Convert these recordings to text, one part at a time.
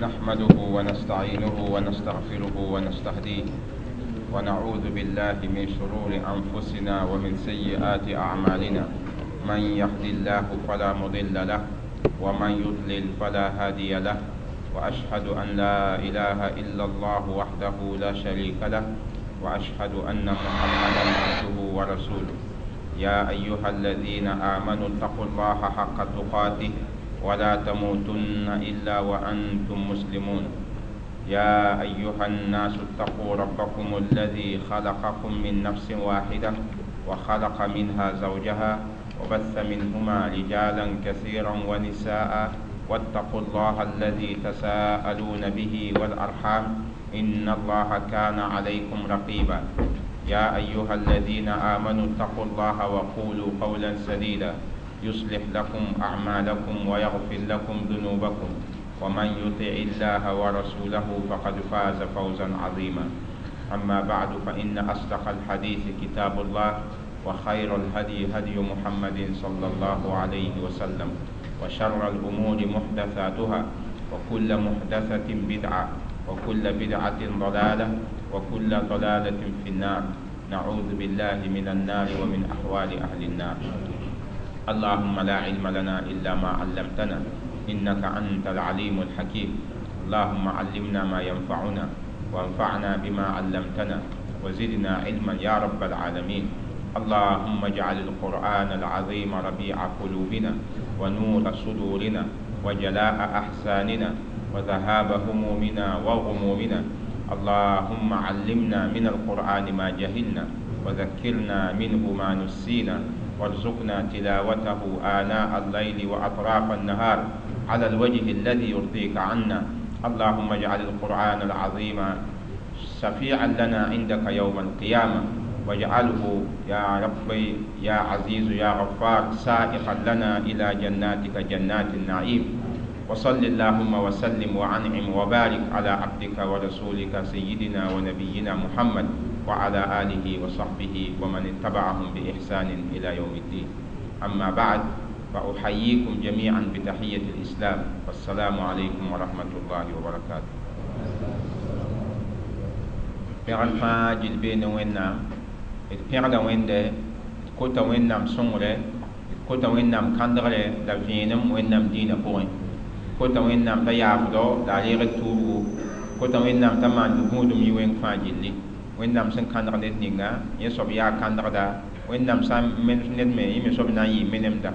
نحمده ونستعينه ونستغفره ونستهديه، ونعوذ بالله من شرور أنفسنا ومن سيئات أعمالنا. من يهد الله فلا مضل له ومن يضلل فلا هادي له، وأشهد أن لا إله إلا الله وحده لا شريك له، وأشهد أن محمدا عبده ورسوله. يا أيها الذين آمنوا اتقوا الله حق تقاته ولا تموتن إلا وأنتم مسلمون. يا أيها الناس اتقوا ربكم الذي خلقكم من نفس واحدة وخلق منها زوجها وبث منهما رجالا كثيرا ونساء، واتقوا الله الذي تساءلون به والأرحام إن الله كان عليكم رقيبا. يا أيها الذين آمنوا اتقوا الله وقولوا قولا سديدا يصلح لكم أعمالكم ويغفر لكم ذنوبكم، ومن يطع الله ورسوله فقد فاز فوزا عظيما. أما بعد، فإن أصدق الحديث كتاب الله، وخير الهدي هدي محمد صلى الله عليه وسلم، وشر الأمور محدثاتها، وكل محدثة بدعة، وكل بدعة ضلالة، وكل ضلالة في النار. نعوذ بالله من النار ومن أحوال أهل النار. اللهم لا علم لنا إلا ما علمتنا إنك أنت العليم الحكيم. اللهم علمنا ما ينفعنا، وانفعنا بما علمتنا، وزدنا علما يا رب العالمين. اللهم اجعل القرآن العظيم ربيع قلوبنا، ونور صدورنا، وجلاء أحزاننا، وذهاب همومنا وغمومنا. اللهم علمنا من القرآن ما جهلنا، وذكرنا منه ما نسينا، وارزقنا تلاوته آناء الليل وأطراف النهار على الوجه الذي يرضيك عنا. اللهم اجعل القرآن العظيم شفيعا لنا عندك يوم القيامة، واجعله يا ربي يا عزيز يا غفار سائقا لنا إلى جناتك جنات النعيم. وصل اللهم وسلم وعنعم وبارك على عبدك ورسولك سيدنا ونبينا محمد وعلى آله وصحبه ومن اتبعهم بإحسان إلى يوم الدين. أما بعد، فأحييكم جميعا بتحية الإسلام، والسلام عليكم ورحمة الله وبركاته. Pẽgr fãa gill bee ne Wẽnnaam. D pẽgda Wẽnde, d kota Wẽnnaam sõngre, d kota Wẽnnaam kãndgre la vẽenem Wẽnnaam dĩinã pʋgẽ, kota Wẽnnaam t'a yaafdo la a reeg d tuubgu, kota Wẽnnaam t'a maan tɩ gũudum yɩ wẽng fãa gilli. Wẽnnaam sẽn kãndg ned ninga, yẽ soab yaa kãndgda. Wẽnnaam sã n menes ned me, yẽ me soab na n yɩ menemda.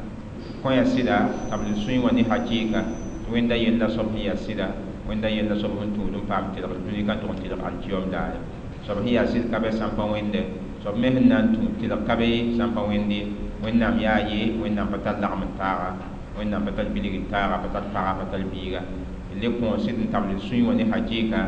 Kõ yaa sɩda t'a b sũy wã ne hakɩɩka tɩ Wẽnda yella soab sẽn yaa sɩda, Wẽnda yella soab sẽn tũud n paam tɩlgd dũni ka tʋg n tɩlg alkiyom daare. Soab sẽn yaa sɩd ka bɛ sãn pa wẽnde, soab me sẽn na n tũ tɩlg ka be sãn pa wẽnde. Wẽnnaam yaa ye, Wẽnnaam pa tar lagm n taaga, Wẽnnaam pa tar bilg n taaga, pa tar paga, pa tar biiga. D le kõ sɩd n tabl sũy wã ne hakɩɩka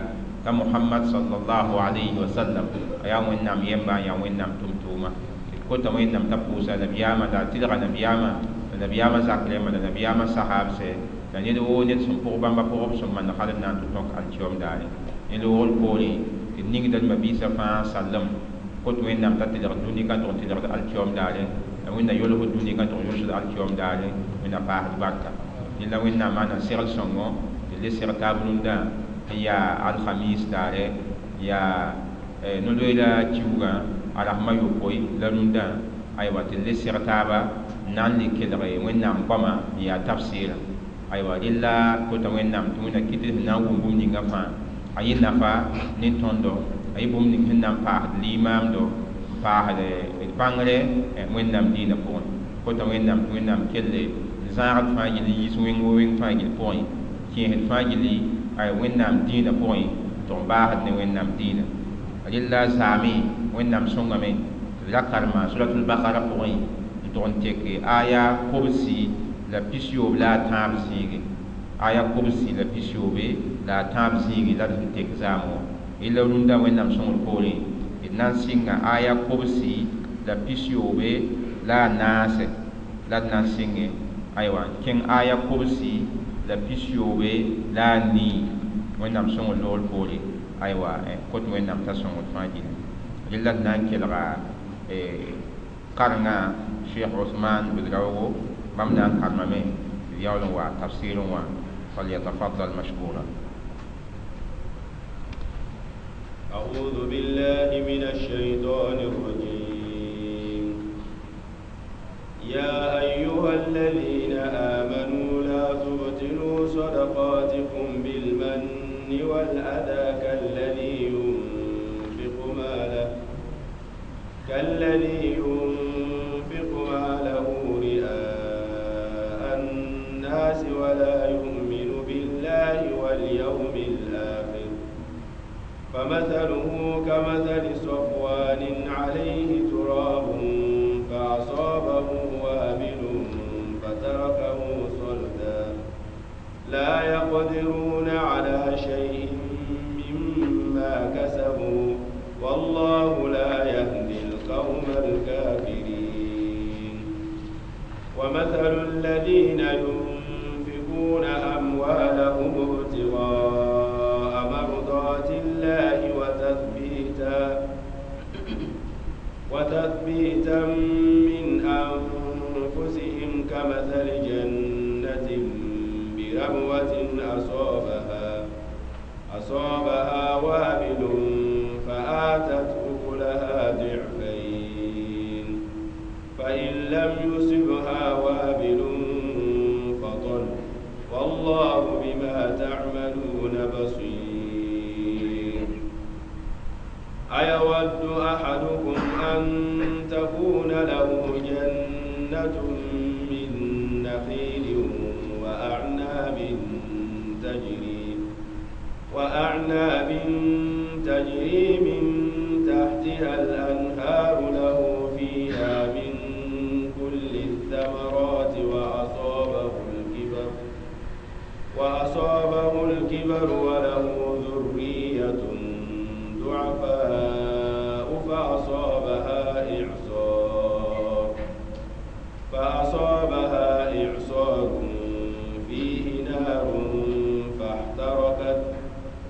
t'a Mohamad sallallahu alayhi wa sallam a yaa Wẽnnaam yemba, n yaa Wẽnnaam tʋm-tʋʋma. D kota Wẽnnaam t'a pʋʋsa nabiyaamã la a tɩlga nabiyaamã, la nabiyaamã zak rẽmba, la nabiyaamã sahaabsɛ, la ned woo ned sẽn pʋg bãmba pʋgb sẽn mand hal n na n tɩ tõk alkiom daare. Ned woogr poorẽ tɩ d ningda d mabiisã fãa sallem kot Wẽnnaam t'a tɩlg dũni ka tʋg n tɩlgd alkiom daare, la Wẽnna yolsd dũni ka tʋg yolsd alkiom daare. Wẽnna paasd barka. Rẽla Wẽnnaam maana segl sõngo tɩ le seg taab rũndã n yaa alhamis daare, yaa no-loeera kiuugã a rasmã yopoe la rũndã, aywa, tɩ le seg taaba n na n le kelge Wẽnnaam goamã n yaa tafsɩɩrã. Aywa, rella kota Wẽnnaam tɩ Wẽnna kɩt sẽn na n wʋm bũmb ninga fãa a yɩ nafa ne tõndo, a yɩ bũmb ning sẽn na n paasd limaamdo, n paasd d bãngre Wẽnnaam dĩinã pʋgẽ. Kota Wẽnnaam tɩ Wẽnnaam kelle n zãagd fãa gill n yiis wẽng wo wẽng fãa gill pʋgẽ, kẽesd fãa gilli ay Wẽnnaam dĩinã pʋgẽ, tɩ b baasd ne Wẽnnaam dĩinã. Rella zaame Wẽnnaam sõngame tɩ d ra karema suratul bakara pʋgẽ n tʋg n tek aya 33 la a tãab zĩige, aya 33 la a tãab zĩige la d sẽn tek zaam wã. Rella rũndã Wẽnnaam sõngr poorẽ d na n sɩnga aya 94 la d na n sɩnge, aywa, n kẽng aya 99 Wẽnnaam sõngr loogr poore. Aywa, kot Wẽnnaam t'a sõngr fãa gilli. Rella d na n kelga karengã Cheikh Ousmane Ouedraogo, bãmb na n karemame tɩ d yaool n wa tafsɩɩrẽ wã. فليتفضل مشكورا. أعوذ بالله من الشيطان الرجيم. يا أيها الذين آمنوا لا تبطلوا صدقاتكم بالمن والأذى كالذي ينفق ماله رئاء الناس ولا يؤمن بالله واليوم الآخر، فمثله كمثل صفوان عليه تراب فأصابه وابل فتركه صلدا لا يقدرون على شيء مما كسبوا والله لا يهدي القوم الكافرين. ومثل الذين ينفقون أموالهم ابتغاء مرضات الله وتثبيتا من أنفسهم كمثل جنة بربوة أصابها وابل فآتت أكلها ضعفين، فإن لم يصبها وابل فطل، والله بما تعملون بصير. أيود أحدكم أن تكون له جنة من نخيل وأعناب تجري من تحتها الأنهار له فيها من كل الثمرات وأصابه الكبر وله ذرية ضعفاء فأصابها إعصار فيه نار فاحترقت،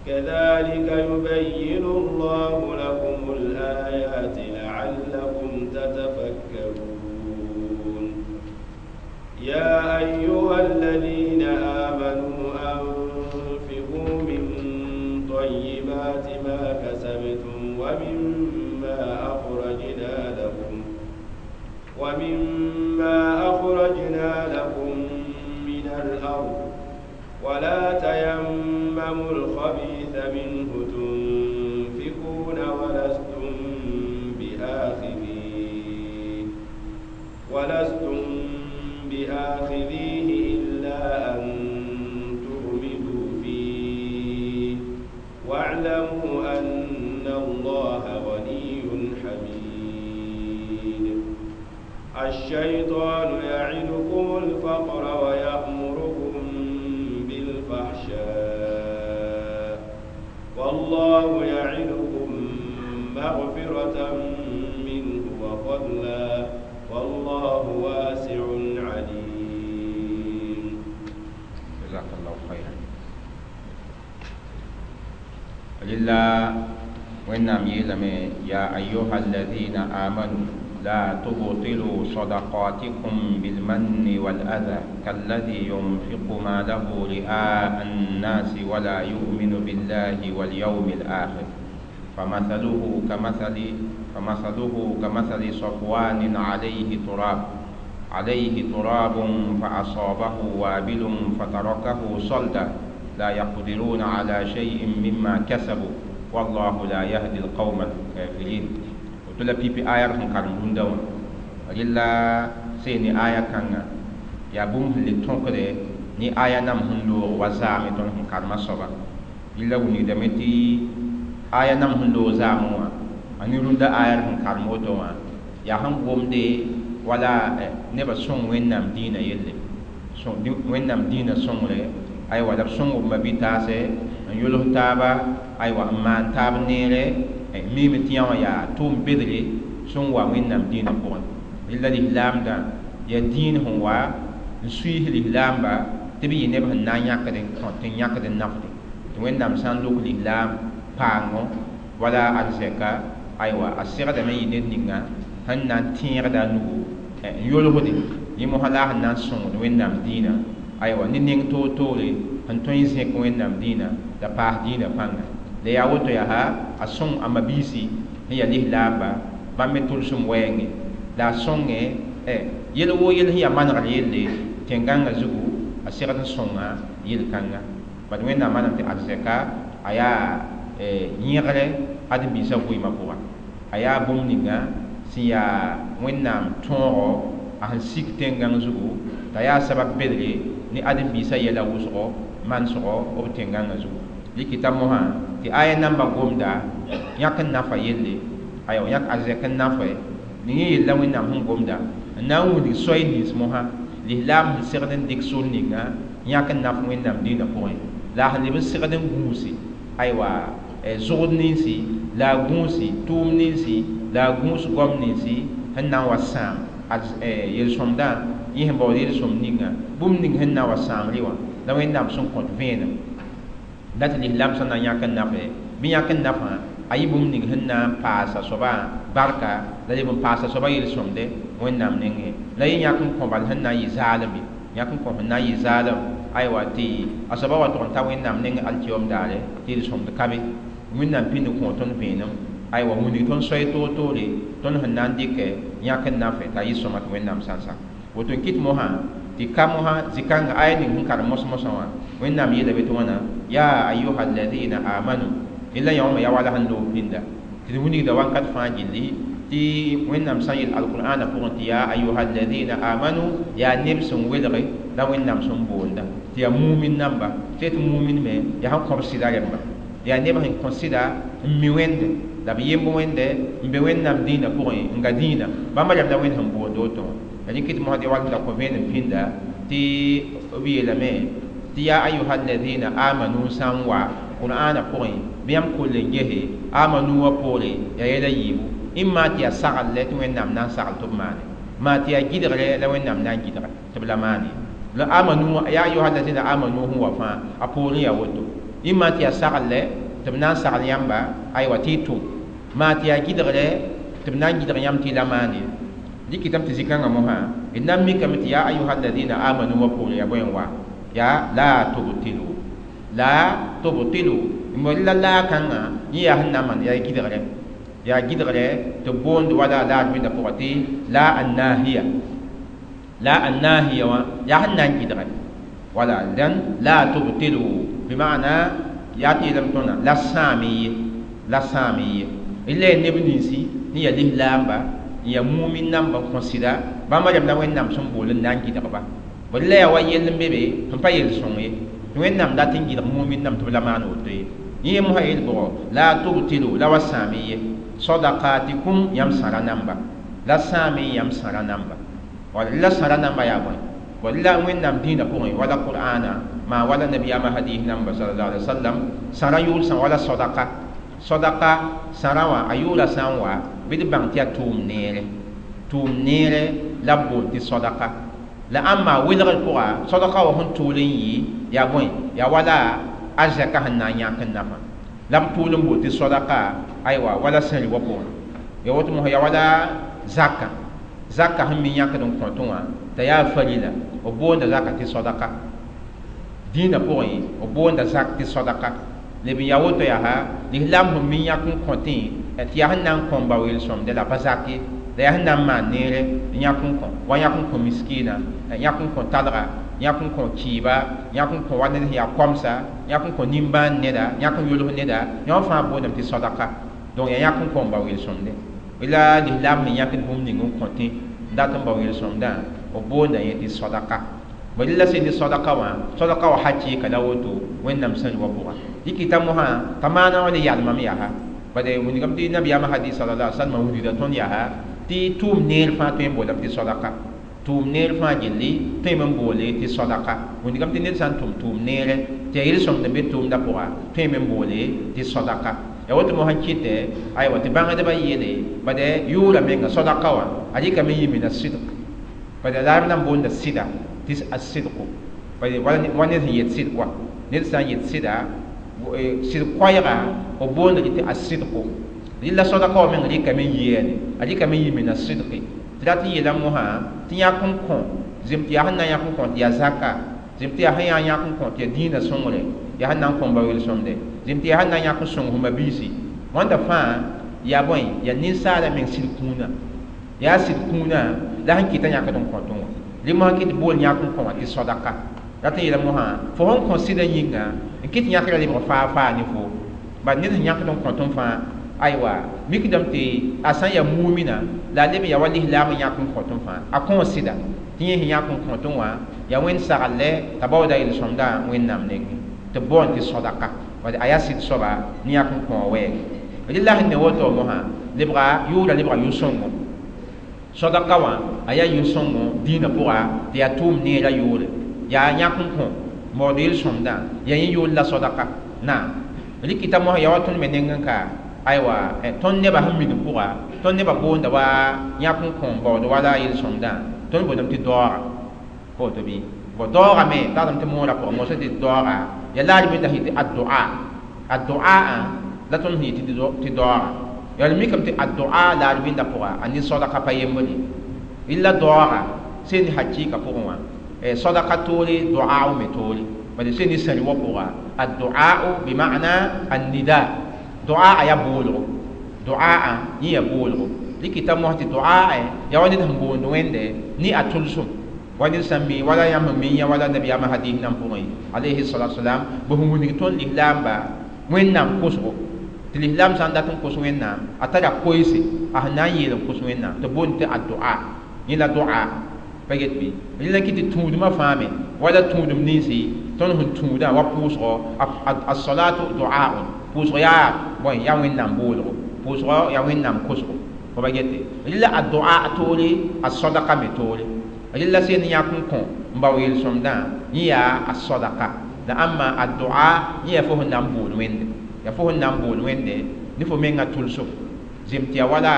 كذلك يبين الله لكم الآيات لعلكم تتفكرون. يا أيها الذين آمنوا أنفقوا من طيبات ما كسبتم ومما أخرجنا لكم من الأرض، ولا تيمموا الخبيث منه تنفقون ولستم بآخذيه إلا أن تغمضوا فيه، واعلموا أن الله غني حميد. الشيطان يعدكم الفقر ويأمركم بالفحشاء، والله يعدكم مغفرة منه وفضلا، والله واسع عليم. جزاك الله خيرا. لله وإنام يلم يا أيها الذين آمنوا لا تبطلوا صدقاتكم بالمن والأذى كالذي ينفق ماله رئاء الناس ولا يؤمن بالله واليوم الآخر، فمثله كمثل صفوان عليه تراب فأصابه وابل فتركه صلدا لا يقدرون على شيء مما كسبوا والله لا يهدي القوم الكافرين. وتلا بي بي آية كان روندا رلا سيني آية كان يا بوم لتونكري ني آية نام هندو وزامي تون كارما صبا إلا وني دمتي آية نام هندو زاموا أني روندا آية كارمو توا يا هم بوم دي ولا نبى سون وين نام دينا يلي سون وين نام دينا سون أيوة دب سون وما بيتاسة يلوه تابا أيوة ما تاب نيره ميم تيان يا توم بدري سون وين نام دينا بون إلا الإسلام دا يا دين هو نسويه الإسلام با تبي ينبه نانيا كدن كنتين كدن نفدي وين نام سان لوك الإسلام بانو ولا أرزقا أيوة أسير دم يندينا هن نان تير دا نو يلوه دي يمهلا هن نان سون وين نام دينا أيوة نينغ تو تولي هن توين زيك وين نام دينا دا باه دينا بانغا La yaa woto yaa a sõng a mabiisi sẽn yaa lislaamba bãmb me tʋlsem wɛɛngẽ la a sõnge yel woo yel sẽn yaa manegr yelle tẽn-gãngã zugu a segd n sõnga yel-kãnga bad Wẽnnaam manam tɩ arzɛka a yaa yẽgre ãdem-biisã vɩɩmã pʋga a yaa bũmb ninga sẽn yaa Wẽnnaam tõogo a sẽn sik tẽn-gãng zugu t'a yaa sabab bedre ne ãdem-biisã yɛla wʋsgo manesgo b tẽn-gãngã zugu dɩkɩta mosã tɩ aya namba gomda yãk n nafa yelle aywa yãk arzɛk n nafa ning yẽ yella Wẽnnaam sẽn gomda n na n wilg soay nins mosã lislaam sẽn segd n dɩk sor ninga yãk n naf Wẽnnaam dĩinã pʋgẽ la a sẽn leb n segd n gũusi aywa zʋgd ninsi la a gũusi tʋʋm ninsi la a gũus goam ninsi sẽn na n wa sãam yel-sõmdã yẽ sẽn baood yel-sõmd ninga bũmb ning sẽn na n wa sãamre wã la Wẽnnaam sẽn kõt vẽenem la tɩ lislaam sẽn na n yãk n nafe bɩ yãk n nafã a yɩ bũmb ning sẽn na n paasa soabã barka la leb n paasa soabã yel-sõmde Wẽnnaam nengẽ la yẽ yãk n kõ bal sẽn na n yɩ zaalem ye yãk n kõ sẽn na n yɩ zaalem aywa tɩ a soabã wa tʋg n ta Wẽnnaam nengẽ alkiyoom daare tɩ yel-sõmd ka be Wẽnnaam pĩnd kõ tõnd vẽenem aywa wilg tõnd soay toor-toore tõnd sẽn na n dɩkɛ yãk n nafe t'a yɩ sõma tɩ Wẽnnaam sã n sak woto n kɩt mosã tɩ ka mosã zĩ-kãngã aya ning sẽn karem mos-mosã wã Wẽnnaam yeela be tɩ wãna ya ayuha alladina amanu yella yã wã me yaa wala sẽn loog pĩnda tɩ d wilgda wakat fãa gilli tɩ Wẽnnaam sã n yel alqur'ana pʋgẽ tɩ ya ayuha alladina amanu yaa neb sẽn welge la Wẽnnaam sẽn boonda tɩ yaa mumin namba tɩ tɩ mumin me yaa sẽn kõb sɩda rẽmba yaa neb sẽn kõ sɩda n mi Wẽnde la b yemb Wẽnde n be Wẽnnaam dĩinã pʋgẽ n ga dĩinã bãmba rẽmb la Wẽnd sẽn boond woto wã la rẽ kɩt mosd wall da kõ vẽenem pĩnda tɩ b yeelame tɩ ya ayuha alladina amanu sã n wa qur'ana pʋgẽ bɩ yãmb koll n gese amanu wã poore yaa yɛla yiibu ĩmma tɩ yaa sagl tɩ Wẽnnaam na n sagl tɩ b maane maa tɩ yaa gɩdgre la Wẽnnaam na n gɩdge tɩ b la maane la amanu ya ayuha alladina amanu sẽn wa fãa a poorẽ yaa woto ĩmma tɩ yaa sagl tɩ b na n sagl yãmba aywa tɩ y tʋm maa tɩ yaa gɩdgre tɩ b na n gɩdg yãmb tɩ y la maane dɩkɩtame tɩ zĩ-kãngã mosã d na n mikame tɩ ya ayuha alladina amanu wã poore yaa bõe n wa yaa la tubtilu la tubtilu la laa-kãngã yẽ yaa sẽn na n maan yaa gɩdgre tɩ b boond wala laad wẽnda pʋgã tɩ la annahiya la annahiya wã yaa sẽn na n gɩdge wala dẽn la tubtilu bɩ maana yaa tɩ yeelame tõndã la sãam ye la sãam ye la yaa neb ninsi sẽn yaa lislaamba n yaa mumin namba n kõ sɩda bãmba rẽmb la Wẽnnaam sẽn bool n na n gɩdgba bd la yaa wa yell n be be sẽn pa yel-sõng ye tɩ Wẽnnaam dat n gɩdg mumin nam tɩ b la maan woto ye yẽ mosã yel bʋgɔ la tubtilu la wa sãam ye sadaqatikum yãmb sãra namba la sãame yãmb sãra namba wala la sãra namba yaa bõe bd la Wẽnnaam dĩinã pʋgẽ wala qur'ana maa wala nabiyaamã hadis namba sallallahu alaihi wasallam sãra yʋʋl sã wala sadaqa sadaqa sãra wã a yʋʋla sã n wa bɩ d bãng tɩ yaa tʋʋm neere la b boond tɩ sadaqa la ãmba welgr pʋga sadaqa wã sẽn tʋʋl n yɩ yaa bõe yaa wala arzɛka sẽn na n yãk n nafa la b tʋʋl n boond tɩ sadaqa aywa wala sẽri wã pʋgẽ ya woto mosã yaa wala zaka zaka sẽn me yãkd n kõtẽ wã t'a yaa farila b boonda zaka tɩ sadaqa dĩinã pʋgẽ b boonda zak tɩ sadaqa leb n yaa woto yaa lislaam sẽn me yãk n kõtẽ tɩ yaa sẽn na n kõ n bao yel-sõmde la pa zak ye la yaa sẽn na n maan neere n yãk n kõ wa yãk n kõ miskiina yãk n kõ talga yãk n kõ kɩɩba yãk n kõ wa ned sẽn yaa koamsa yãk n kõ nimbãan neda yãk n yʋls neda yã wã fãa boondame tɩ sadaqa donc yaa yãk n kõ n bao yel-sõmde la lislaam sẽn yãkd bũmb ning n kõtẽ n dat n bao yel-sõmdã b boonda yẽ tɩ sadaqa bd la sẽn tɩ sadaqa wã sadaqa wã hakɩɩka la woto Wẽnnaam sẽn wa pʋga dɩkɩta mosã t'a maana wã le yalmame yaa bad wilgame tɩ nabiyaamã hadis sallallahu alaihi wasallam wilgda tõnd yaa tɩ tʋʋm neer fãa tõe n boolame tɩ sadaqa tʋʋm neer fãa gilli tõeme n boole tɩ sadaqa wilgame tɩ ned sã n tʋm tʋʋm neere tɩ yaa yel-sõmd n be tʋʋmdã pʋga tõeme n boole tɩ sadaqa ya woto mosã kɩtɛ aywa tɩ bãngdbã yeele bad yʋʋra menga sadaqa wã a rɩkame n yɩ mina sɩdg bad la b na n boonda sɩda tɩ a sɩdgo bad wa ned sẽn yet sɩd kɔa ned sã n yet sɩda sɩd koɛɛga b boonda tɩ a sɩdgo rɩla sadaqa wã meng rɩkame n yɩ a rɩkame n yɩ mina sɩdge tɩ rat n yeela mosã tɩ yãk n kõ zem tɩ yaa sẽn na n yãk n kõ tɩ yaa zaka zem tɩ yaa sẽn yaa yãk n kõ tɩ yaa dĩinã sõngre Yaa sẽn na n kõ n bao yel-sõmde zĩm tɩ yaa sẽn na n yãk n sõng f mabiisi wãnda fãa yaa bõe yaa ninsaala meng sɩd kũuna yaa sɩd kũuna la sẽn kɩta yãkd n kõtẽ wã rẽ mosã kɩ tɩ bool yãk n kõ wã tɩ sodaka rat n yeela mosã fo sẽn kõ sɩdã yĩnga n kɩ tɩ yãkrã lebg faa faa ne fo bad ned sẽn yãkd n kõtẽ fãa aywa mikdame tɩ a sã n yaa mumina la a leb n yaa wa lislaam n yãk n kõtẽ fãa a kõ sɩda tɩ yẽ sẽn yãk n kõtẽ wã yaa wẽnd saglɛ t'a baooda yel-sõmdã wẽnnaam nengẽ tɩ b boond tɩ sodaka a yaa sɩd soaba ne yãk n kõ wɛɛge rɩla sẽn ne woto mosã lebga yʋʋra lebga yʋ-sõngo sodaka wã a yaa yʋ-sõngo dĩinã pʋga tɩ yaa tʋʋm neerã yʋʋre yaa yãk n kõ maood yel-sõmdã yaa yẽ yʋʋl la sodaka naam rɩkɩta mosã yaa wa tõnd me neng n ka aywa tõnd nebã sẽn minim pʋga tõnd nebã boonda wa yãk n kõ n baood wala yel-sõmdã tõnd boondame tɩ daooga pa woto bɩ bõ daoogame tagdame tɩ moorã pʋgã mosã tɩ daooga yaa la a rɩ tɩ addoa addoa la tõnd sẽn yetɩ tɩ daooga yaa d mikame tɩ addoa la a rɩbɩndã pʋga a ne sodaka pa yembre rɩla daooga sẽn ne hakɩɩka pʋgẽ wã sodaka toore doa me toore bala sẽn ne sãri wã pʋga addoa bima'na annida doa a yaa boolgo doa yẽ yaa boolgo rɩkɩta mos tɩ doa yaa wa ned sẽn boond wẽnde ne a tʋlsem wa ned sã n mi wala yãmb sẽn mi yã wala nabiyaamã hadis nan pʋgẽ alayhi salatu wasalam bɩ sẽn wilg tõnd lislaamba wẽnnaam kosgo tɩ lislaam sã n dat n kos wẽnnaam a tara koeese a sẽn na n yeel n kos wẽnnaam tɩ boond tɩ addoa yẽ la doa pa get bɩ rẽla kɩ tɩ tũudmã fãa me wala tũudum ninsi tõnd sẽn tũudã wa pʋʋsgɔ as-salatu du'aun pʋʋsg yaa bõe yaa wẽnnaam boolgo pʋʋsgɔ yaa wẽnnaam kosgo fo pa gete rɩla a doa toore a sodaka me toore rɩla sẽn yãk n kõ n bao yel-sõmdã yẽ yaa a sodaka la ãmba a doa yẽ yaa fo sẽn na n bool wẽnde yaa fo sẽn na n bool wẽnde ne fo mengã tʋlsem zem tɩ yaa wala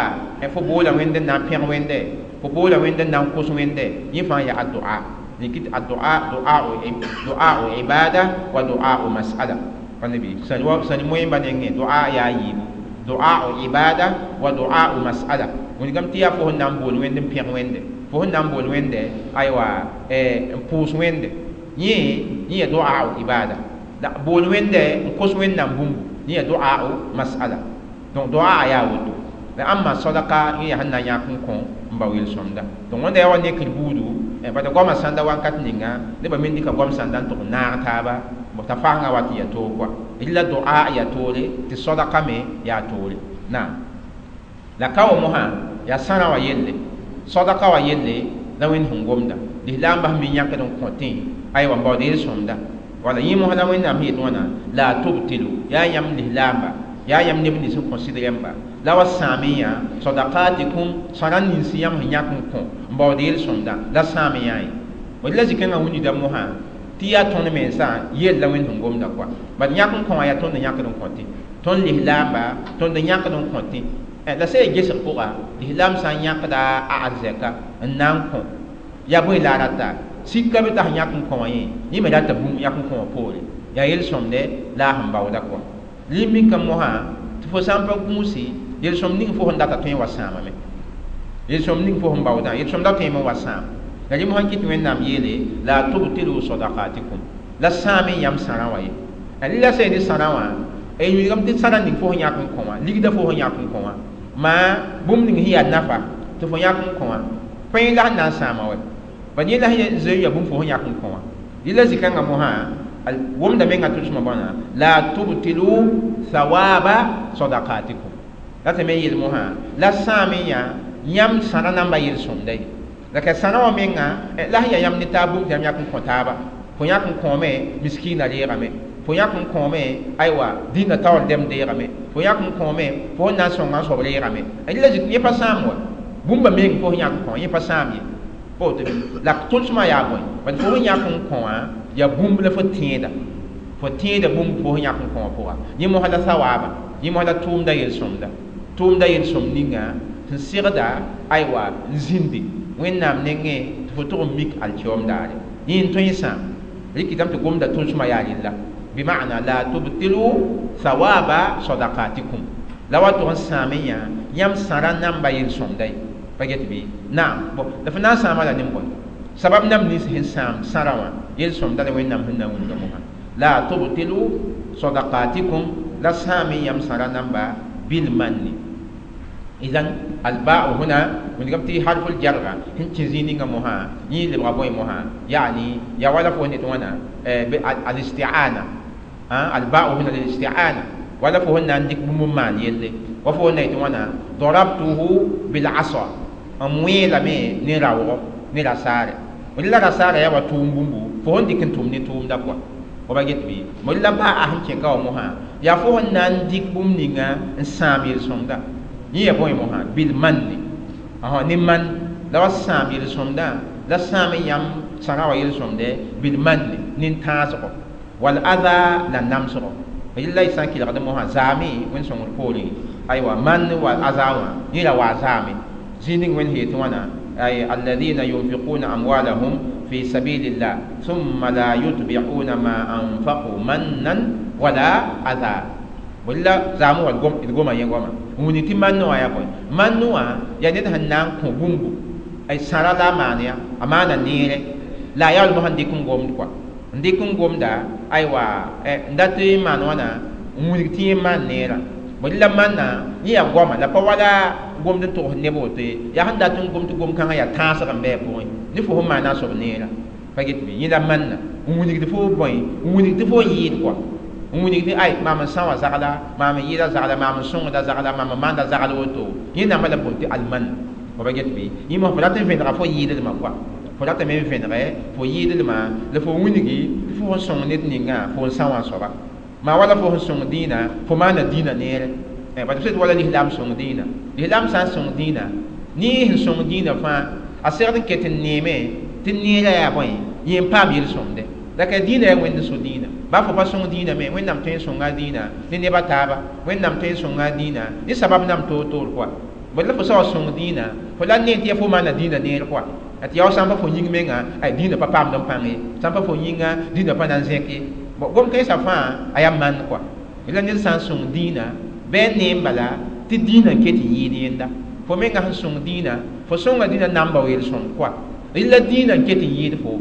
fo boola wẽnde n na n pẽg wẽnde fo boola wẽnde n na n kos wẽnde yẽ fãa yaa a doa kɩt a doa doa ibada wa doa mas'ala nabi sãn moẽmba nengẽ doa yaa yiibu doa ibada wa doa mas'ala wilgame tɩ yaa fo sẽn na n bool wẽnd n pẽg wẽnde fo sẽn na n bool wẽnde aywa n pʋʋs wẽnde yẽ yaa doa ibada la bool wẽnde n kos wẽnnaam bũmbu yẽ yaa doa mas'ala donc doa yaa woto la ãmba sodaka yẽ yaa sẽn na n yãk n kõ n bao yel-sõmda donc wẽnda yaa wa nekr buudu bala goamã sãnda wakat ninga nebã me dɩka goam sãnda n tʋg n naag taaba t'a fasengã wat n yaa toog kɔa rɩla doa yaa toore tɩ sodaka me yaa toore naam la ka wa mosã yaa sãrã wã yelle sodaka wã yelle la wẽnd sẽn gomda lislaambã sẽn mi yãkd n kõtẽ aywa n baood yel-sõmda wala yẽ mosã la wẽnnaam sẽn yet wãna la tubtilu yaa yãmb lislaamba yaa yãmb neb nins sẽn kõ sɩd rẽmba la wa sãame yã sadakatikum sãra nins yãmb sẽn yãk n kõ n baood yel-sõmda la sãame yã ye la zĩ-kãngã wĩnda mosã tɩ yaa tõnd mensã yell la wẽnd sẽn gomda kɔa bad yãk n kõ wã yaa tõnd n yãkd n kõtẽ tõnd lislaamba tõnd n yãkd n kõtẽ la sã yaa gesg pʋga lislaam sã n yãkda a arzɛka n na n kõ yaa bõe la a rata sika be t'a sẽn yãk n kõ wã yẽ yẽ me rata bũmb yãk n kõ wã poore yaa yel-sõmde la a sẽn baooda kɔa limika mosã tɩ fo sã n pa gũusi yel-sõmd ning fo sẽn data tõe n wa sãamame yel-sõmd ning fo sẽn baoodã yel-sõmda tõeme n wa sãam la rẽ mosã kɩt wẽnnaam yeele la tubtilu sadakatikum la sãame yãmb sãrã wã ye la sã ne sãrã wã wilgame tɩ sãrã ning fo sẽn yãk n kõ wã ligda fo sẽn yãk n kõ wã maa bũmb ning sẽn yaa nafa tɩ fo yãk n kõ wã pẽe la sẽn na n sãama wɛ bad yẽ la sẽn zoe yaa bũmb fo sẽn yãk n kõ wã rɩla zĩ-kãngã mosã womda menga tʋlsmã bõna la tubtilu thawaba sadakatikum la tɩ me yel mosã la sãame yã yãmb sãrã namba yel-sõmda ye la ka sãrã wã menga la sẽn yaa yãmb ne taab bũmb tɩ yãmb yãk n kõ taaba fo yãk n kõome miskiinã reegame fo yãk n kõome aywa dĩnã taoor dɛm deegame fo yãk n kõome fo sẽn na n sõnga n soab reegame la yẽ pa sãam wa bũmba meng fo sẽn yãk n kõ yẽ pa sãam ye pa woto la tʋlsmã yaa bõe bad fo sẽn yãk n kõ wã yaa bũmb la fo tẽeda bũmb fo sẽn yãk n kõ wã pʋga yẽ mosã la sawaaba yẽ mosã la tʋʋmda yel-sõmda tʋʋmda yel-sõmd ninga sẽn segda aywa n zĩndi wẽnnaam nengẽ tɩ fo tʋg n mik alkiom daare yẽ n tõe n sãam rɩkɩtame tɩ gomda tʋlsmã yaa rella bima'na la tubtilu thawaba sadakatikum la wa tʋg n sãame yã yãmb sãrã namba yel-sõmda ye pa get bɩ naam bõ la fo na n sãama la nin-bõe sabab nam nins sẽn sãam sãrã wã yel-sõmda la wẽnnaam sẽn na n wilga mosã La tubtilu sadaqatikum la sãam-y yãmb sãra namba bilmanni. Idan alba'u huna wẽnegame tɩ harful jarga sẽn kẽ zĩig ninga mosã yẽ lebga bõe mosã yaani ya wala fo ne tɩ wãna al-isti'ana alba'u huna lil-isti'ana wala fo sẽn na n dɩk bũmb n maan yelle wa fo sẽn na yetɩ wãna darabtuhu bil-asa n wẽelame ne raoogɔ ne rasaare la rasaara yaa wa tʋʋm bũmbu fo sẽn dɩk n tʋm ne tʋʋmda kɔa wa ba get bɩ mo la ba'a sẽn kẽ ka wã mosã yaa fo sẽn na n dɩk bũmb ninga n sãam yel-sõmda yẽ ya bõe mosã bilmanni ne man la wa sãam yel-sõmdã la sãam n yãmb sãra wa yel-sõmdɛ bilmanni nin-tãasgɔ wal adha la namsgɔ yella y sã n kelgd mosã zaame wẽnd sõngd poorẽ aywa man wa aza wã yẽ ra waa zaame zĩig ning wẽnd sẽn yetɩ wãna ay alladhina yunfiquna amwalahum fi sabilillah thumma la yutbi'una ma anfaqu mannan wala adha walla zaamu wa d goma yẽ goama n wilg tɩ mann wã yaa bõe mann wã yaa ned sẽn na n kõ bũmbu ay sãra la a maan ya a maana neere la a yaool mosã n dɩk n gomd kɔa n dɩk n gomda aywa n dat n maan wãna n wilg tɩ yẽ maan neerã bõe la manna yẽ yaa goama la pa wala gomd n togs neb woto ye yaa sẽn dat n gom tɩ gom-kãngã yaa tãasg n bɩ a pʋgẽ ne fo sẽn maana a soab neerã pa get bɩ yẽ la manna n wilgd fo bõe n wilg tɩ fo yɩɩd kɔa n wilg tɩ ay maam n sã wã zagla maam n yɩɩda zagla maam n sõngda zagla maam n maanda zagl woto yẽ namba la boond tɩ alman fo pa get bɩ yẽ mosã fo rat n vẽnega fo yɩɩdlmã kɔa fo ratame n vẽnege fo yɩɩdlmã la fo wilgi tɩ fo sẽn sõng ned ningã fo n sã wã soaba maa wala fo sẽn sõng dĩinã fo maana dĩinã neere bat b wala lislaam sõng dĩinã lislaam sã n sõng dĩinã ne sẽn sõng dĩinã fãa a segd n ket n neeme tɩ neerã yaa bõe yẽ n paam yel-sõmde la ka dĩinã yaa wẽnd so dĩinã baa fo pa sõng dĩinã me wẽnnaam tõe n sõnga dĩinã ne neb a taaba wẽnnaam tõe n sõnga dĩinã ne sabab nam toor-toor kɔa bõe la fo sa wa sõng dĩinã fo la ne tɩ yaa fo maana dĩinã neer kɔa tɩ yaa sã n pa fo yĩng menga ay dĩinã pa paamd n pãng ye sã n pa fo yĩnga dĩinã pa na n zẽk ye gom kãensã fãa a yaa man kɔa la ned sã n sõng dĩinã bɩ a neem bala tɩ dĩinã n ket n yɩɩd yẽnda fo menga sẽn sõng dĩinã fo sõnga dĩinã namba wa yel-sõmd kɔa la dĩinã n ket n yɩɩd fo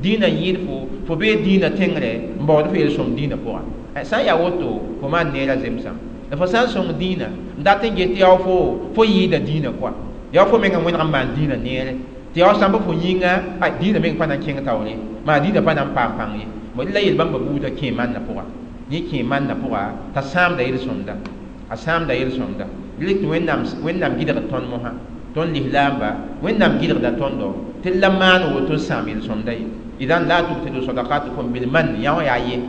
dĩinã n yɩɩd fo fo bee dĩinã tẽngre n baood fo yel-sõmd dĩinã pʋga sã n yaa woto fo maan neerã zemsam la fo sã n sõng dĩinã n dat n get tɩ yaa fo fo yɩɩda dĩinã kɔa yaa fo menga wẽneg n maan dĩinã neere tɩ yaa sã n pa fo yĩnga ay dĩinã meng pa na n kẽng taoore maa dĩinã pa na n paam pãng ye la yel-bãmba buudã kẽ manna pʋga yẽ kẽ manna pʋga t'a sãamda yel-sõmda a sãamda yel-sõmda rɩk tɩ wẽnnaam gɩdgd tõnd mosã tõnd lislaamba wẽnnaam gɩdgda tõndo tɩ la maan woto n sãam yel-sõmda ye idan la tubtilu sadaqatukum bilman yã wã yaa ye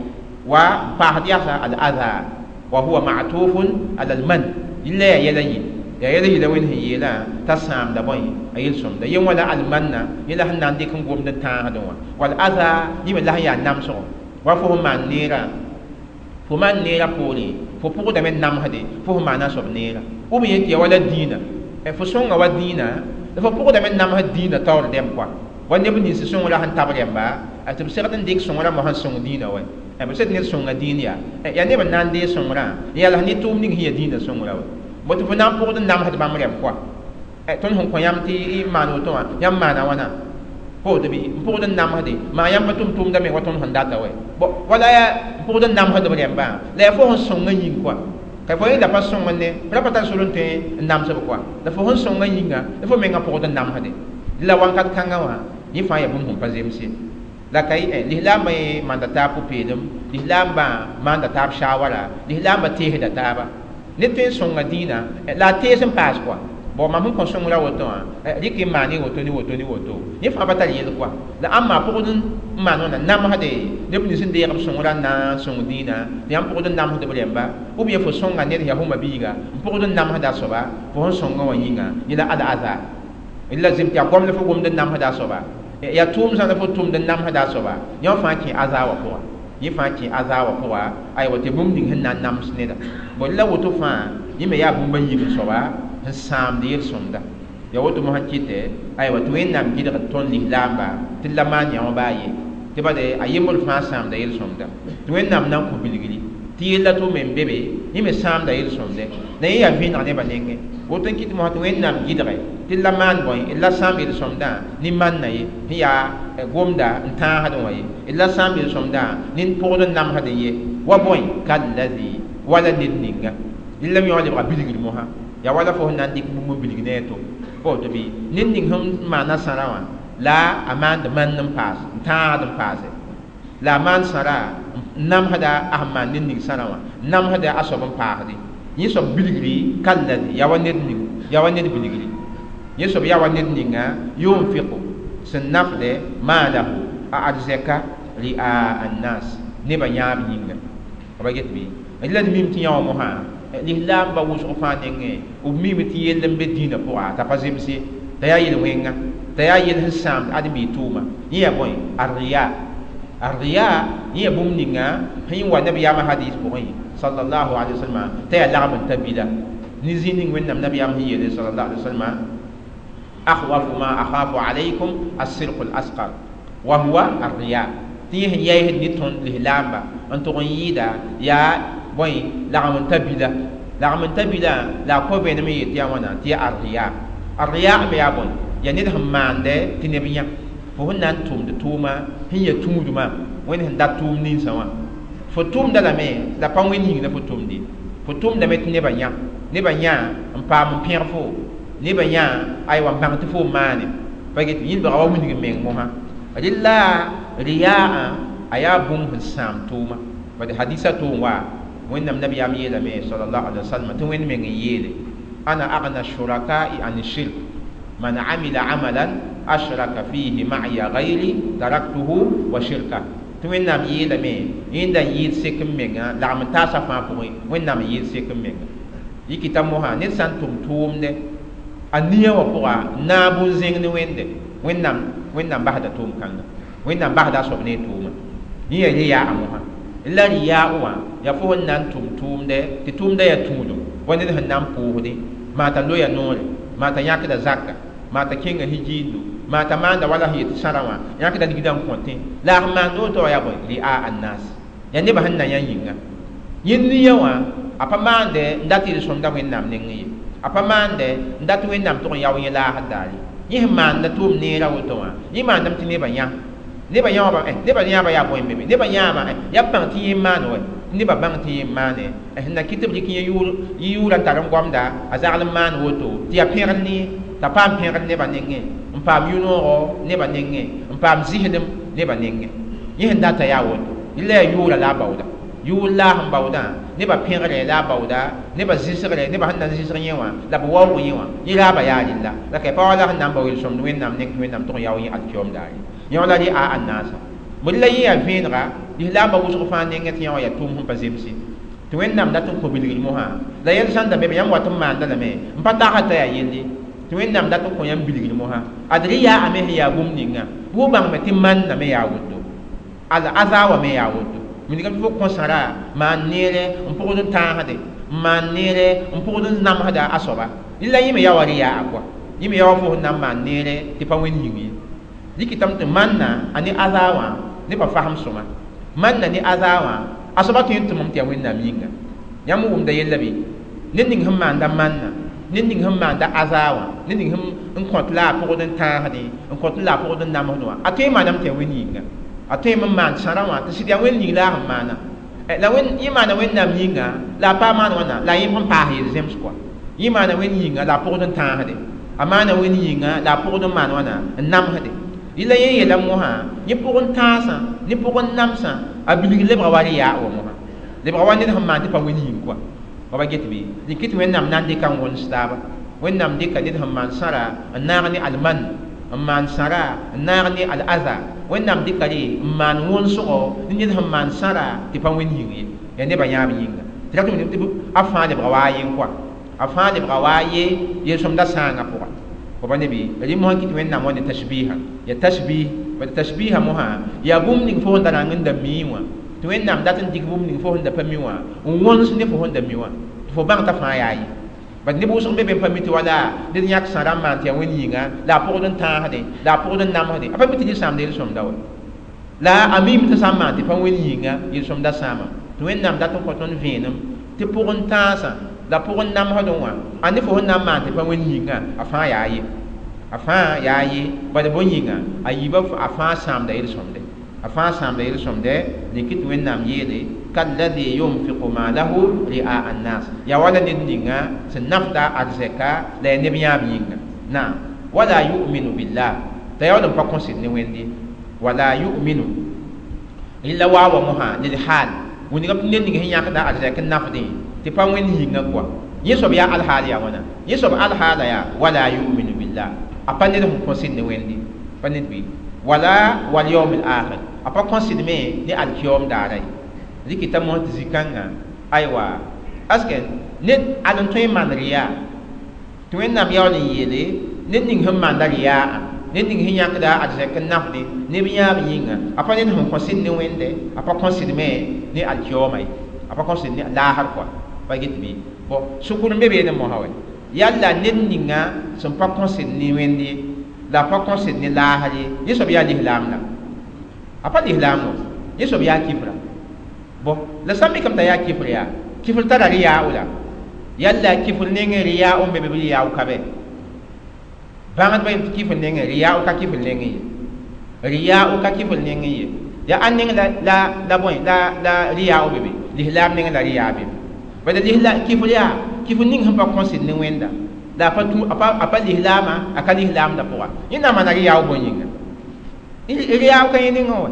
wa paasd yasa al-adha wa huwa ma'tufun ala al-man yella yaa yɛla yɩ yaa yɛla yɩla wẽnd sẽn yeelã t'a sãamda bõe a yel-sõmda yẽ wã la almanna yẽ la sẽn na n dɩk n gomd n tãasdẽ wã wal adha yẽ me la sẽn yaa namsgo wa fo sẽn maan neerã fo maan neerã poorẽ fo pʋgdame n namsde fo sẽn maana a soab neerã b yẽ tɩ ya wala dĩinã fo sõnga wa dĩinã la fo pʋgdame n namsd dĩinã taoor dɛm kɔa wa neb nins sõngrã sẽn tab rẽmba tɩ b segd n dɩk sõngrã mosã n sõng dĩinã wa b sed ned sõnga dĩin yaa yaa neb n na n dee sõngrã n yaa la ne tʋʋm ning sẽn yaa dĩinã sõngrã wa bõ tɩ fo na n pʋgd n namsd bãmb rẽmb kɔa tõnd sẽn kõ yãmb tɩ y maan woto wã yãmb maana wãna woto bɩ n pʋgd n namsde maa yãmb pa tʋm tʋʋmda me wa tõnd sẽn data wɛ wala yaa n pʋgd n namsd b rẽmbã la yaa fo sẽn sõngã yĩng kɔa ka fo yẽ la pa sõng ne ra pa tar sor n tõe n namsb kɔa la fo sẽn sõngã yĩnga la fo menga pʋgd n namsde la wãnkat kãngã wã yẽ fãa yaa bũmb sẽn pa zems ye la ka lislaambã yẽ manda taab pʋ-peelem lislaambã maanda taab shawara lislaambã teesda taaba ned tõe n sõnga dĩinã la a tees n paas kɔa bon mam sẽn kõ sõngrã woto wã rɩk n maan woto ne woto ne woto yẽ fãa pa tar yel kɔa la ãmba pʋgd n maan wãna namsde neb nins n deeg b sõngrã n na n sõng dĩinã tɩ yãmb pʋgd n namsd b rẽmba ou bien fo sõnga ned yaa fo mabiiga n pʋgd n namsda a soaba fo sẽn sõngã wã yĩnga yẽ la al-adha la zem tɩ yaa goam la fo gomd n namsda a soaba yaa tʋʋm sã la fo tʋmd n namsda a soaba yã fãa kẽ aza wã pʋga yẽ fãa kẽ aza wã pʋga aywa tɩ bũmb ning sẽn na n nams neda bõe la woto fãa yẽ me yaa bũmb a yiib soaba sẽn sãamd yel-sõmda ya woto mosã kɩtɛ aywa tɩ wẽnnaam gɩdgd tõnd lislaamba tɩ la maan yã wã baa ye tɩ bade a yembr fãa sãamda yel-sõmda tɩ wẽnnaam na n kõ bilgri Tɩ yella tʋ me n be be yẽ me sãamda yel-sõmde la yẽ yaa vẽeneg nebã nengẽ woto n kɩt mosã tɩ Wẽnnaam gɩdge tɩ la maan bõe la sãam yel-sõmdã ne manna ye sẽn yaa gomda n tãasdẽ wã ye la sãam yel-sõmdã ne pʋgd n namsdẽ ye wa bõe kallazi wala ned ninga rɩla me yõ lebga bilgr mosã yaa wala fo sẽn na n dɩk bũmb n bilg ne a to pa woto bɩ ned ning sẽn maana sãra wã la a maand mand n paas n tãagd n paase la a maan sãra n namsda a sẽn maan ned ning sãra wã n namsda a soab n paasdẽ yẽ soab bilgri kallazi yaa wa ned ning yaa wa ned bilgri yẽ soab yaa wa ned ninga yunfiqu sẽn nafdɛ maalahu a arzɛka ri'a annas nebã yãab yĩnga ba get bɩ la d mim tɩ yã wã mosã lislaamba wʋsg fãa nengẽ b mime tɩ yell n be dĩinã pʋga t'a pa zems ye t'a yaa yel-wẽnga t'a yaa yel sẽn sãamd ãdem-biig tʋʋma yẽ yaa bõe arriya arriya yẽ yaa bũmb ninga sẽn wa nabiyaamã hadis pʋgẽ sallallahu alaihi wasallam t'a yaa lagm n ta bila ne zĩig ning Wẽnnaam nabiyaam sẽn yeele sallallahu alaihi wasallam akhwafu ma akhafu alaykum as-sirqu al-asqar wa huwa arriya tɩ yẽ sẽn yaɩsd ne tõnd lislaamba n tʋg n yɩɩda yaa bõe lagm n ta bila lagm n ta bila la a kõ vẽenem n yeel tɩ yaa wãna tɩ yaa arriya arriya me yaa bõe yaa ned sẽn maande tɩ neb yã fo sẽn na n tʋmd tʋʋma sẽn ya tũudmã Wẽnd sẽn dat tʋʋm ninsã wã fo tʋmda lame la pa Wẽnd yĩng la fo tʋmde fo tʋmdame tɩ nebã yã nebã yã n paam n pẽg fo nebã yã aywa n bãng tɩ fo n maane pa get yĩlbga wa wilg n meng mosã rɩla riyaa a yaa bũmb sẽn sãam tʋʋma bad hadisa tʋʋm wa Wẽnnaam nabiyaam yeelame sallallahu alaihi wasallam tɩ Wẽnd meng n yeele ana agna shuraka'i an shirk man amila amalan ashraka fihi ma'iya ghayri taraktuhu wa shirka tɩ Wẽnnaam yeelame yẽnda n yɩɩd sek n menga lagm n taasa fãa pʋgẽ Wẽnnaam n yɩɩd sek n menga yikita mosã ned sã n tʋm tʋʋmdɛ a nia wã pʋga naab n zẽng ne Wẽnde Wẽnnaam basda tʋʋm kãnga Wẽnnaam basda a soab ne a tʋʋma yẽ yaa riyaa mosã la riyaa wã yaa fo sẽn na n tʋm tʋʋmdɛ tɩ tʋʋmdã yaa tũudum wa ned sẽn na n pʋʋsdẽ maa t'a loya noore maa t'a yãkda zaka maa t'a kẽnga hijiindo maa t'a maanda wala sẽn yet sãra wã yãkda ligdã n kõtẽ la a sẽn maand woto wã yaa bõe ri'a annas yaa nebã sẽn na yã yĩnga yẽ nia wã a pa maande n dat yel-sõmda Wẽnnaam nengẽ ye a pa maande n dat Wẽnnaam tʋg n yao yẽ laasd daare yẽ sẽn maanda tʋʋm neerã woto wã yẽ maandame tɩ nebã yã nebã yãoba nebã yãaba yaa bõe n be be nebã yãaba yaa b bãng tɩ yẽ n maan wɛ nebã bãng tɩ yẽ n maane sẽn na kɩt tɩ b dɩk yẽ yʋʋrã n tar n goamda a zagl n maan woto tɩ yaa pẽgr ne t'a paam pẽgr nebã nengẽ n paam yʋ-noogo nebã nengẽ n paam zɩsdem nebã nengẽ yẽ sẽn data yaa woto rɩla yaa yʋʋra la a baooda yʋʋr la a sẽn baoodã nebã pẽgre la a baooda nebã zɩsgre nebã sẽn na n zɩsg yẽ wã la b waoog yẽ wã yẽ raaba yaa rɩlla la ka pa wala sẽn na n bao yel-sõmd Wẽnnaam neng tɩ Wẽnnaam tʋg n yao yẽ alkiyoom daare yẽ wã la rɩ a annaasa bõe la yẽ yaa vẽenega lislaambã wʋsg fãa nengẽ tɩ yã wã yaa tʋʋm sẽn pa zemse tɩ Wẽnnaam dat n kõ bilgr mosã la yɛl sãn da be be yãmb wat n maanda lame n pa tagsd t'a yaa yelle tɩ Wẽnnaam dat n kõ yãmb bilgr mosã ad rɩ yaa a me sẽn yaa bũmb ninga bʋ bãngme tɩ manna me yaa woto al aza wã me yaa woto wilgame tɩ fo kõ sãra maan neere n pʋgd n tãasde n maan neere n pʋgd n namsda a soaba rɩla yẽ me yaa wa rɩ yaa a kɔa yẽ me yaa wa fo sẽn na n maan neere tɩ pa Wẽnd yĩng ye dɩkɩtame tɩ manna a ne aza wã nebã fasem sõma manna ne aza wã a soaba tõe n tʋmame tɩ yaa Wẽnnaam yĩnga yãmb wʋmda yella bɩ ned ning sẽn maanda manna ned ning sẽn maanda aza wã ned ning sẽn kõt la a pʋgd n tãasdẽ n kõt la a pʋgd n namsd wã a tõe n maaname tɩ yaa Wẽnd yĩnga a tõe n maan sãrã wã tɩ sɩd yaa Wẽnd yĩng la a sẽn maana la yẽ maana Wẽnnaam yĩnga la a pa maan wãna la yẽ sẽn paas yel-zems kɔa yẽ maana Wẽnd yĩnga la a pʋgd n tãasdẽ a maana Wẽnd yĩnga la a pʋgd n maan wãna n namsdẽ rɩla yẽ yeela mosã yẽ pʋgẽ tãasã ne pʋgẽ namsã a bilg lebga wa rɩ yaa wa mosã lebga wa ned sẽn maan tɩ pa Wẽnd yĩng kɔa wa ba get bɩ dɩk tɩ Wẽnnaam na n dɩka n wõns taaba Wẽnnaam dɩka ned sẽn maan sãra n naag ne alman n maan sãra n naag ne al-aza Wẽnnaam dɩka re n maan wõnsgo ne ned sẽn maan sãra tɩ pa Wẽnd yĩng ye yaa nebã yãab yĩnga tɩ rat tɩ a fãa lebga wa a yen kɔa a fãa lebga wa a ye yel-sõmda sãangã pʋga wa pa ne bɩ rɩ mosã kɩt Wẽnnaam wa ne tashbiha ya tashbih bad tashbiha mosã yaa bũmb ning fo sẽn da rãng n da mii wã tɩ Wẽnnaam dat n dɩk bũmb ning fo sẽn da pa mi wã n wõns ne fo sẽn da mi wã tɩ fo bãng t'a fãa yaa ye bad neb wʋsg be be n pa mi tɩ wala ned yãk sãra n maan tɩ yaa Wẽnd yĩnga la a pʋgd n tãasdẽ la a pʋgd n namsdẽ a pa mi tɩ yel-sãamda yel-sõmda wa la a miime tɩ sã n maan tɩ pa Wẽnd yĩnga yel-sõmda sãama Tɩ Wẽnnaam dat n kõ tõnd vẽenem tɩ pʋgẽ tãasã la pʋgẽ namsdẽ wã a ne fo sẽn na n maan tɩ pa wẽnd yĩngã a fãa yaa ye a fãa yaa ye bala bõe yĩnga a yiibã a fãa sãamda yel-sõmde a fãa sãamda yel-sõmde rɩk tɩ Wẽnnaam yeele kalladhi yunfiqu maalahu ri'a annas yaa wala ned ninga sẽn nafda arzɛka la yaa neb yãab yĩnga naam wala yu'minu billah t'a yaool n pa kõsd ne Wẽnde wala yu'minu illa waawa mosã lilhaal wingame tɩ ned ning sẽn yãkda arzɛk n nafdẽ tɩ pa Wẽnd yĩngã kɔa yẽ soab yaa alhaal yaa wãna yẽ soab alhaala yaa wala yu'minu billah a pa ned sẽn kõsd ne Wẽnde pa ned bɩ wala wal yawm al akhir a pa kõsd me ne alkiyoom daara ye rɩkɩta mosã tɩ zĩ-kãngã aywa aske ned ad n tõe n maan rɩyaa tɩ Wẽnnaam yaool n yeele ned ning sẽn maanda rɩyaa ned ning sẽn yãkda arzɛk n nafdẽ neb yãab yĩnga a pa ned sẽn kõsd ne Wẽnde a pa kõsd me ne alkiyooma ye a pa kõsd ne laasr kɔa pa get bɩ bõ sʋkr n be beene mosã wɛ yalla ned ninga sẽn pa kõsd ne Wẽnd ye la a pa kõsd ne laasr ye yẽ soab yaa lislaam la a pa lislaam wã yẽ soab yaa kifra bõ la sã n mikame t'a yaa kifr yaa kifr tara rɩyaa la yalla kifr nengẽ rɩyaa n be be bɩ rɩyaa ka bɛ bãngdbã yem tɩ kifr nengẽ rɩyaa ka kifr nengẽ ye rɩyaa ka kifr nengẽ ye yaa ãn neng la la bõe la la rɩyaa be be lislaam nengẽ la rɩyaa be be bala lisla kifr yaa kifr ning sẽn pa kõsd ne Wẽnda la a pa tũ a pa lislaamã a ka lislaamdã pʋga yẽ na n maana rɩyaa bõe yĩnga rɩyaa ka yẽ nengẽ wã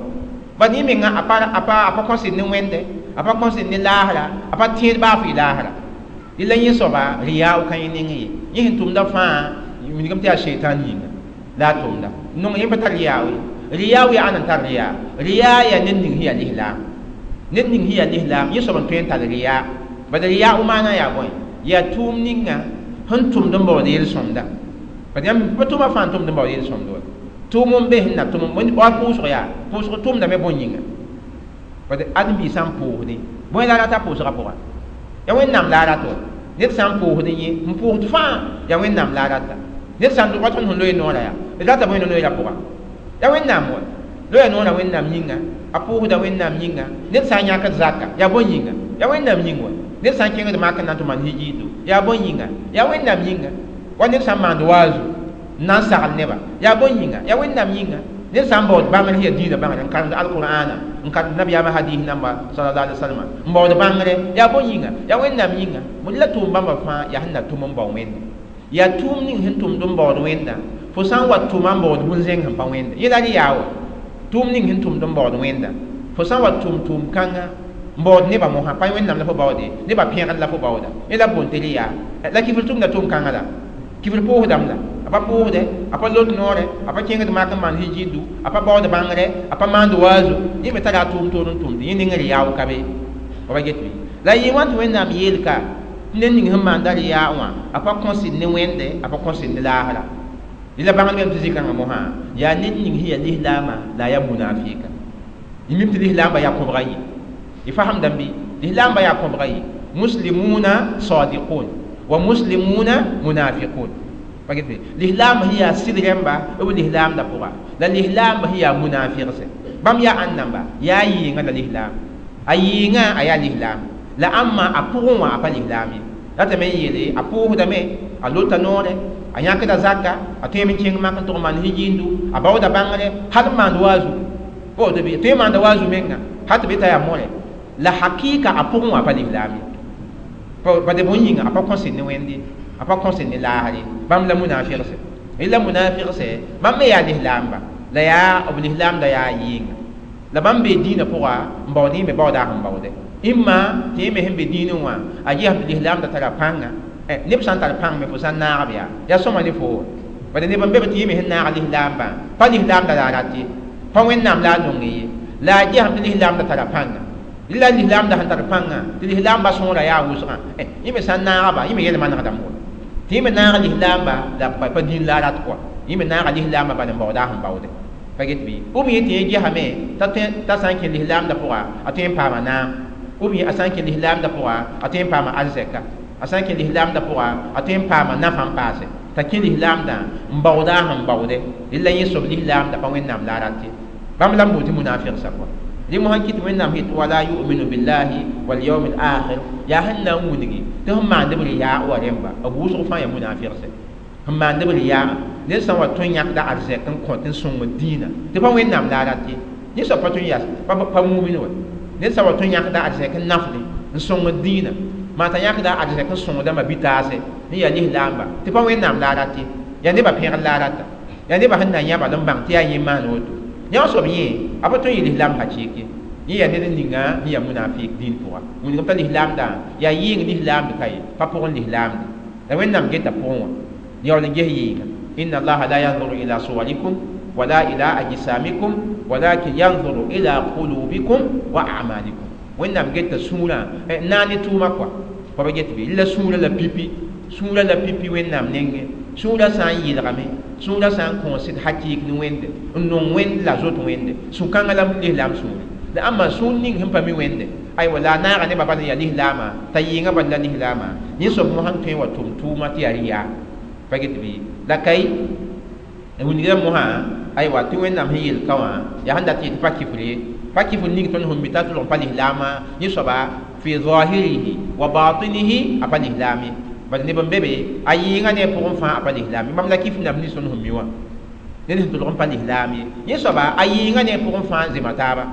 bad yẽ menga a pa kõsd ne Wẽnde a pa kõsd ne laasra a pa tẽed baa fɩ laasra la yẽ soaba rɩyaa ka yẽ nengẽ ye yẽ sẽn tʋmda fãa wilgame tɩ yaa sheitan yĩnga la a tʋmda nong yẽ pa tar rɩyaa ye rɩyaa yaa ãn n tar rɩyaa rɩyaa yaa ned ning sẽn yaa lislaam ned ning sẽn yaa lislaam yẽ soab n tõe n tar rɩyaa bala rɩyaa maana yaa bõe yaa tʋʋm ninga sẽn tʋmd n baood yel-sõmda bad yãmb pa tʋʋma fãa n tʋmd n baood yel-sõmda wa tʋʋm n be sẽn na tʋm wa pʋʋsg yaa pʋʋsg tʋmdame bõe yĩnga bad ãdem-biig sã n pʋʋsdẽ bõe la a rata pʋʋsgã pʋga yaa Wẽnnaam la a rat wa ned sã n pʋʋsdẽ yẽ n pʋʋsd fãa yaa Wẽnnaam la a rata ned sã n wa tõnd sẽn loe noorã yaa d rata bõe no-noeerã pʋga yaa Wẽnnaam wa loya noorã Wẽnnaam yĩnga a pʋʋsda Wẽnnaam yĩnga ned sã n yãkd zaka yaa bõe yĩnga yaa Wẽnnaam yĩng wa ned sã n kẽngd mak n na n tɩ maan hijiido yaa bõe yĩnga yaa Wẽnnaam yĩnga wa ned sã n maand waazu n na n sagl neba yaa bõe yĩnga yaa Wẽnnaam yĩnga ned sã n baood bãngr sẽn yaa diinã bãngre n karemd alqur'ana n karemd nabiyaamã hadis namba sallallahu alaihi wasallam n baood bãngre yaa bõe yĩnga yaa Wẽnnaam yĩnga la tʋʋm bãmba fãa yaa sẽn na tʋm n bao Wẽnde yaa tʋʋm ning sẽn tʋmd n baood Wẽnda fo sã n wa tʋma n baood bũn-zẽng sẽn pa Wẽnde yẽ la rɩ yaa wa tʋʋm ning sẽn tʋmd n baood Wẽnda fo sã n wa tʋm tʋʋm kãngã n baood nebã mosã pa Wẽnnaam la fo baoode nebã pẽgr la fo baooda yẽ la boond tɩ rɩ yaa la kifr tʋmda tʋʋm kãngã la kifr pʋʋsdame la a pa pʋʋsdɛ a pa lot noorɛ a pa kẽngd mak n maan hijiidu a pa baood bãngre a pa maand waazu yẽ me tara a tʋʋm toor n tʋmde yẽ neng rɩ yaa ka be pa get bɩ la yɩ wã tɩ Wẽnnaam yeelka tɩ ned ning sẽn maanda rɩyaa wã a pa kõsd ne Wẽnde a pa kõsd ne laasra la bãngd bame tɩ zĩ-kãngã mosã yaa ned ning sẽn yaa lislaamã la a yaa munafika y mim tɩ lislaambã yaa kõbga ye y fasemdame bɩ lislaambã yaa kõbga ye muslimuna sadiqun wa muslimuna munafiqun pa get bɩ lislaambã sẽn yaa sɩd rẽmba b lislaamdã pʋga la lislaambã sẽn yaa munafiqsɛ bãmb yaa ãn namba yaa yɩɩngã la lislaam a yɩɩngã a yaa lislaam la ãmma a pʋgẽ wã a pa lislaam ye ratame n yeele a pʋʋsdame a lota noorɛ a yãkda zaka a tõeme n kẽng mak n tʋg maan hijiindu a baooda bãngre hal n maand waazu woto bɩ tõe n maanda waazu menga hal tɩ be t'a yaa mõre la hakɩɩka a pʋgẽ wã a pa lislaam ye bade bõe yĩnga a pa kõsd ne Wẽnde a pa kõsd ne laasr ye bãmb la munafigsɛ la munafigsɛ bãmb me yaa lislaamba la yaa b lislaamda yaa yɩɩnga la bãmb bee dĩinã pʋga n baood yẽ me baooda sẽn baoodɛ ĩmma tɩ yẽ me sẽn be dĩinẽ wã a gesame tɩ lislaamda tara pãnga neb sã n tar pãng me fo sã n naagb yaa yaa sõma ne fo bala neb n be tɩ yẽ me sẽn naag lislaambã pa lislaamda la a rat ye pa Wẽnnaam la a nong ye la a gesame tɩ lislaamda tara pãnga la lislaamda sẽn tar pãnga tɩ lislaambã sõora yaa wʋsgã yẽ me sã n naagba yẽ me yel manegdame wa tɩ yẽ me naaga lislaamba la pa dĩin la a rat kɔa yẽ me naaga lislaambã bala n baooda sẽn baoode pa get bɩ ou bien tɩ yẽ gesame t'a sã n kẽ lislaamda pʋga a tõe n paama naam ou bien a sã n kẽ lislaamda pʋga a tõe n paama arzɛka a sã n kẽ lislaamda pʋga a tõe n paama nafã n paase t'a kẽ lislaamdã n baooda sẽn baoode la yẽ soab lislaamda pa Wẽnnaam la a rat ye bãmb la n boond tɩ munafigsã kɔa Dɩ mosã kɩt Wẽnnaam sẽn yet wala yu'minu billahi wal yawmil akhir yaa sẽn na n wilgi tɩ sẽn maand b riyaa wa rẽmba b wʋsg fãa yaa munafɩgse sẽn maand b riyaa ned sã n wa tõe n yãkda arzɛk n kõt n sõngd dĩinã tɩ pa Wẽnnaam la a rat ye yẽ soab pa tõe n yaa pa mumin wa ned sã n wa tõe n yãkda arzɛk n nafdẽ n sõngd dĩinã maa t'a yãkda arzɛk n sõngda ma-bi-taase n yaa lislaamba tɩ pa Wẽnnaam la a rat ye yaa nebã pẽgr la a rata yaa nebã sẽn na n yã bal n bãng tɩ yaa yẽ maan woto yã soab yẽ a pa tõe n yɩ lislaam hakɩɩk ye yẽ yaa ned ninga n yaa munafik dĩin pʋga wilgem t'a lislaamdã yaa yɩɩng lislaamd ka ye pa pʋgẽ lislaamde la Wẽnnaam geta pʋgẽ wã yaool n ges yɩɩnga inna allaha la yanzuru ila suwarikum wala ila ajsamikum walakin yanzuru ila qulubikum wa a'malikum Wẽnnaam geta sũurã naag ne tʋʋma kɔa pa ba get bɩ la sũurã la pipi sũurã la pipi Wẽnnaam nengẽ sũurã sã n yɩlgame sũurã sã n kõos sɩd hakɩɩk ne Wẽnde n nong Wẽnd la zoet Wẽnde sũ-kãngã la lislaam sũure la ãmba sũur ning sẽn pa mi Wẽnde aywa la a naaga nebã bal n yaa lislaamã t'a yɩɩngã bal la lislaamã yẽ soab mosã n tõe n wa tʋm tʋʋma tɩ yaa rɩyaa pa get bɩ la kay wilgra mosã aywa tɩ Wẽnnaam sẽn yel ka wã yaa sẽn dat yetɩ pa kifr ye pa kifr ning tõnd sẽn mi t'a tʋlg pa lislaamã yẽ soaba fi zahirihi wa batinihi a pa lislaam ye bad neb n be be a yɩɩngã ne a pʋgẽ fãa a pa lislaam ye bãmb la kifr nab nins tõnd sẽn mi wã ned sẽn tʋlg n pa lislaam ye yẽ soaba a yɩɩngã ne a pʋgẽ fãa n zema taaba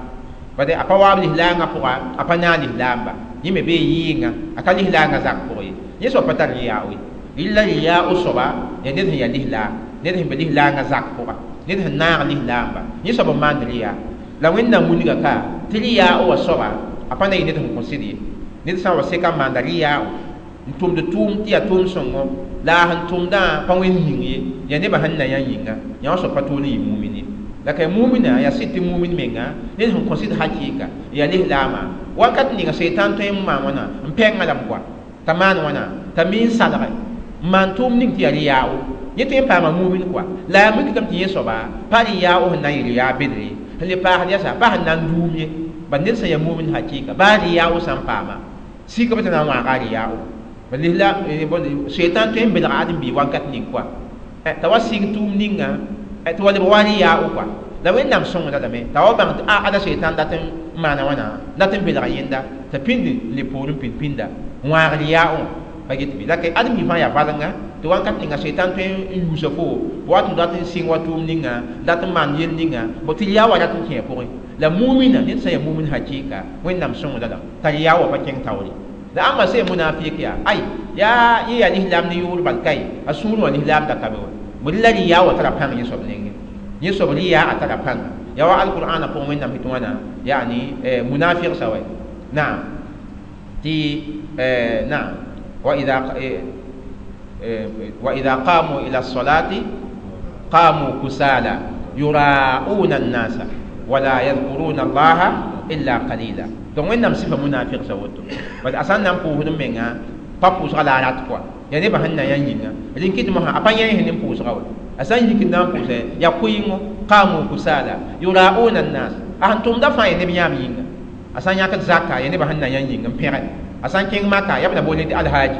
bad a pa waab lislaangã pʋga a pa naag lislaamba yẽ me bee yɩɩngã a ka lislaangã zak pʋgẽ ye yẽ soab pa tar riyaa ye rɩla riyaa o soaba yaa ned sẽn yaa lislaam ned sẽn be lislaangã zak pʋga ned sẽn naag lislaamba yẽ soab n maand riyaa la Wẽnnaam wilga ka tɩ riyaa wa soaba a pa na yɩ ned sẽn kõ sɩd ye ned sã n wa seka n maanda riyaa n tʋmd tʋʋm tɩ yaa tʋʋm sõngo la a sẽn tʋmdã pa wẽnd ning ye yaa nebã sẽn na yã yĩnga yã wã soab pa toor n yɩ mumin ye la ka mumina yaa sɩd tɩ mumin menga ned sẽn kõ sɩd hakɩɩka yaa lislaamã wakat ninga seitan tõe n maan wãna n pɛngã lame koa t'a maan wãna t'a mi n salge n maan tʋʋm ning tɩ yaa rɩ-yaao yẽ tõe n paama mumin koa la yaa mikdame tɩ yẽ soaba pa rɩ-yaao sẽn na n yɩ rɩ-yaa bedre sẽn le paasd yasa pa sẽn na n duum ye bad ned sẽn yaa mumin hakɩɩka baa rɩ-yaao sã n paama sika b tɩ na n wãaga a rɩ-yaao lihla seitan tõe n belga ãdem-biig wakat ning koa t'a wa sɩng tʋʋm ninga tɩ wa leb wa rɩ-yaao koa la Wẽnnaam sõngda lame t'a wa bãng tɩ a ada seitan dat n maana wãna dat n belga yẽnda t'a pĩnd n le poorẽ pĩnd pĩnda n wãag rɩ-yaao pa get bɩ la ka ãdem-biig fãa yaa valenga tɩ wakat ninga seitan tõe n yuusa fo wat n dat n sɩng wa tʋʋm ninga dat n maan yel ninga bõ tɩ rɩ-yaa wa rat n kẽ a pʋgẽ la mumina ned sã n yaa mumin hakɩɩka Wẽnnaam sõngda lame t'a rɩ-yaa wa pa kẽng taoore la ãmba sẽn munafik yaa ay yaa yẽ yaa lislaam ne yʋʋr bal kae a sũur wã lislaam da ka be wa bõe la rɩ-yaa wa tara pãng yẽ soab nengẽ yẽ soab rɩ-yaa a tara pãnga yaa wa alqur'ana pʋgẽ Wẽnnaam sẽn tɩ wãna yaani munafik sa wa naam tɩ naam wa idha qamu ila as-salati qamu kusala yura'una an-nasa wala yadhkuruna allaha illa qalila donc Wẽnnaam sɩfa munafik sa woto bad a sã n na n pʋʋsd n menga pa pʋʋsga la a rat kɔa yaa nebã sẽn na yã yĩnga rẽn kɩt mosã a pa yẽ sẽn ne n pʋʋsga wa a sã n yik n na n pʋʋsɛ yaa kʋɩngo qamu kusala yura'una an-nas a sẽn tʋmda fãa yaa neb yãam yĩnga a sã n yãkd zaka yaa nebã sẽn na yã yĩng n pẽge a sã n kẽng maka yaa b na boole tɩ alhaji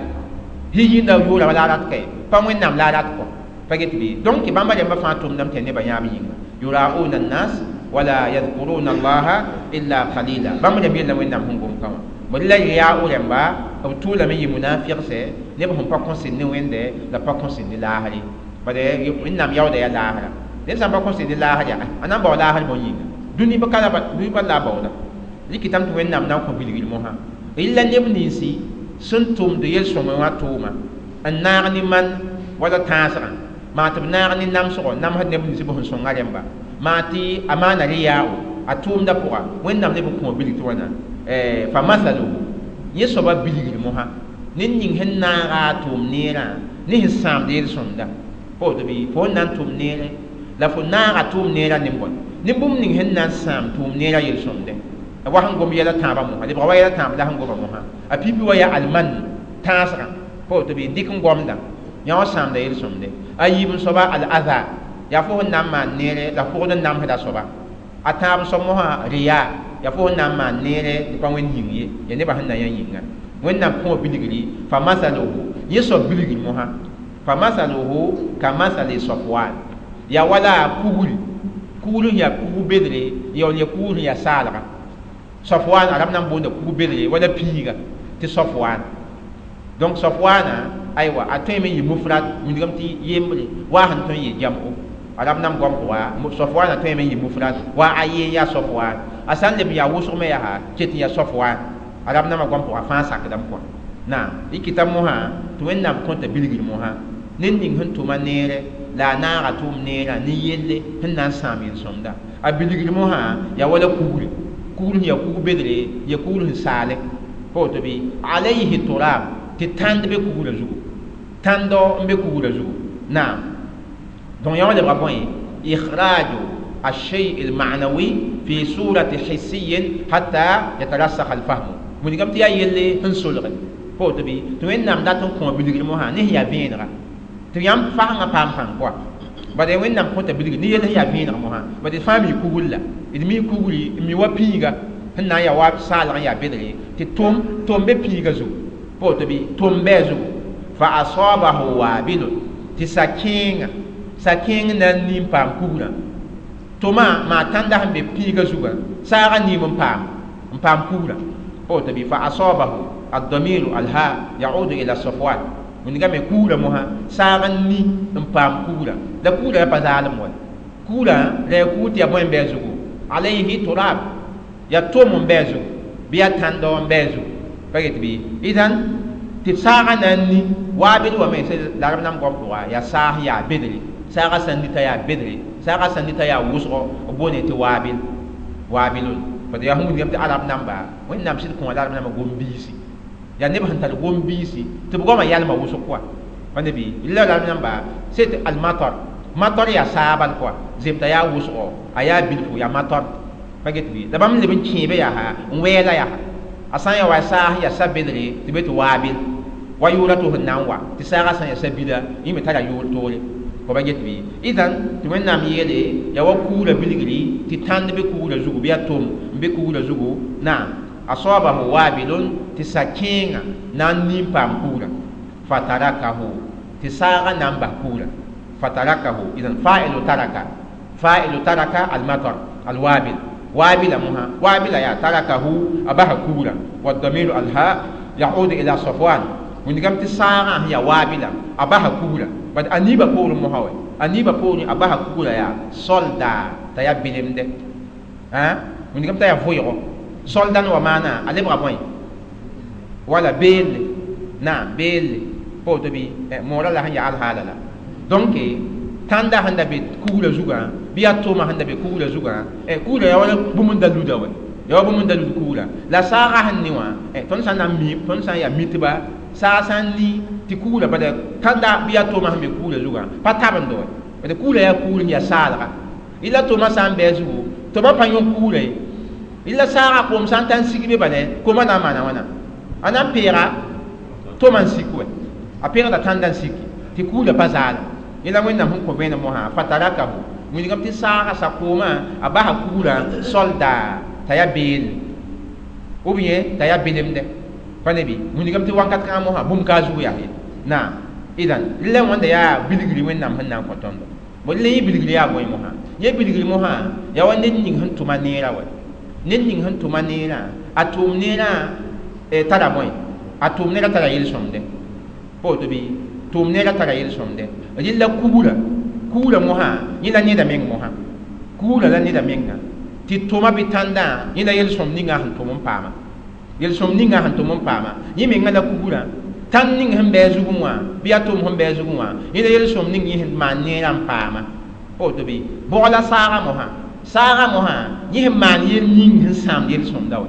yĩnda yʋʋra la a rat kae pa Wẽnnaam la a rat kɔa pa get bɩ donc bãmba rẽmbã fãa tʋmdame tɩ yaa nebã yãam yĩnga yura'una an-nas wala yadhkuruna allaha illa qalila bãmb rẽmb yella Wẽnnaam sẽn gom ka wã bõe la rɩ-yaao rẽmba b tʋʋlame yɩ munafigsɛ neb sẽn pa kõsd ne Wẽnde la pa kõsd ne laasre bad Wẽnnaam yaooda yaa laasra ned sã n pa kõsd ne laasr yaa a na n bao laasr bõe yĩnga dũni pa la a baooda rɩkɩtame tɩ Wẽnnaam na n kõ bilgr mosã rɩla neb ninsi sẽn tʋmd yel-sõmẽ wã tʋʋma n naag ne man wala tãasgã maa tɩ b naag ne namsgɔ namsd neb nins b sẽn sõnga rẽmba maa tɩ a maana rɩ-yaao a tʋʋmda pʋga Wẽnnaam leb n kõ bilg tɩ wãna fa masaluhu yẽ soaba bilgr mosã ned ning sẽn naaga a tʋʋm neerã ne sẽn sãamd yel-sõmda pa woto bɩ fo n na n tʋm neere la fo naaga tʋʋm neerã ne bõe ne bũmb ning sẽn na n sãam tʋʋm neerã yel-sõmdẽ wa sẽn gom yɛla tãabã mosã lebga wa yɛla tãab la sẽn goma mosã a pipi wa yaa alman tãasgã pa woto bɩ dɩk n gomdã yã wã sãamda yel-sõmdẽ a yiib n soaba al-adha yaa fo sẽn na n maan neere la pʋgd n namsda soaba a tãab n soab mosã riyaa yaa fo sẽn na n maan neere tɩ pa Wẽnd yĩng ye yaa nebã sẽn na yã yĩnga Wẽnnaam kõ bilgri fa masaluhu yẽ soab bilgr mosã fa masaluhu ka masali safwan yaa wala kugri kugr sẽn yaa kug bedre yaool yaa kugr sẽn yaa saalga Safwan arab nan boonda kug bedre wala pĩiga tɩ Safwan. Donc Safwana aywa a tõe me yɩ mufrad wilgame tɩ yembre wa sẽn tõe n yɩ jam'o arab nam goam pʋga Safwana tõe me yɩ mufrad wa a ye yaa Safwan a sã n leb n yaa wʋsg me yaa ket n yaa Safwan arab namã goam pʋga fãa sakdame kɔa naam y kɩta mosã tɩ Wẽnnaam kõta bilgr mosã ned ning sẽn tʋma neere la a naaga tʋʋm neerã ne yelle sẽn na n sãam yel-sõmda a bilgr mosã yaa wala kugre kugr sẽn yaa kug bedre ya kugr sẽn saale pa woto bɩ alayhi turab tɩ tãnd be kugrã zugu tãndo n be kugrã zugu naam donc yã wã lebga bõe ikhraju الشيء المعنوي في صورة حسي حتى يترسخ الفهم wilgame tɩ yaa yelle sẽn solge pa woto bɩ tɩ Wẽnnaam dat n kõ bilgr mosã ne sẽn yaa vẽenega tɩ yãmb fasengã paam pãng kɔa bad Wẽnnaam kõta bilgr ne yell sẽn yaa vẽeneg mosã bad d fãa mi kugr la d mi kugri n mi wa pĩiga sẽn na n yaa wa saalg n yaa bedre tɩ tʋm be pĩiga zugu pa woto bɩ tʋm bɩ a zugu fa asabahu wabilun tɩ sa-kẽeng na n nin paam kugrã tʋma maa tãnda sẽn be pĩiga zugã saagã niim n paam kugrã pa woto bɩ fa asabahu الضمير الهاء يعود إلى صفوان wilgame kugrã mosã saag n ni n paam kugrã la kugrã pa zaalem wa kugrã la ya kugr tɩ ya bõe n bɩ a zugu alayhi turab ya tom n bɩ a zugu bɩ ya tãndo n bɩ a zugu pa get bɩ idan tɩ saagã na n ni waabil wame la rab nam goam pʋga yaa saas yaa bedre saagã sã n ni t'a yaa bedre saagã sã n ni t'a yaa wʋsgo b boone tɩ waabil waabilun pa yaa sẽn wilgame tɩ arab namba Wẽnnaam sɩd kõ la arab namba gom-biisi yaa neb sẽn tar gom-biisi tɩ b goamã yalma wʋsg kɔa pa ne bɩ la arab namba c'est almatar matar yaa saabal kɔa zemta yaa wʋsgo a yaa bilfu yaa matar pa get bɩ la bãmb leb n kẽebe yaa n wɛɛla yaa a sã n yaa wa saas yaa sa bedre tɩ be tɩ waabil wa yʋʋra tɩ sẽn na n wa tɩ saagã sã n yaa sa-bila yẽ me tara yʋʋr toore pa get bɩ idan tɩ Wẽnnaam yeele yaa wa kugrã bilgri tɩ tãnd be kugrã zugu bɩ yaa tom n be kugrã zugu naam asabahu wabilun tɩ sa-kẽengã na n nin paam kugrã fatarakahu tɩ saagã na n bas kugrã fatarakahu idan fa'ilu taraka almatar alwabil waabila mosã waabila yaa tarakahu a basa kugrã والضمير الهاء يعود إلى صفوان wilgame tɩ saagã sẽn yaa waabila a basa kugrã bad a niibã poorẽ mosã wɛ a niibã poorẽ a basa kugrã yaa solda t'a yaa belemde wilgame t'a yaa vʋɩgo soldan wa maana a lebga bõe wala beelle naam beelle pa woto bɩ moorã la sẽn yaa alhaala la donc tãnda sẽn da be kugrã zugã bɩ yaa tʋʋmã sẽn da be kugrã zugã kugrã yaa wala bũmb n da luda wɛ yaa wa bũmb n da lud kugrã la saagã sẽn ne wã tõnd sã n na n mi tõnd sã n yaa mitba saag sã n ni tɩ kugrã bala tãnda bɩ yaa tʋʋmã sẽn be kugrã zugã pa tabendo wɛ bad kugrã yaa kugr sẽn yaa saalga la tʋʋmã sã n bɩ a zugu tʋma pa yõ kugrã ye la saagã koom sã n ta n sig be bala koomã na n maana wãna a na n peega tʋma n sik wɛ a peegda tãnda n siki tɩ kugrã pa zaala yẽla Wẽnnaam sẽn kõ vẽenem mosã fatarakahu wilgame tɩ saagã sa-koomã a basa kugrã solda t'a yaa beelle ou bien t'a yaa belemdɛ pa ne bɩ wilgame tɩ wakat kãngã mosã bũmb ka a zug yaa ye naam idan la wãnda yaa bilgri Wẽnnaam sẽn na n kõ tõndo bõ la yẽ bilgri yaa bõe mosã yẽ bilgri mosã yaa wa ned ning sẽn tʋma neerã wɛ ned ning sẽn tʋma neerã a tʋʋm neerã tara bõe a tʋʋm neerã tara yel-sõmdɛ pa woto bɩ tʋʋm neerã tara yel-sõmdɛ rɩla kugrã kugrã mosã yẽ la neda meng mosã kugrã la neda menga tɩ tʋma bɩ tãndã yẽ la yel-sõm ninga sẽn tʋm n paama yel-sõm ninga sẽn tʋm n paama yẽ menga la kugrã tãnd ning sẽn bɩ a zugẽ wã bɩ yaa tʋʋm sẽn bɩ a zugẽ wã yẽ la yel-sõm ning yẽ sẽn maan neerã n paama pa woto bɩ bʋg la saagã mosã saagã mosã yẽ sẽn maan yel ning sẽn sãamd yel-sõmda wɛ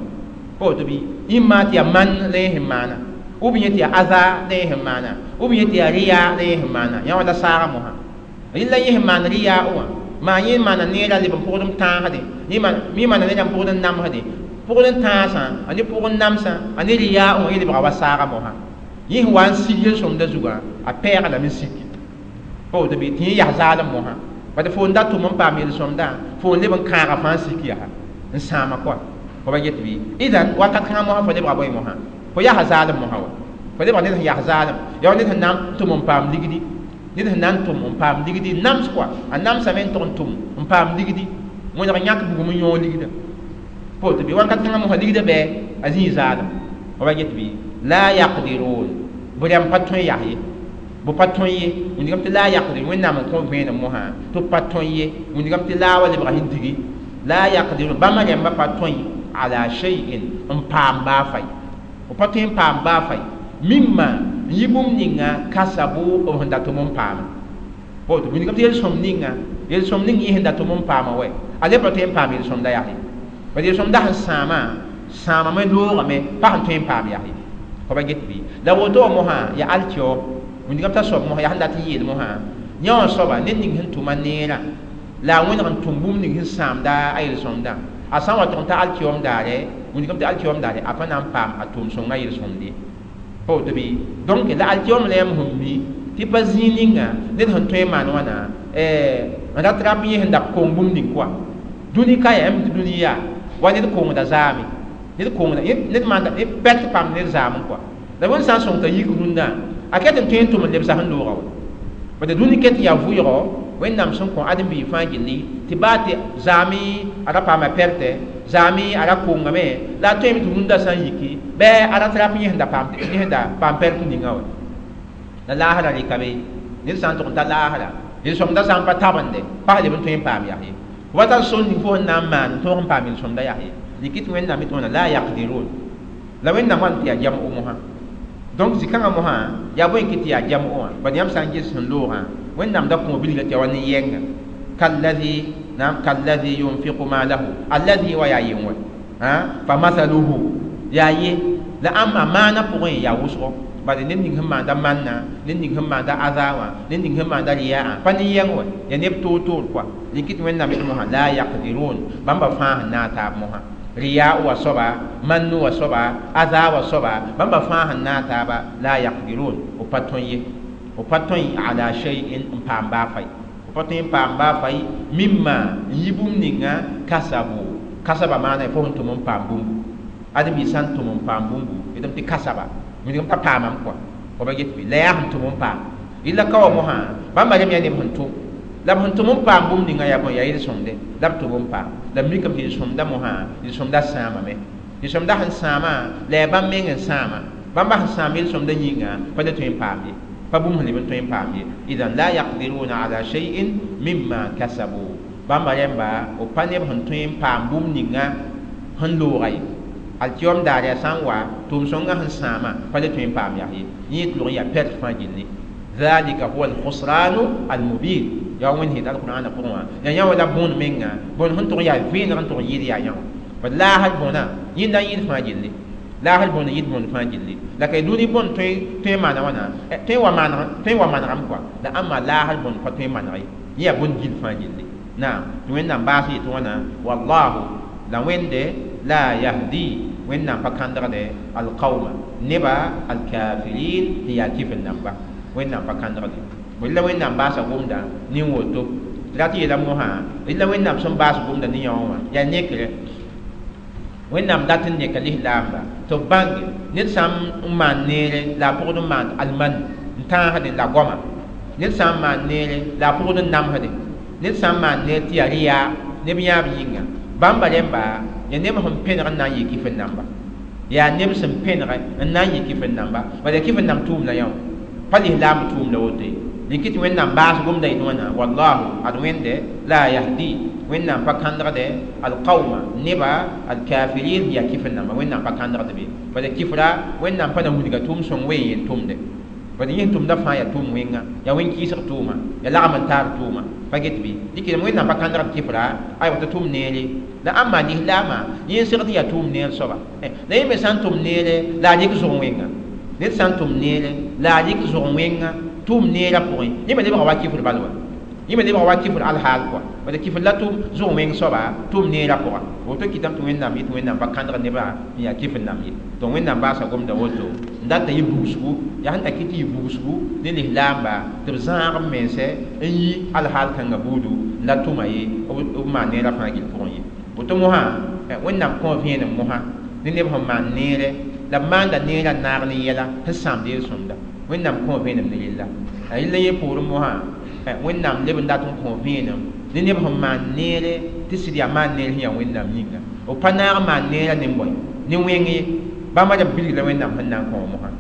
pa woto bɩ ĩmma tɩ yaa man la yẽ sẽn maana ou bien tɩ yaa aza la yẽ sẽn maana ou bien tɩ yaa riya la yẽ sẽn maana yã wã la saagã mosã rɩla yẽ sẽn maan riya wã maa yẽ maana neerã leb n pʋgd n tãasde yẽ maana neerã n pʋgd n namsde pʋgd n tãasã a ne pʋgd n namsã a ne riya wã yẽ lebga wa saagã mosã yẽ sẽn wa n sig yel-sõmdã zugã a pɛɛga lame n siki pa woto bɩ tɩ yẽ yaa zaalem mosã bad fo n da tʋm n paam yel-sõmdã fo n leb n kãaga fãa n sik yaa n sãama kɔa fo ba get bɩ idan wakat kãngã mosã fo lebga bõe mosã fo yaa zaalem mosã wa fo lebga ned sẽn yaa zaalem yaa wa ned sẽn na n tʋm n paam ligdi ned sẽn na n tʋm n paam ligdi nams kɔa a namsame n tʋg n tʋm n paam ligdi wẽneg yãk bugum n yõog ligdã Poto bi wakat kãngã mosã ligdã bɩ a zĩig zaalem f pa get bɩ la yaqdirun b rãmb pa tõe yaa ye b pa tõe ye wĩndgame tɩ la yaqdirun wẽnnaam n kõ vẽenem mosã tɩ b pa tõe ye wĩndgame tɩ laa wa lebga sẽn digi la yaqdirun bãmba rãmba pa tõe ala shay'in n paam baa fai b pa tõe n paam baa fai mimma n yɩ bũmb ninga kasabu b sẽn dat tʋm n paama poto wĩndgame tɩ yel-sõm ninga yel-sõm ning yẽ sẽn dat tʋm n paama wɛ a le pa tõe n paam yel-sõmda yaa ye bad yel-sõmda sẽn sãamã sãamame loogame pa sẽn tõe n paam yaa ye fa pa get bɩ la woto wã mosã yaa alkiao wĩndgame t'a soab mosã yaa sẽn dat n yeel mosã yã wã soaba ned ning sẽn tʋma neerã la a wẽneg n tʋm bũmb ning sẽn sãamda a yel-sõmdã a sã n wa tʋg n ta alkiom daare wĩndgame tɩ alkiom daare a pa na n paam a tʋʋm-sõngã yel-sõmd ye pa woto bɩ donc la alkiom la yãmb sẽn mi tɩ pa zĩig ninga ned sẽn tõe n maan wãna n rat rap yẽ sẽn da kong bũmb ning kɔa dũni ka yaa yãmb tɩ dũni yaa wa ned kongda zaame ned kongda ned maanda pɛt pam ned zaam kɔa la wẽnd sã n sõng t'a yik rũndã a ket n tõe n tʋm n lebsa sẽn looga wa bad dũni ket n yaa vʋɩgɔ wẽnnaam sẽn kõ ãdem-biig fãa gilli tɩ baa tɩ zaame a ra paama pɛrtɛ zaame a ra kongame la a tõeme tɩ rũndã sã n yiki bɩ a rat rap yẽ sẽn da paam yẽ sẽn da paam pɛrt ninga wa la laasra rɩka be ned sã n tʋg n ta laasra yel-sõmdã sã n pa tabende pa leb n tõe n paam yaa ye wa tar sor ning fo sẽn na n maan n tõog n paam yel-sõmdã yaa ye dɩk tɩ wẽnnaam tɩ wãna la yaqdirun la wẽnnaam wan tɩ yaa jam'o mosã donc zĩ-kãngã mosã yaa bõe n kɩ tɩ yaa jam'o wã bad yãmb sã n ges sẽn loogã wẽnnaam da kõ bilga tɩ ya wa nin-yɛnga kallazi naam kallazi yunfiqu malahu allazi wa yaa yen wɛ fa mathaluhu yaa ye la ãmba maana pʋgẽ yaa wʋsgo bad ned ning sẽn maanda manna ned ning sẽn maanda aza wã ned ning sẽn maanda riyaa pa nin-yɛng wɛ yaa neb toor-toor kɔa dɩk tɩ wẽnnaam yetɩ mosã la yaqdirun bãmba fãa sẽn naag taab mosã riya wa soaba mannu wa soaba aza wa soaba bãmba fãa sẽn naag taaba la yaqdirun b pa tõe ye b pa tõe ala shay'in n paam baa fai b pa tõe n paam baa fai mimma n yɩ bũmb ninga kasabu kasaba maana fo sẽn tʋm n paam bũmbu ãdem-biig sã n tʋm n paam bũmbu yetame tɩ kasaba wĩndgame pa paamame kɔa f pa get bɩ la yaa sẽn tʋm n paam yella ka wa mosã bãmba rem yaa neb sẽn tʋm la b sẽn tʋm n paam bũmb ninga yaa bõe yaa yel-sõmde la b tʋm n paam la b mikame tɩ yel-sõmda mosã yel-sõmda sãamame yel-sõmda sẽn sãama la yaa bãmb meng n sãama bãmba sẽn sãam yel-sõmda yĩnga pa le tõe n paam ye pa bũmb sẽn leb n tõe n paam ye idan la yaqdiruna ala shay'in mimma kasabu bãmba rẽmba b pa neb sẽn tõe n paam bũmb ninga sẽn looga ye alkiom daar yaa sã n wa tʋʋm-sõngã sẽn sãama pa le tõe n paam yaa ye yẽ tɩ log n yaa pɛrt fãa gilli dhalika huwa alkhusranu almubin yaa wẽnd sẽn alqur'ana pʋgẽ wã yaa yã wã la bõon menga bõn sẽn tʋg yaa vẽeneg n tʋg yɩɩd yaa yã wã bad laasr bõna yẽnda yẽd fãa gilli laasr bõna yɩd bõnd fãa gilli la ka dũni bõnd tõe n maana wãna tõe n wa manegame kɔa la ãmba laasr bõnd pa tõe n maneg ye yẽ yaa bõnd gill fãa gilli naam tɩ wẽnnaam baas yetɩ wãna wallahu la wẽnde la yahdi wẽnnaam pa kãndgde alqauma neba alkafirin tɩ yaa kifr namba wẽnnaam pa kãndgde la wẽnnaam baasa gomda nin woto tɩ rat yeela mosã la wẽnnaam sẽn baas gomda ne yã wã yaa nekre wẽnnaam dat n neka lislaamba tɩ b bãnge ned sã n maan neere la a pʋgd n maan alman n tãasdẽ la goama ned sã n maan neere la a pʋgd n namsdẽ ned sã n maan neer tɩ yaa rɩyaa neb yãab yĩnga bãmba rẽmba yaa neb sẽn pẽneg n na n yɩ kifr namba yaa neb sẽn pẽneg n na n yɩ kifr namba bala yaa kifr namb tʋʋm la yã wã pa lislaam tʋʋm la woto ye dɩk tɩ wẽnnaam baas gomda yetɩ wãna wallahu ad wẽnde la yahdi wẽnnaam pa kãndgde alqauma neba alkafirin yaa kifr namba wẽnnaam pa kãndgd be bala kifra wẽnnaam pa na wilga tʋʋm sõng ween yel tʋmde bala yẽ tʋmda fãa yaa tʋʋm wẽnga yaa wẽn-kɩɩsg tʋʋma yaa lagm n taar tʋʋma pa get bɩ dɩk wẽnnaam pa kãndgd kifra aywa tɩ tʋm neere la ãmba lislaamã yẽ n segd yaa tʋʋm neer soaba la yẽ me sã n tʋm neere la a rɩk zʋg wẽnga ned sã n tʋm neere la a rɩk zʋg wẽnga tʋʋm neerã pʋgẽ yẽ me lebga wa kifr bal wa yẽ me lebga wa kifr alhaal kɔa bala kifr la tʋm zʋg wẽng soaba tʋʋm neerã pʋga woto kɩtame tɩ wẽnnaam yetɩ wẽnnaam pa kãndg nebã n yaa kifr nam ye donc wẽnnaam baasa gomda woto n dat n yɩ bugsgu yaa sẽn ta kɩ tɩ yɩ bugsgu ne lislaamba tɩ b zãag b mense n yi alhaal kãngã buudu n la tʋma ye b maan neerã fãa gill pʋgẽ ye woto mosã wẽnnaam kõ vẽenem mosã ne neb sẽn maan neere la b maanda neerã n naag ne yɛla sẽn sãamd yel-sõmda wẽnnaam kõ vẽenem ne rella a rella yẽ poorẽ mosã wẽnnaam leb n dat n kõ vẽenem ne neb sẽn maan neere tɩ sɩd yaa maan neer sẽn yaa wẽnnaam yĩnga O pa naag n maan neerã ne bõe ne wẽng ye bãmba rem bilg la wẽnnaam sẽn na n kõ mosã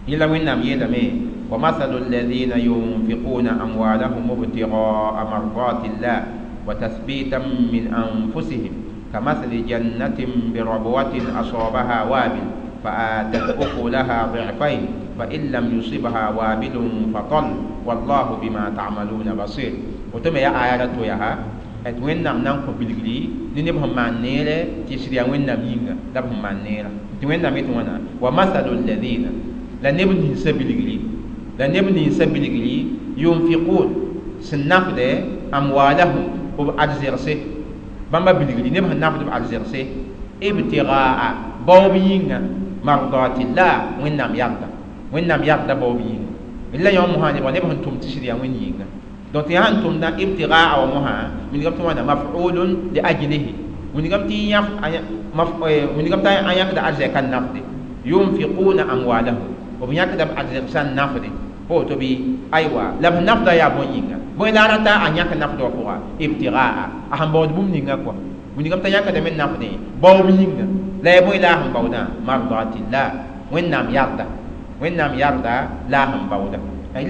yẽla wẽnnaam yeelame wa mathalu alladhina yunfiquna amwalahum ibtigaa mardatillah wa tathbitan min anfusihim kamathali jannatin birabwatin asabaha wabil فآتت أكلها ضعفين فإن لم يصبها وابل فطل والله بما تعملون بصير وتم يا آيات يا tɩ wẽnnaam na n kõ bilgri ne neb sẽn maan neere tɩ sɩd yaa wẽnnaam yĩnga la b sẽn maan neerã tɩ wẽnnaam yetɩ wãna wa masalu alladina la neb ninsã bilgri la neb ninsã bilgri yunfiqun sẽn nafdɛ amwalahum b arzegse bãmba bilgri neb sẽn nafd b arzegse ibtigaa baoob yĩnga mardatillah wẽnnaam yarda wẽnnaam yarda baoob yĩnga la yõ mosã nebã neb sẽn tʋm tɩ sɩd yaa wẽnd yĩnga donc tɩ sãn tʋmda ibtigaa wa mosã wilgame tɩ wãna maf'ulun li ajlihi wilgame tɩ wilgame tɩ a yãkda arzɛka n nafde yunfiquna amwalahum b yãkda b arzegsã n nafde pa woto bɩ aywa la b nafda yaa bõe yĩnga bõe la a rata a yãk nafdã wã pʋga ibtigaa a sẽn baood bũmb ninga kɔa wilgame t'a yãkdame n nafdẽ baoob yĩnga la ya bõe la a sẽn baoodã mardatillah wẽnnaam yarda wẽnnaam yarda la a sẽn baooda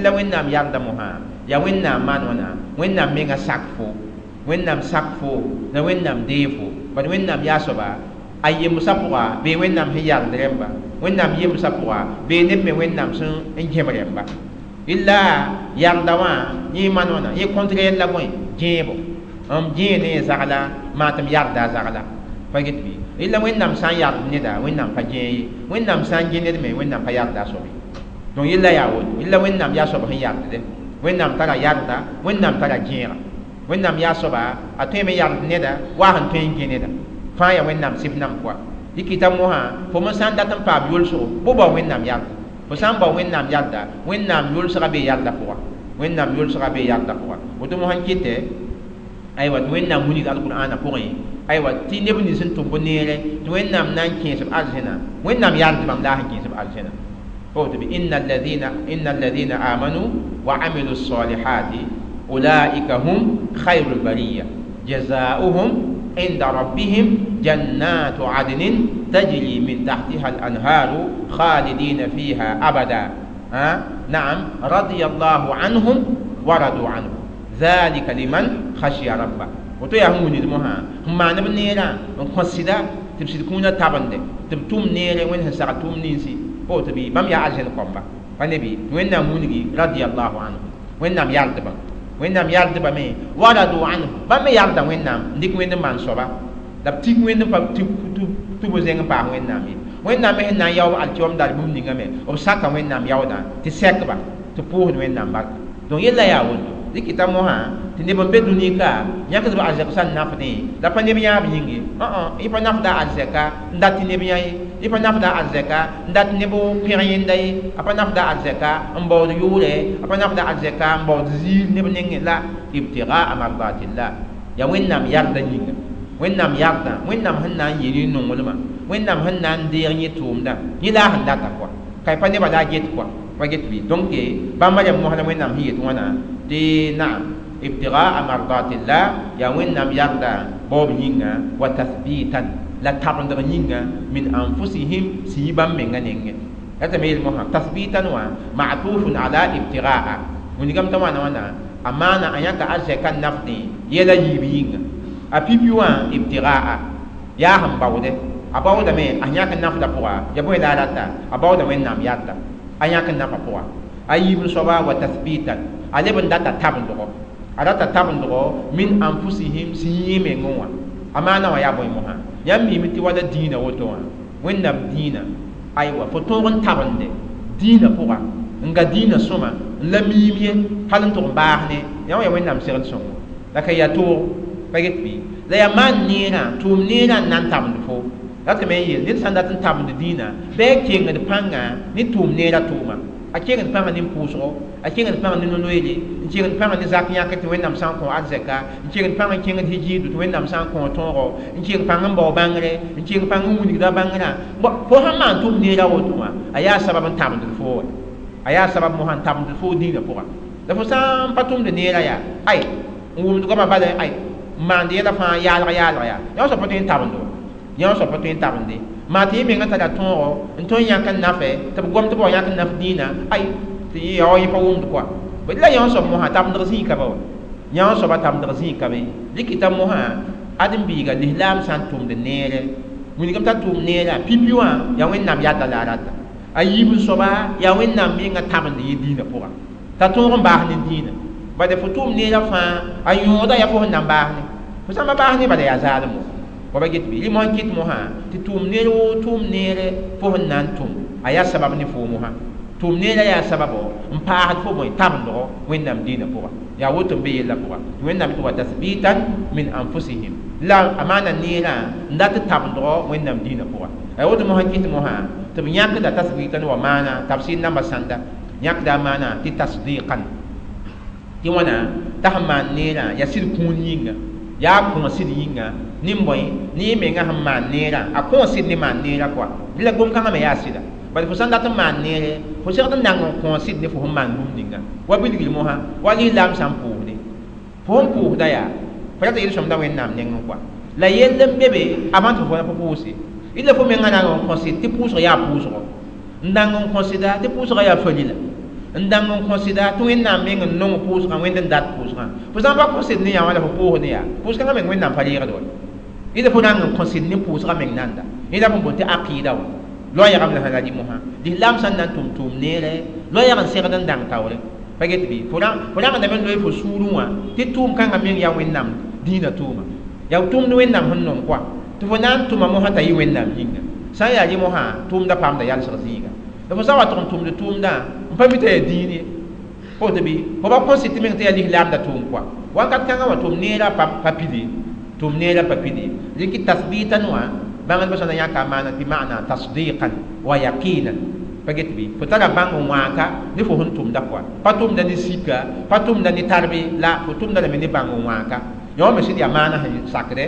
la wẽnnaam yarda mosã yaa wẽnnaam maan wãna wẽnnaam menga sak fo wẽnnaam sak fo la wẽnnaam dee fo bad wẽnnaam yaa soaba a yemsã pʋga bee wẽnnaam sẽn yard rẽmba wẽnnaam yemsã pʋga bee neb me wẽnnaam sẽn n gẽb rẽmba illa yarda wã yẽ maan wãna yẽ contraire la bõe gẽebo m gẽe ne zagla maa tɩ m yarda a zagla pa get bɩ illa wẽnnaam sã n yard neda wẽnnaam pa gẽe ye wẽnnaam sã n gẽ ned me wẽnnaam pa yarda a soab ye donc yella yaa woto illa wẽnnaam yaa soab sẽn yardde wẽnnaam tara yarda wẽnnaam tara gẽega wẽnnaam yaa soaba a tõeme yard neda wa sẽn tõe n gẽ neda fãa yaa wẽnnaam sɩf nam koa dɩkɩta mosã fo me sã n dat n paam yolsgo bʋ bao wẽnnaam yarda fo sã n bao wẽnnaam yarda wẽnnaam yolsga bee yarda pʋga wẽnnaam yolsga bee yarda pʋga woto mosã n kɩtɛ aywa tɩ wẽnnaam wilg alqur'ana pʋgẽ aywa tɩ neb nins sẽn tʋm bõ neere tɩ wẽnnaam na n kẽes b arzẽna wẽnnaam yard bãmb la a sẽn kẽes b arzẽna إن الذين آمنوا وعملوا الصالحات أولئك هم خير البرية جزاؤهم عند ربهم جنات عدن تجري من تحتها الأنهار خالدين فيها أبدا نعم رضي الله عنهم ورضوا عنه ذلك لمن خشي ربه وتو هم ندمها هم ما نبنيرا نقصدا تبسد كونا تابند تبتوم نيري وين ساعتوم نينسي woto bɩ bãmb yaa arzẽn kõmba pa ne bɩ wẽnnaam wilgi radiallahu anhu wẽnnaam yardbã wẽnnaam yardbame wa radu anhu bãmb me yarda wẽnnaam n dɩk wẽnd n maan soaba la b tik wẽnd n pa tɩ b zẽng n paas wẽnnaam ye wẽnnaam me sẽn na n yaoog alkiom dar bũmb ninga me b saka wẽnnaam yaoodã tɩ sɛkba tɩ pʋʋsd wẽnnaam barka donc yella yaa woto dɩkɩta mosã tɩ neb n be dũni ka yãkd b arzɛk sã n nafdẽ la pa neb yãab yĩng ye y pa nafda arzɛka n dat tɩ neb yã ye y pa nafda arzɛka n dat neb pẽg yẽnda ye a pa nafda arzɛka n baood yʋʋrɛ a pa nafda arzɛka n baood ziir neb nengẽ la ibtigaa mardatillah yaa wẽnnaam yarda yĩnga wẽnnaam yarda wẽnnaam sẽn na n yɩ ne nonglmã wẽnnaam sẽn na n deeg yẽ tʋʋmdã yẽ la a sẽn data kɔa ka y pa nebã la a get kɔa pa get bɩ donc bãmba rem mosã la wẽnnaam sẽn yet wãna tɩ naam ibtigaa mardatillah yaa wẽnnaam yarda baoob yĩnga wa tathbitan la tabendg yĩnga min anfusihim sẽn yi bãmb menga nengẽ la tɩ me yel mosã tathbitan wã ma'tufun ala ibtigaa wilgame t'a wãna wãna a maana a yãka arzɛka n nafdẽ yɛla yiib yĩnga a pipi wã ibtigaa yaa sẽn baoodɛ a baoodame a yãk n nafdã pʋga ya bõe la a rata a baooda wẽnnaam yarda a yãk n nafa pʋga a yiib n soaba wa tathbitan a leb n data tabendgo a rata tabendgo min anfusihim sẽn yẽ mengẽ wã a maana wã yaa bõe mosã yãmb miime tɩ wala dĩinã woto wã wẽnnaam dĩinã aywa fo tõog n tabende dĩinã pʋga n ga dĩinã sõma n la miim ye hal n tʋg n baas ne yã wã yaa wẽnnaam segd sõngo la ka yaa toog pa get bɩ la yaa maan neerã tʋʋm neerã n na n tabend fo la tɩ me n yeel ned sã n dat n tabend dĩinã bɩ a kengd pãnga ne tʋʋm neerã tʋʋma a kengd pãnga ne pʋʋsgo a kengd pãnga ne no-loeere n kengd pãnga ne zak yãk tɩ wẽnnaam sã n kõ arzɛka n kengd pãng n kẽngd hijiidu tɩ wẽnnaam sã n kõ tõogo n keng pãng n bao bãngre n keng pãng n wilgda bãngrã fo sãn maan tʋʋm neerã woto wã a yaa sabab n tabend fo wa a yaa sabab mosã n tabend fo dĩinã pʋga la fo sã n pa tʋmd neerã yaa ay n wʋmd goamã bala ay maand yɛla fãa yaalg yaalg yaa yã soab pa tõe n tabendo yã soab pa tõe n tabende maa tɩ yẽ menga tara tõogo n tõe n yãk n nafɛ tɩ b gom tɩ b wa yãk n naf dĩinã ay tɩ yã wa yẽ pa wʋmd kɔa la yã soab mosã tabendg zĩig ka ba wa yã soaba tabendg zĩig ka be dɩkɩta mosã ãdem-biiga lislaam sã n tʋmd neere wilgame t'a tʋʋm neerã pipi wã yaa Wẽnnaam yadda la a rata a yiib n soaba yaa Wẽnnaam menga tabend yẽ dĩinã pʋga t'a tõog n baas ne dĩinã bala fo tʋʋm neerã fãa a yõoda yaa fo sẽn na n baas ne fo sã n pa baas ne bala yaa zaalem wa ba get bɩ rɩ mosã kɩt mosã tɩ tʋʋm neer woo tʋʋm neere fo sẽn na n tʋm a yaa sabab ne foo mosã tʋʋm neerã yaa sababo n paasd fo bõe tabendgo Wẽnnaam dĩinã pʋga yaa woto n be yellã pʋga tɩ Wẽnnaam tɩ wa tasbitan min anfusihim la a maana neerã n dat tabendgo Wẽnnaam dĩinã pʋga a woto mosã kɩt mosã tɩ b yãkda tasbitan wa maana tafsir namba sãnda yãkda a maana tɩ tasdiqan tɩ wãna t'a sẽn maan neerã yaa sɩd kũun yĩnga yaa kõ sɩd yĩnga ne bõe ne yẽ menga sẽn maan neerã a kõ sɩd ne maan neerã kɔa bɩ la gom-kãngã me yaa sɩda bala fo sã n dat n maan neere fo segd n nang n kõ sɩd ne fo sẽn maan bũmb ninga wa bilgr mosã wa lislaam sã n pʋʋsde fo sẽn pʋʋsda yaa fo rat yel-sõmda Wẽnnaam nengẽ kɔa la yell n be be avant tɩ fo fo pʋʋse illa fo menga nang n kõ sɩd tɩ pʋʋsg yaa pʋʋsgo n dang n kõ sɩda tɩ pʋʋsgã yaa falila n dang n kõ sɩda tɩ Wẽnnaam meng n nong pʋʋsgã Wẽnd n dat pʋʋsgã fo sã n pa kõ sɩd ne yã wã la fo pʋʋsd ne yaa pʋʋs-kãngã meng Wẽnnaam pa reegd wa illa fo rang n kõ sɩd ne pʋʋsgã meng nanda yẽ la b n boond tɩ aqɩɩda wã loɛɛgame la sã la rɩ mosã lislaam sã n na n tʋm tʋʋm neere loɛɛg n segd n dãng taoore pa get bɩ fo rãngdame n loe fo sũurẽ wã tɩ tʋʋm kãngã meng yaa Wẽnnaam dĩinã tʋʋma yaa tʋʋmd Wẽnnaam sẽn nong kɔa tɩ fo na n tʋma mosã t'a yɩ Wẽnnaam yĩnga sã n yaa rɩ mosã tʋʋmda paamda yalsg zĩiga la fo sã n wa tʋg n tʋmd tʋʋmdã n pa mi t'a yaa dĩin ye fo tɩ bɩ fo pa kõ sɩd tɩ meng tɩ yaa lislaamda tʋʋm kɔa wakat kãngã wã tʋʋm neerã pa pide tʋʋm neerã pa pide rɩkɩ tasbitan wã bãngdbã sã na yãka a maana tɩ maana tasdiqan wa yaqinan pa get bɩ fo tara bãng n wãaka ne fo sẽn tʋmda kɔa pa tʋmda ne sika pa tʋmda ne tarbe la fo tʋmda lame ne bãng n wãaka yã wã me sɩd yaa maana sẽn sakdɛ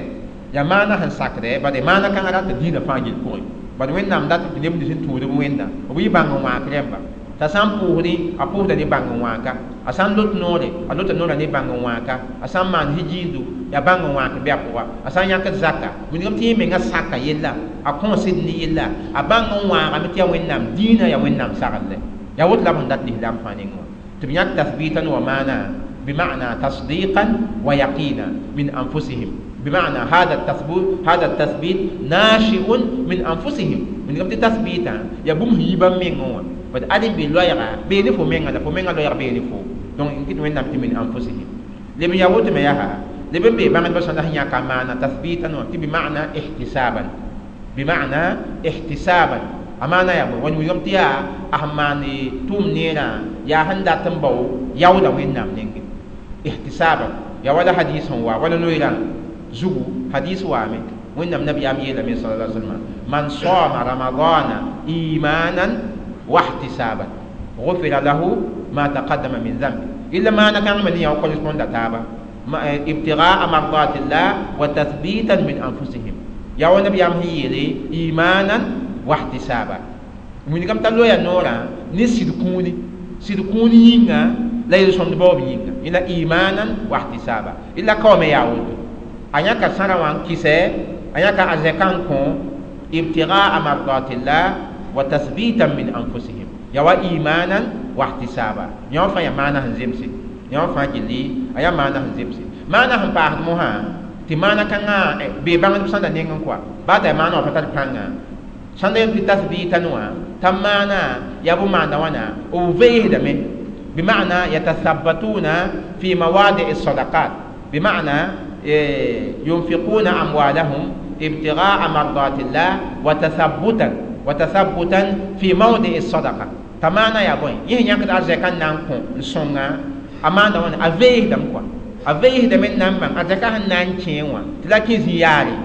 yaa maana sẽn sakdɛ bad maana kãngã rat dĩinã fãa yel pʋgẽ bad Wẽnnaam dat tɩ neb nins n tũud b Wẽnna b yɩ bãng n wãak rẽmba t'a sã n pʋʋsdẽ a pʋʋsda ne bãng n wãaka a sã n lot noore a lota noorã ne bãng n wãaka a sã n maan hijiindo yaa bãng n wãak bɩ a pʋga a sã n yãkd zaka wilgame tɩ yẽ menga saka yella a kõ sɩd ne yella a bãng n wãagame tɩ yaa Wẽnnaam dĩinã yaa Wẽnnaam saglɛ yaa woto la b sẽn dat lislaam fãa nengẽ wã tɩ b yãk tasbitan wa maana bima'na tasdiqan wa yaqina min anfusihim بمعنى هذا التثبيت ناشئ من أنفسهم من قبل تثبيتا يا بوم هيبا مينغوا بس أدم بلويرا بيني فو مينغا فو مينغا لويرا بيني فو donc إن وين نبت من أنفسهم لمن يقول ما يها لمن بي بعد بس أنا هي كمان تثبيتا بمعنى احتسابا بمعنى احتسابا أمانة يا بو وين يوم تيا أهماني توم نيرا يا هندا تنبو يودا وين نام نينغ احتسابا يا ولا حديث هو ولا نويران زغو حديث وامي وين النبي أم يلا صلى الله عليه وسلم من صام رمضان إيمانا واحتسابا غفر له ما تقدم من ذنبه إلا ما أنا كان من يقول يكون تابا ابتغاء مرضات الله وتثبيتا من أنفسهم يا النبي أم يلي إيمانا واحتسابا من كم تلو يا نورا نسيدكوني سيدكوني ينغا لا يسون بوب ينغا إلا إيمانا واحتسابا إلا قوم يعود a yãka sãra wã n kɩsɛ a yãka a zɛkã n kõ ibtigaa mardatillah wa tasbitan min anfusihim ya wa imanan wa ihtisaba yã wã fãa yaa maana sẽn zemse yã wã fãa gilli a yaa maana sẽn zemse maana sẽn paasd mosã tɩ maana kãngã bee bãngdb sãnda nengẽ kɔa baa t'a maana wã pa tar pãnga sãnda yem tɩ tasbitan wã t'a maana yaa bʋ maanda wãna b veesdame bima'na yatathabbatuna fi mawadi'i sadaqat bima'na ينفقون أموالهم ابتغاء مرضات الله وتثبتا في موضع الصدقة تمانا يا بوي يه يانك أرزكان نانكو نسونغا أمانا وانا أفيه دم كوا أفيه دم نام أرزكان نانكين وا تلاكي زياري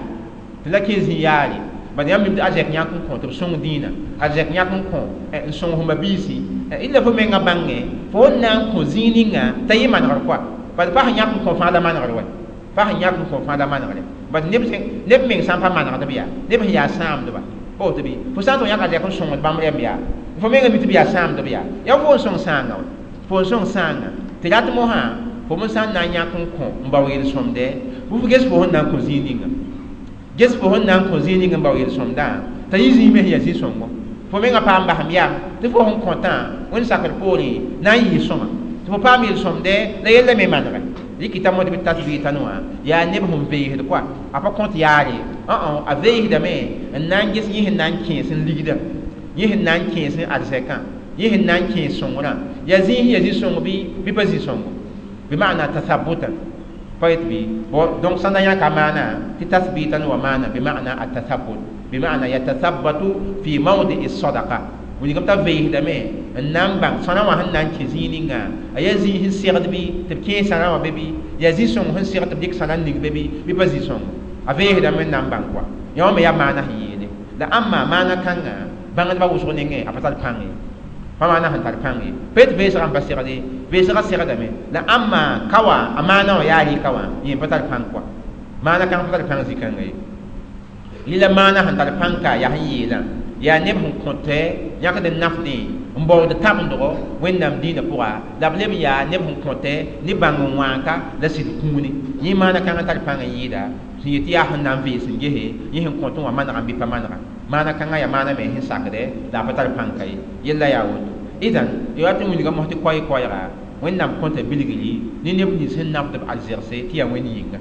تلاكي زياري بعد يوم يبدأ أرزك يانكو كون تبسون دينا أرزك يانكو كون نسون هم بيسي إلا فمن بانغي فون نانكو زينينغا تيمان غرقوا بعد فهم يانكو كون فادا مان غرقوا pa sẽn yãk n kõ fãa la manegre bad neb meng sã n pa manegdb yaa neb sẽn yaa sãamdba pa woto bɩ fo sã n tʋg yãk a zɛk n sõngd bãmb rẽmb yaa fo menga mi tɩ b yaa sãamdb yaa yaa fo n sõng sãanga wa fo n sõng sãanga tɩ rat mosã fo me sã n na n yãk n kõ n bao yel-sõmdɛ Bɩ ges fo sẽn na n kõ zĩig ninga, ges fo sẽn na n kõ zĩig ning n bao yel-sõmdã t'a yɩ zĩig me sẽn yaa zĩ-sõngo. Fo menga paam basem yam tɩ fo sẽn kõtã wẽnd sakr poorẽ na n yɩɩ sõma tɩ fo paam yel-sõmdɛ la yella me manegɛ. Rɩkɩta mo tɩ bɩ tasbitan wã yaa neb sẽn veesd kɔa, a pa kõt yaare, a veesdame n na n ges yẽ sẽn na n kẽes n ligda, yẽ sẽn na n kẽes n arzɛkã, yẽ sẽn na n kẽes sõngrã, yaa zĩig sẽn yaa zĩ-sõng bɩ pa zĩ-sõngo, bɩ maana tathabutan pa yet bɩ. Donc sã n da yãka maana tɩ tasbitan wa maana bɩ maana atathabut, bɩ maana yatathabbatu fi mawdi'i sadaqa. Wilgame t'a veesdame n na n bãng sõna wã sẽn na n kẽ zĩig ninga, a yaa zĩig sẽn segd bɩ tɩ b kẽes sãna wã be bɩ, yaa zĩ-sõng sẽn segd tɩ b dɩk sãna n ning be bɩ pa zĩ-sõngo, a veesdame n na n bãng kɔa. Yã wã me yaa maana sẽn yeele la ãmba maana kãnga bãngdbã wʋsg nengẽ a pa tar pãng ye, pa maana sẽn tar pãng ye, pa yet veesgã n pa segde, veesgã segdame la ãmba ka wã a maana wã yaa rɩka wã yẽ pa tar pãng kɔa, maana kãng pa tar pãng zĩ-kãnga ye. Rɩla maana sẽn tar pãng ka yaa sẽn yeelã yaa neb sẽn kõtɛ yãkd n nafdẽ n baood tabendgo Wẽnnaam dĩinã pʋga, la b leb n yaa neb sẽn kõtɛ ne bãng n wãaka la sɩd kũuni. Yẽ maana kãngã tar pãng n yɩɩda sẽn yet tɩ yaa sẽn na n vees n gese yẽ sẽn kõt wã manegã bɩ pa manega. Maana kãngã yaa maana me sẽn sakdɛ la a pa tar pãng ka ye. Yella yaa woto. Idan ya tɩ wilga mos tɩ koɛɛ-koɛɛga Wẽnnaam kõta bilgri ne neb nins sẽn nafd b arzegse tɩ yaa Wẽnd yĩnga,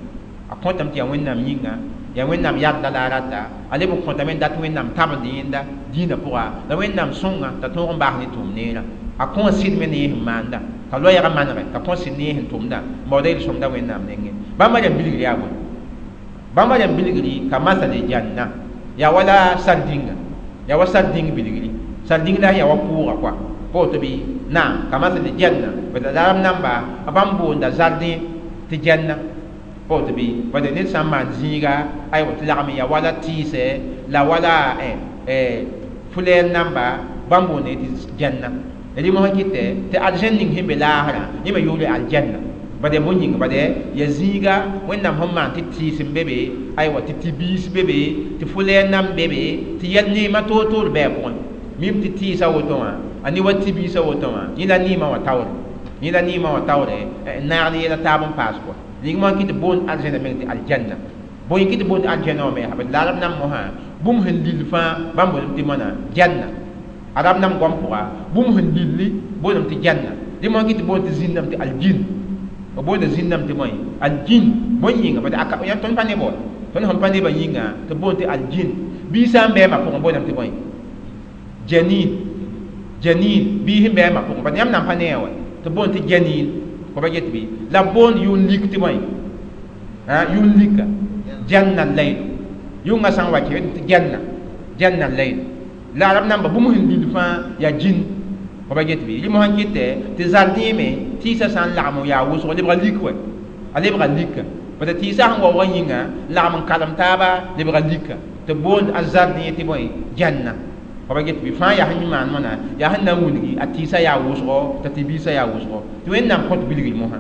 a kõtame tɩ yaa Wẽnnaam yĩnga, yaa Wẽnnaam yadda la a rata, a leb n kõtame n dat Wẽnnaam tabend yẽnda dĩinã pʋga la Wẽnnaam sõnga t'a tõog n baas ne tʋʋm neerã. A kõ sɩd me ne yẽ sẽn maanda, t'a loɛɛgã manegɛ, t'a kõ sɩd ne yẽ sẽn tʋmda n baooda yel-sõmda Wẽnnaam nengẽ. Bãmba rẽmb bilgri yaa bõe? Bãmba rẽmb bilgri ka masale janna, yaa wala sardĩnga, yaa wa sardĩng bilgri, sardĩng la yaa wa pʋʋga kɔa pa woto bɩ naam ka masale janna. Bad la arab namba a bãmb boonda zardẽ tɩ janna pa woto bɩ, bad ned sã n maan zĩiga aywa tɩ lagm n yaa wala tɩɩsɛ la wala fulɛɛr namba bãmb boonda tɩ janna. Rɩ mosã kɩtɛ tɩ arzẽn ning sẽn be laasrã yẽ me yʋʋre aljanna. Bad yaa bõe yĩnga? Bad yaa zĩiga Wẽnnaam sẽn maan tɩ tɩɩs n be be, aywa tɩ tɩ-biis be be, tɩ fulɛɛr nam be be, tɩ yɛl neemã toor-toor bɩ a pʋgẽ. Mim tɩ tɩɩsã woto wã a ne wa tɩ-biisã woto wã yẽ la neemã wã taoore, yẽ la neemã wã taoore n naag ne yɛla taab n paas kɔa. Ning mosã kɩ tɩ boond arzẽna meng tɩ aljanna. Bõe kɩ tɩ boond aljanna wã me yaa? Bad la arab nam mosã bũmb sẽn lill fãa bãmb boondame tɩ moana janna. Arab nam goam pʋga bũmb sẽn lilli boondame tɩ janna. Dẽ mosã kɩ tɩ boond tɩ zĩnname tɩ aljin, b boonda zĩnname tɩ bõe aljin. Bõe yĩnga? Bad yãmb tõnd pa nebã wa, tõnd sẽn pa nebã yĩnga tɩ boond tɩ aljin. Bii sã n bɩ a ma pʋgẽ boondame tɩ bõe janin, janin bii sẽn bɩ a ma pʋgẽ, bad yãmb nan pa ne a wa tɩ boond tɩ janin pa ba get bɩ. La b boond yʋn lik tɩ bõe yʋn lika janna layl, yʋngã sã n wa kẽ tɩ janna, janna layl. La arab namba bũmb sẽn lill fãa yaa jin pa ba get bɩ. Rɩ mosã kɩtɛ tɩ zardẽ me tɩɩsã sã n lagm n yaa wʋsgo lebga lik wɛ, a lebga lika, bad tɩɩsã sẽn waoogã yĩnga lagm n kalem taaba lebga lika tɩ boond a zardẽ tɩ bõe janna pa ba get bɩ. Fãa yaa sẽn maan moana yaa sẽn na n wilgi a tɩɩsã yaa wʋsgo t'a tɩ-biisã yaa wʋsgo. Tɩ Wẽnnaam kõt bilgri mosã,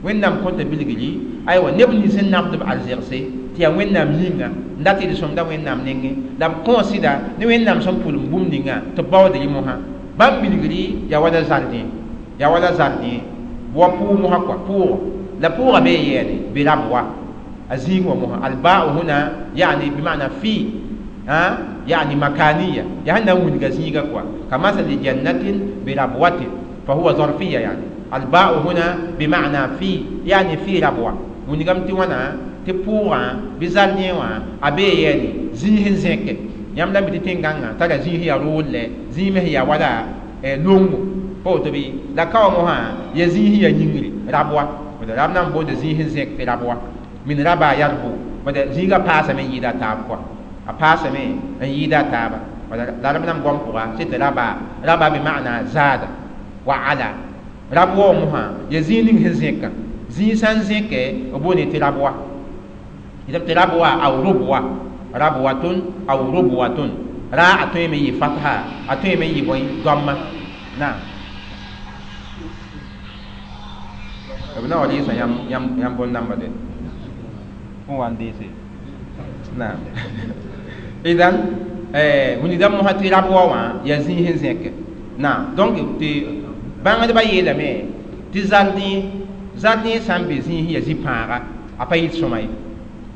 Wẽnnaam kõta bilgri aywa neb nins sẽn nafd b arzegse tɩ yaa Wẽnnaam yĩnga n dat yel-sõmda Wẽnnaam nengẽ la b kõ sɩda ne Wẽnnaam sẽn pʋlem bũmb ninga tɩ b baood rɩ mosã. Bãmb bilgri yaa wala zardẽ, yaa wala zardẽ wa pʋʋg mosã kɔa, pʋʋgɔ la pʋʋgã bee yɛɛne bɩ rab wa a zĩig wã mosã. Albaau huna yaani bimana fi yaani makaniya, yaa sẽn na n wilga zĩiga kɔa ka masali jannatin birabwatin fa huwa zarfiya, yani albaau huna bimana fi yaani fi rabwa. Wilgame tɩ wãna tɩ pʋʋgã bɩ zardẽ wã a bee yɛɛne zĩig sẽn zẽke. Yãmb la mi tɩ tẽn-gãngã tara zĩig sẽn yaa rool-lɛ, zĩig me sẽn yaa wala longo pa woto bɩ. La ka wã mosã yaa zĩig sẽn yaa yĩngri rabwa, bad rab na n boonda zĩig sẽn zẽk tɩ rabwa min raba yarbu, bad zĩigã paasame n yɩɩda a taab kɔa, a paasame n yɩɩda a taaba. Bad la rab na n goam pʋga sɩ tɩ raba, raba bɩ maana zaada wa ala. Rabwa wã mosã yaa zĩig ning sẽn zẽkã, zĩig sã n zẽkɛ b boonde tɩ rabwa, tɩ rabwa aw rubwa, rabwatun aw rubwatun. Ra a tõe me yɩ fatha, a tõe me yɩ bõe dõamma naam. B na wa rɩɩsã yãmb bõn-dãmba de fõn wa n deese naam. Idan wilgdame mosã tɩ rabwa wã yaa zĩig sẽn zẽke naam. Donc tɩ bãngdbã yeelame tɩ zardẽ, zardẽ sã n be zĩig sẽn yaa zĩ-pãaga a pa yɩl sõma ye.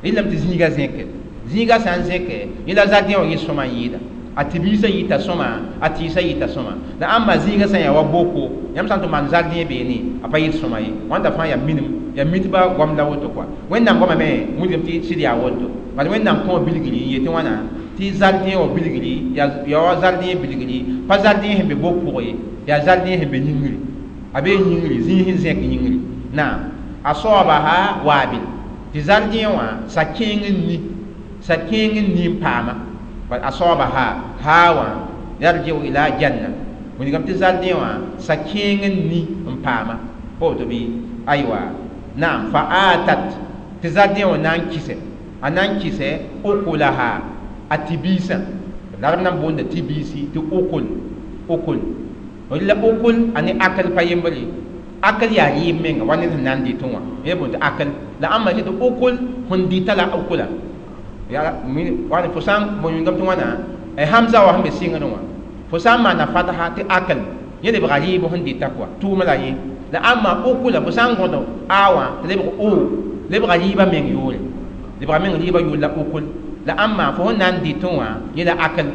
Rẽndame tɩ zĩiga zẽke, zĩiga sã n zẽke, yẽ la zardẽ wã yɩ sõma n yɩɩda. A tɩ-biisã yɩta sõma, a tɩɩsã yɩta sõma. La ãmba zĩiga sã n yaa wa boko, yãmb sã n tɩ maan zardẽ beene, a pa yɩt sõma ye. Wãnda fãa yaa minim, yaa mitba goam la woto kɔa. Wẽnnaam goama me wilgame tɩ sɩd yaa woto. Bala Wẽnnaam kõ bilgri n yetɩ wãna tɩ zardẽ wã bilgri yaa wa zardẽ bilgri, pa zardẽ sẽn be bok pʋgẽ ye, yaa zardẽ sẽn be yĩngri. A bee yĩngri, zĩig sẽn zẽk yĩngri. Naam, a soabaha waabil tɩ zardẽ wã sa-kẽeng n ni, sa-kẽeng n ni n paama. Bal asabaha hawa yarji'u ila janna, wilgame tɩ zardẽ wã sa-kẽeng n ni n paama. Pa woto bɩ? Aywa, naam, fa atat tɩ zardẽ wã na n kɩsɛ, a na n kɩsɛ ukulaha, a tɩ-biisã. La rab na n boonda tɩ-biisi tɩ ukul, ukul. La ukul a ne akl pa yembre. Akl yaa rɩɩb menga wa ned sẽn na n dɩtẽ wã, yẽ boond tɩ akl. La ãmba tɩ ukul sẽn dɩta la ukula. Yaa wãn fo sã n wilgame tɩ wãna hamza wã sẽn be sɩngrẽ wã, fo sã n maana fatha tɩ akl, yẽ lebga rɩɩb sẽn dɩta kɔa, tʋʋmã la yẽ. La ãmba ukula fo sã n gõd a wã tɩ lebg o, lebga rɩɩbã meng yoore, lebga meng rɩɩbã yoor la ukul. La ãmba fo sẽn na n dɩtẽ wã yẽ la akl.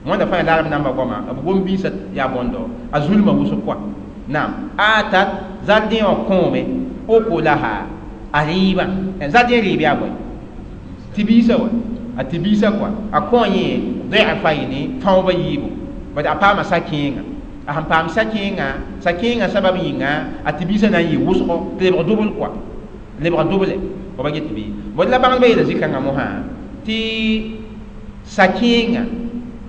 Wãnda fãa yaa la rab namba goama, b gom-biisã yaa bõndo, a zulmã wʋsg kɔa. Naam, atat zardẽ wã kõome ukulaha, a rɩɩbã. Zardẽ rɩɩb yaa bõe? Tɩ-biisã wa, a tɩ-biisã kɔa. A kõ yẽ dɩfayni, fãoobã yiibu. Bad a paama sa-kẽenga. A sẽn paam sa-kẽenga, sa-kẽengã sabab yĩnga, a tɩ-biisã na n yɩ wʋsgo tɩ lebg dʋbl kɔa, lebg dʋble. Fo ba get bɩ? Bõe la bãngdbã yeela zĩ-kãngã mosã tɩ sa-kẽenga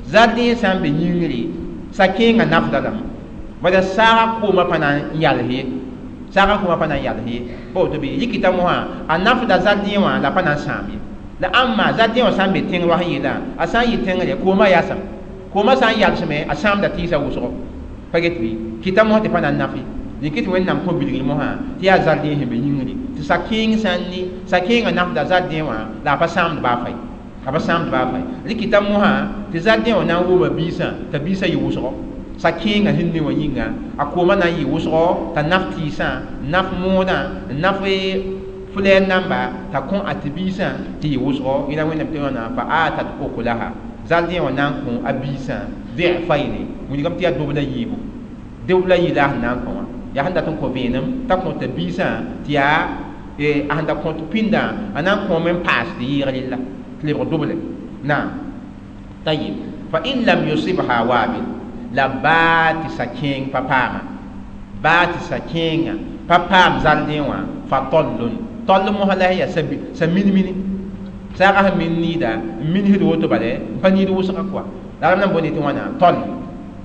zardẽ sã n be yĩngri, sa-kẽengã nafda lame. Bala saaga koomã pa na n yals ye, saaga koomã pa na n yals ye. Pa woto bɩ? Yikita mosã a nafda zardẽ wã la pa na n sãam ye. La ãmba zardẽ wã sã n be tẽng roas n yeelã, a sã n yɩ tẽngre koomã yasem, koomã sã n yalsme, a sãamda tɩɩsã wʋsgo. Pa get bɩ? Kɩta mosã tɩ pa na n naf ye. Dẽk tɩ Wẽnnaam kõ bilgr mosã tɩ yaa zardẽ sẽn be yĩngri, tɩ sa-kẽeng sã n ni, sa-kẽengã nafda zardẽ wã la a pa sãamd baa fay, a pa sãamd baa fay. Rɩkɩta mosã tɩ zardẽ wã na n wʋma biisã t'a biisã yɩ wʋsgo. Sa-kẽengã sẽn ni wã yĩnga, a koomã na n yɩ wʋsgo t'a naf tɩɩsã, naf moodã, naf flɛɛr namba, t'a kõ a tɩ-biisã tɩ yɩ wʋsgo. Yẽla Wẽnnaam tɩ wãna fa atat ukulaha, zardẽ wã na n kõ a biisã dɩfayne, wilgame tɩ yaa dobla yiibu, dobla yɩ la a sẽn na n kõ wã. Yaa sẽn dat n kõ vẽenem t'a kõ t'a biisã tɩ yaa a sẽn da kõt pĩndã, a na n kõome n paas tɩ yɩɩg rella tɩ lebg doble. Naam, tayib, fa in lam yusibha waabil, la baa tɩ sa-kẽeng pa paama, baa tɩ sa-kẽengã pa paam zardẽ wã, fa tallun, tall mosã la yaa sa min-mini, saagã sẽn min niida n minsd woto bala n pa niid wʋsga kɔa. La rab na n boonde tɩ wãna tall.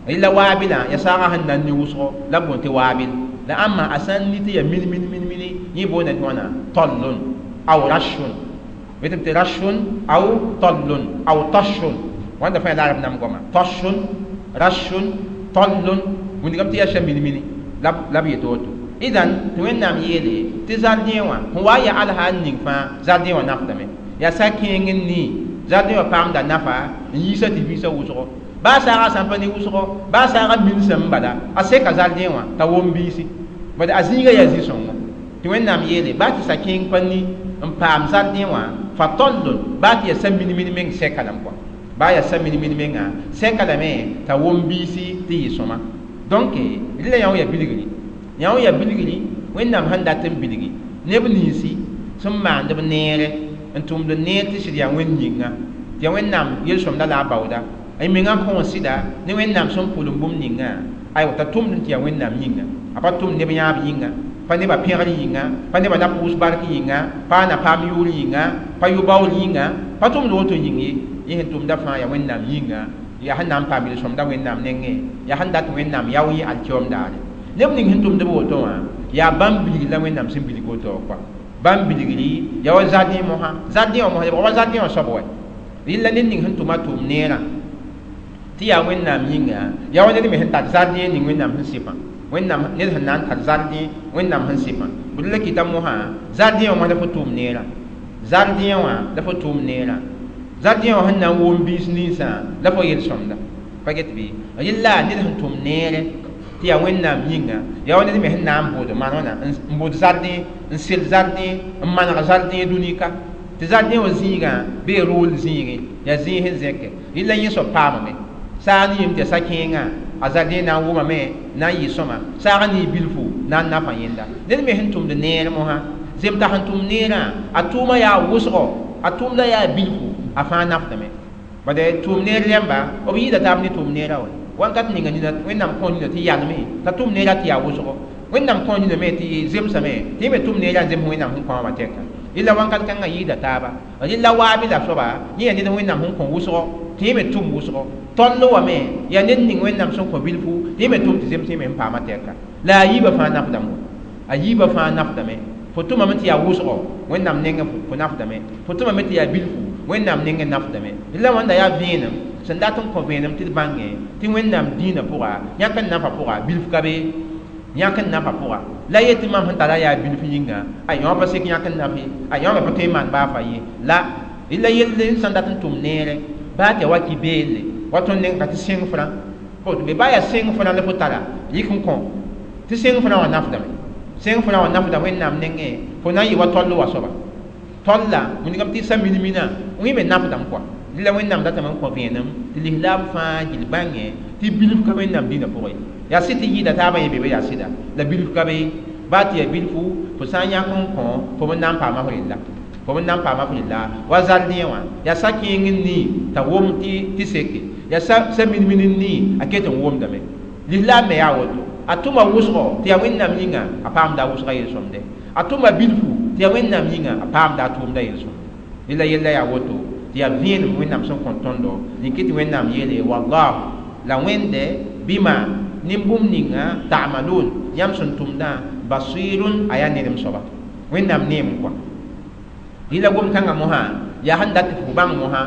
Rɩla waabilã yaa saagã sẽn na n ni wʋsgo la b boond tɩ waabil. La ãmba a sã n ni tɩ yaa min-min min-mini, yẽ boonda tɩ wãna tallun aw rashun, yetame tɩ rashun aw tallun aw tashun. Wãnda fãa yaa la rab nam goama, tashun, rashun, tallun, wilgame tɩ yaa sã min-mini la b yet woto. Idan tɩ Wẽnnaam yeele tɩ zardẽ wã sẽn wa n yaa alsa n ning fãa, zardẽ wã nafdame. Yaa sa-kẽeng n ni, zardẽ wã paamda nafa n yiisa tɩ-biisã wʋsgo. Baa saagã sã n pa ne wʋsgo, baa saagã minsame bala, a seka zardẽ wã t'a wom biisi. Bad a zĩigã yaa zĩ-sõngo. Tɩ Wẽnnaam yeele baa tɩ sa-kẽeng pa ni n paam zardẽ wã, fa tallun, baa tɩ yaa sa min-min meng sɛka lame kɔa, baa yaa sa min-min mengã sɛka lame t'a wom biisi tɩ yɩ sõma. Donc rɩla yã wã yaa bilgri, yã wã yaa bilgri Wẽnnaam sẽn dat n bilgi neb ninsi sẽn maand b neere n tʋmd neer tɩ sɩd yaa Wẽnd yĩnga, tɩ yaa Wẽnnaam yel-sõmda la a baooda. A mengã kõ sɩda ne Wẽnnaam sẽn pʋlem bũmb ninga, aywa t'a tʋmd tɩ yaa Wẽnnaam yĩnga. A pa tʋmd neb yãab yĩnga, pa nebã pẽgr yĩnga, pa nebã na pʋʋs bark yĩnga, pa a na paam yʋʋr yĩnga, pa yʋ-baool yĩnga, pa tʋmd woto yĩng ye. Yẽ sẽn tʋmda fãa yaa Wẽnnaam yĩnga, yaa sẽn na n paam yel-sõmda Wẽnnaam nengẽ, yaa sẽn dat Wẽnnaam yao yẽ alkiom daare. Neb ning sẽn tʋmd b woto wã yaa bãmb bilgr la Wẽnnaam sẽn bilg woto kɔa. Bãmb bilgri yaa wa zardẽ mosã, zardẽ wã mosã lebg wa zardẽ wã soab wa. Rɩla ned ning sẽn tʋma tʋʋm neerã tɩ yaa Wẽnnaam yĩnga, yaa wa ned me sẽn tar zardẽ ning Wẽnnaam sẽn sɩpã. Wẽnnaam ned sẽn na n tar zardẽ Wẽnnaam sẽn sɩpã. Bd la kɩta mosã zardẽ wã mosã la fo tʋʋm neerã, zardẽ wã la fo tʋʋm neerã, zardẽ wã sẽn na n wʋm biis ninsã la fo yel-sõmda. Pa get bɩ? Rɩla ned sẽn tʋm neere tɩ yaa Wẽnnaam yĩnga, yaa wa ned me sẽn na n bʋʋd maan wãna, n bʋʋd zardẽ, n sel zardẽ, n maneg zardẽ dũni ka Tɩ zardẽ wã zĩigã bee rool zĩigẽ yaa zĩig sẽn zẽke rɩla yẽ soab paamame saag ne yem tɩ yaa sa-kẽengã a zardẽ na n wʋmame na n yɩ sõma saag n ne bilfu na n nafa yẽnda ned me sẽn tʋmd neer mosã zem t'a sẽn tʋm neerã a tʋʋma yaa wʋsgo a tʋʋmda yaa bilfu a fãa nafdame bade tʋʋm neer rẽmba b yɩɩda taab ne tʋʋm neerã wa wãnkat ninga nina wẽnnaam kõ nina tɩ yalme t'a tʋm neerã tɩ yaa wʋsgo wẽnnaam kõ nina me tɩ zemsame tɩ yẽ me tʋm neerã n zems wẽnnaam sẽn kõ wã tɛka rɩla wãnkat kãngã yɩɩda taaba rɩla waabe la soaba yẽ yaa ned wẽnnaam sẽn kõ wʋsgo tɩ yẽ me tʋm wʋsgo toll wame yaa ned ning wẽnnaam sẽn kõ bilfu tɩ yẽ me tʋm tɩ zems yẽ me sẽn paama tɛka la a yiibã fãa nafdame a yiibã fãa nafdame fo tʋmame tɩ yaa wʋsgo wẽnnaam nengẽ fo nafdame fo tʋmame tɩ yaa bilfu wẽnnaam nengẽ nafdame rɩla wãnda yaa vẽenem sẽn dat n kõ vẽenem tɩ d bãngẽ tɩ wẽnnaam dĩinã pʋga yãk n nafa pʋga bilf ka be yãk n nafa pʋga la yetɩ mam sẽn tara yaa bilf yĩnga a yõ pa sek yãk n naf ye a yõ me pa tõe n maan baa fa ye la rɩla yell sẽn dat n tʋm neere baa tɩ ya wa kɩ beelle wa tõnd neng ka tɩ sẽng frã be baa yaa sẽng frã la fo tara yik n kõ tɩ sẽng frã wã nafdame sẽng frã wã nafda wẽnnaam nengẽ fo na n yɩ wa toll wa soaba tolla wilgame tɩ sa min-mina wẽ me nafdame kɔa rɩla wẽnnaam datame n kõ vẽenem tɩ lislaam fãa gill bãngẽ tɩ bilf ka wẽnnaam dĩinã pʋgẽ yaa sɩd tɩ yɩɩda taabã yẽ be yaa sɩda la bilf ka be baa tɩ yaa bilfu fo sã n yãk n kõ fo b na n paama f rella fo b na n paama f rella wa zardẽ wã yaa sa-kẽeng n nii t'a wʋm tɩ seke yaa sa min-min n nii a ket n wʋmdame lislaam me yaa woto a tʋma wʋsgo tɩ yaa wẽnnaam yĩnga a paamda a wʋsga yel-sõmde a tʋma bilfu tɩ yaa wẽnnaam yĩnga a paamda a tʋʋmda yel-sõmde rela yella yaa woto tɩ yaa vẽenem wẽnnaam sẽn kõ tõndo rĩkɩ tɩ wẽnnaam yeele wallahu la wẽnde bɩma nin-bũmb ninga ta'malun yãmb sẽn tʋmdã basirun a yaa nedem soaba wẽnnaam neem kɔa rɩla gom-kãngã mosã yaa sẽn dat tɩ fo bãng mosã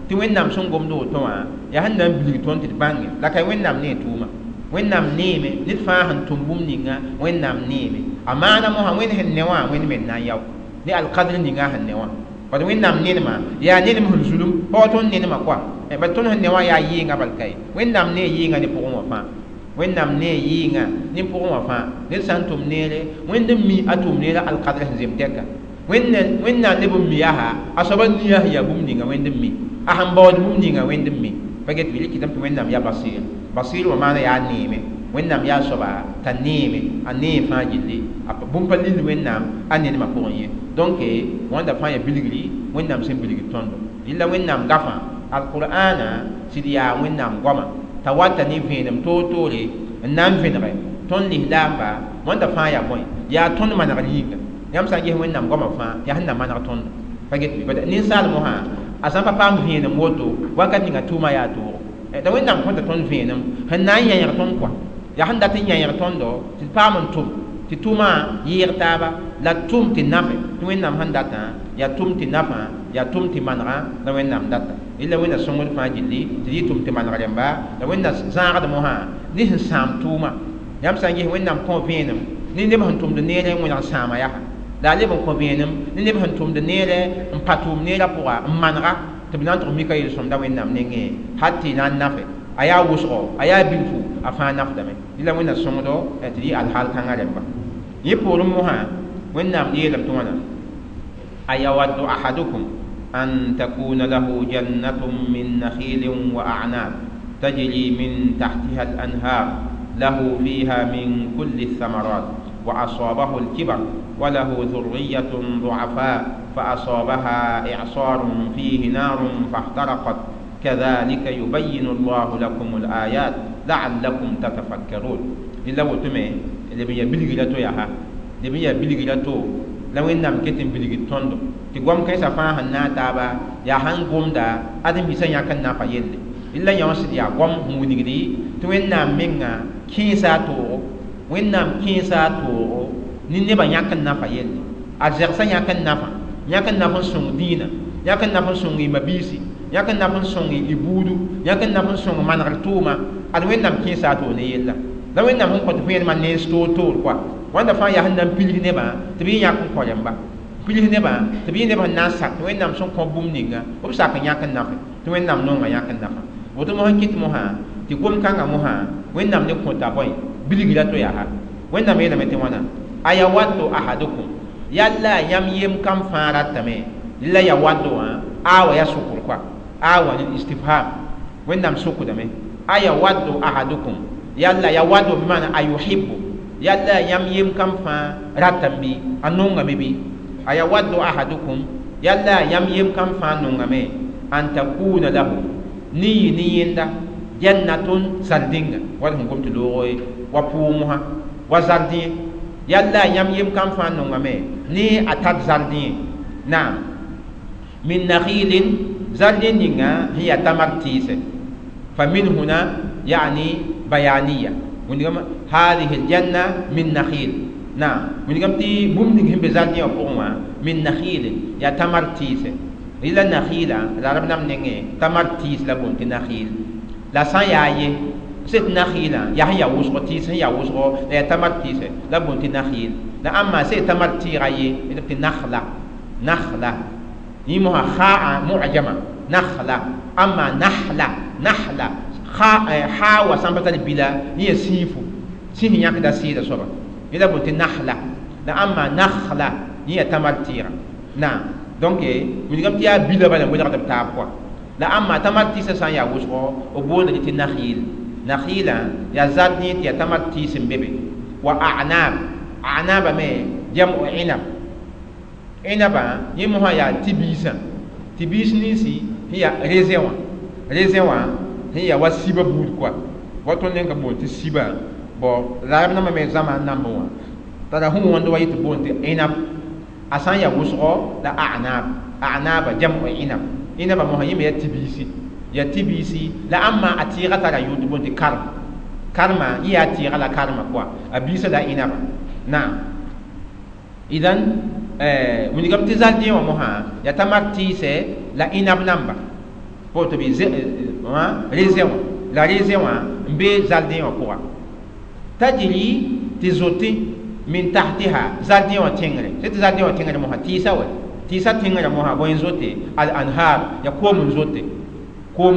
tɩ wẽnnaam sẽn gomd woto wã yaa sẽn na n bilg tõnd tɩ d bãnge la ka wẽnnaam nee tʋʋma wẽnnaam neeme ned fãa sẽn tʋm bũmb ninga wẽnnaam neeme a maana mosã wẽnd sẽn ne wã wẽnd me na n yao ne alkadr ninga sẽn ne wã bad wẽnnaam nenema yaa nenem sẽn zulum pa wa tõnd nenema kɔa bad tõnd sẽn ne wã yaa yɩɩngã bal ka ye wẽnnaam nee yɩɩngã ne pʋgẽ wã fãa wẽnnaam nee yɩɩngã ne pʋgẽ wã fãa ned sã n tʋm neere wẽnd n mi a tʋʋm neerã alkadr sẽn zem tɛka wẽnnaam leb n mi yaa a soaba nia sẽn yaa bũmb ninga wẽnd n mi a sẽn baood bũmb ninga wẽnd n mi pa get bɩ rɩkɩtame tɩ wẽnnaam yaa basir basir wã maana yaa neeme wẽnnaam yaa soaba t'a neeme a nee fãa gilli bũmb pa lill wẽnnaam a nenemã pʋgẽ ye donc wãnda fãa yaa bilgri wẽnnaam sẽn bilgd tõndo rɩla wẽnnaam gafã alqur'ana sɩd yaa wẽnnaam goama t'a wata ne vẽenem toor-toore n na n vẽnege tõnd lislaamba wãnda fãa yaa bõe yaa tõnd manegr yĩnga yãmb sã n ges wẽnnaam goamã fãa yaa sẽn na maneg tõndo pa get bɩ ninsaal mosã a sã n pa paam vẽenem woto wakat ninga tʋʋma yaa toogo t'a wẽnnaam kõta tõnd vẽenem sẽn na n yãyg tõnd kɔa yaa sẽn dat n yãyg tõndo tɩ d paam n tʋm tɩ tʋʋmã yɩɩg taaba la tʋm tɩ nafe tɩ wẽnnaam sẽn datã yaa tʋm tɩ nafã yaa tʋm tɩ manegã la wẽnnaam data rɩla wẽnna sõngd fãa gilli tɩ yɩ tʋm tɩ maneg rẽmba la wẽnna zãagd mosã ne sẽn sãam tʋʋma yãmb sã n ges wẽnnaam kõ vẽenem ne neb sẽn tʋmd neerẽ n wẽneg sãama yaa la a leb n kõ vẽenem ne neb sẽn tʋmd neerẽ n pa tʋʋm neerã pʋga n manega tɩ b na n tʋg mika yel-sõmda wẽnnaam nengẽ hal tɩ na n nafe a yaa wʋsgo a yaa bilfu a fãa nafdame rɩla wẽnna sõngdo tɩ yɩ alhaal kãngã rẽmba yẽ poorẽ mosã wẽnnaam yeelame tɩ wãna ayawaddu ahadukum an takuna lahu jannatun min nakhilin wa a'nab tajri min tahtiha al-anhar lahu fiha min kulli الثمرات وأصابه الكبر وله ذرية ضعفاء فأصابها إعصار فيه نار فاحترقت كذلك يبين الله لكم الآيات لعلكم تتفكرون إلا وتمي اللي بيا بلغلاتو ياها اللي بيا بلغلاتو la wẽnnaam ket n bilgd tõndo tɩ goam kãensã fãa sẽn na n taaba yaa sãn gomda ad n bisã yãk n nafa yelle la yõ sɩd yaa goam sẽn wilgdi tɩ wẽnnaam menga kẽesa a toogo wẽnnaam kẽesa a toogo ne nebã yãk n nafa yelle a zɛgsã yãk n nafa yãk n naf n sõng dĩinã yãk n naf n sõng y mabiisi yãk n naf n sõng y buudu yãk n naf n sõng manegr tʋʋma ad wẽnnaam kẽesa a toog ne yella la wẽnnaam sẽn kõt vẽenemã nens toor-toor kɔa wãnda fãa yaa sẽn na n pilg nebã tɩ b yẽ yãk n kõ rẽmba pilg nebã tɩ b yẽ neb sẽn na n sak tɩ wẽnnaam sẽn kõ bũmb ninga b sak n yãk n nafe tɩ wẽnnaam nonga yãk n nafa woto mosã kɩt mosã tɩ gom-kãngã mosã wẽnnaam ne kõta bõe bilgra to yaa wẽnnaam yeelame tɩ wãna ayawaddu ahadukum yalla yãmb yem kam fãa ratame La yawaddu awa ya sukr kwa awa ni istifham wẽnnaam sukdame ayawaddu ahadukum yalla yawaddu bimana ayuhibbu yalla yãmb yem kam fãa ratame bɩ a nongame bɩ ayawaddu ahadukum yalla yãmb yem kam fãa nongame an takuna lahu ne yɩ ne yẽnda jannatun zardĩnga wala sẽn gom tɩ loogo wa pʋʋg mosã wa zardẽ yalla yãmb yem kam fãa nongame ne a tar zardẽ naam min nakhilin zardẽ ninga sẽn yaa tamar tɩɩsɛ fa min huna yani bayaniya wẽndgame هذه الجنة من نخيل نعم wẽndgame tɩ bũmb ning sẽn be zardẽ wã pʋgẽ wã min nakhilin yaa tamar tɩɩsɛ rɩla nakhila la rab nam nengẽ tamar tɩɩs la boond tɩ nakhil la sã n yaa ye sẽt nakhilã yaa sẽn yaa wʋsgo tɩɩs sẽn yaa wʋsgo la yaa tamar tɩɩsɛ la boond tɩ nakhil la ãmma sẽn tamar tɩɩga ye tɩ nakhla nakhla yẽ mosã khaa mu'jama nakhla amma nahla nahla ha wa sã n pa tar bila yẽ yaa sĩifo sĩis yãkda sɩɩda soaba yẽ la boond tɩ nahla la ãmma nakhla yẽ yaa tamar tɩɩga naam donc wilgame tɩ yaa bila bala n welgd b taab kɔa la ãmma tamar tɩɩsã sã n yaa wʋsgo b boonda tɩ nakhil nakhilã yaa zardẽ tɩ yaa tamar tɩɩs n be be wa a'nab a'naba me jam'u inab inaba yẽ mosã yaa tɩ-biisã tɩ-biis ninsi sẽn yaa raisin wã raisin wã sẽn yaa wa sibã buud kɔa wa tõnd neng ka boond tɩ sibã bon la rab nambã me zãma n nambẽ wã tara sẽn wõnd wa yetɩ boond tɩ inab a sã n yaa wʋsgo la a'nab a'naba jam'u inab inaba mosã yẽ me yaa tɩ-biisi yaa tɩ-biisi la ãmma a tɩɩga tara yʋʋr tɩ boond tɩ karm karma yẽ yaa tɩɩga la karma kɔa a biisã la inaba naam idan wilgame tɩ zardẽ wã mosã yaa tamar tɩɩsɛ la inab namba tɩ bɩ raisin wã la raisin wã n be zardẽ wã pʋga tajri tɩ zote min tahtiha zardẽ wã tẽngre sẽn tɩ zardẽ wã tẽngre mosã tɩɩsã wɛ tɩɩsã tẽngrã mosã bõe n zote al anhar yaa koom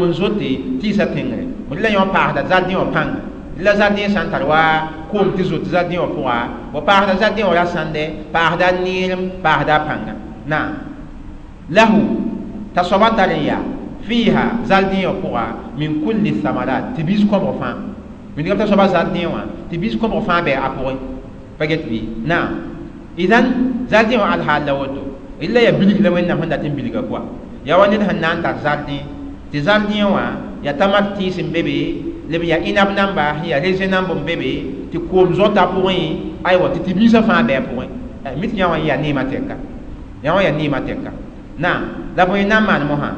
n zote tɩɩsã tẽngre la yõ paasda zardẽ wã pãnga la zardẽ sã n tar wa koom tɩ zote zardẽ wã pʋga wa paasda zardẽ wã ra sãnde paasda neerem paasda pãnga naam lahu t'a soaba tar n yaa fiiha zardẽ wã pʋga min kulli thamarat tɩ biis kõbg fãa wẽndgame t'a soaba zardẽ wã tɩ biis kõbg fãa bɩ a pʋgẽ pa get bɩ naam idan zardẽ wã alhaal la woto illa ya bilg la wẽnnaam sẽn dat n bilga kɔa yaa wa ned sẽn na n tar zardẽ tɩ zardẽ wã yaa tamar tɩɩs n be be leb yaa inab namba sẽn yaa raisin namb n be be tɩ koom zõta pʋgẽ aywa tɩ tɩ-biisã fãa bɩ a pʋgẽ mi tɩ yã wã yaa neemã tɛka yã wã yaa neemã tɛka naam la bõe n na n maan mosã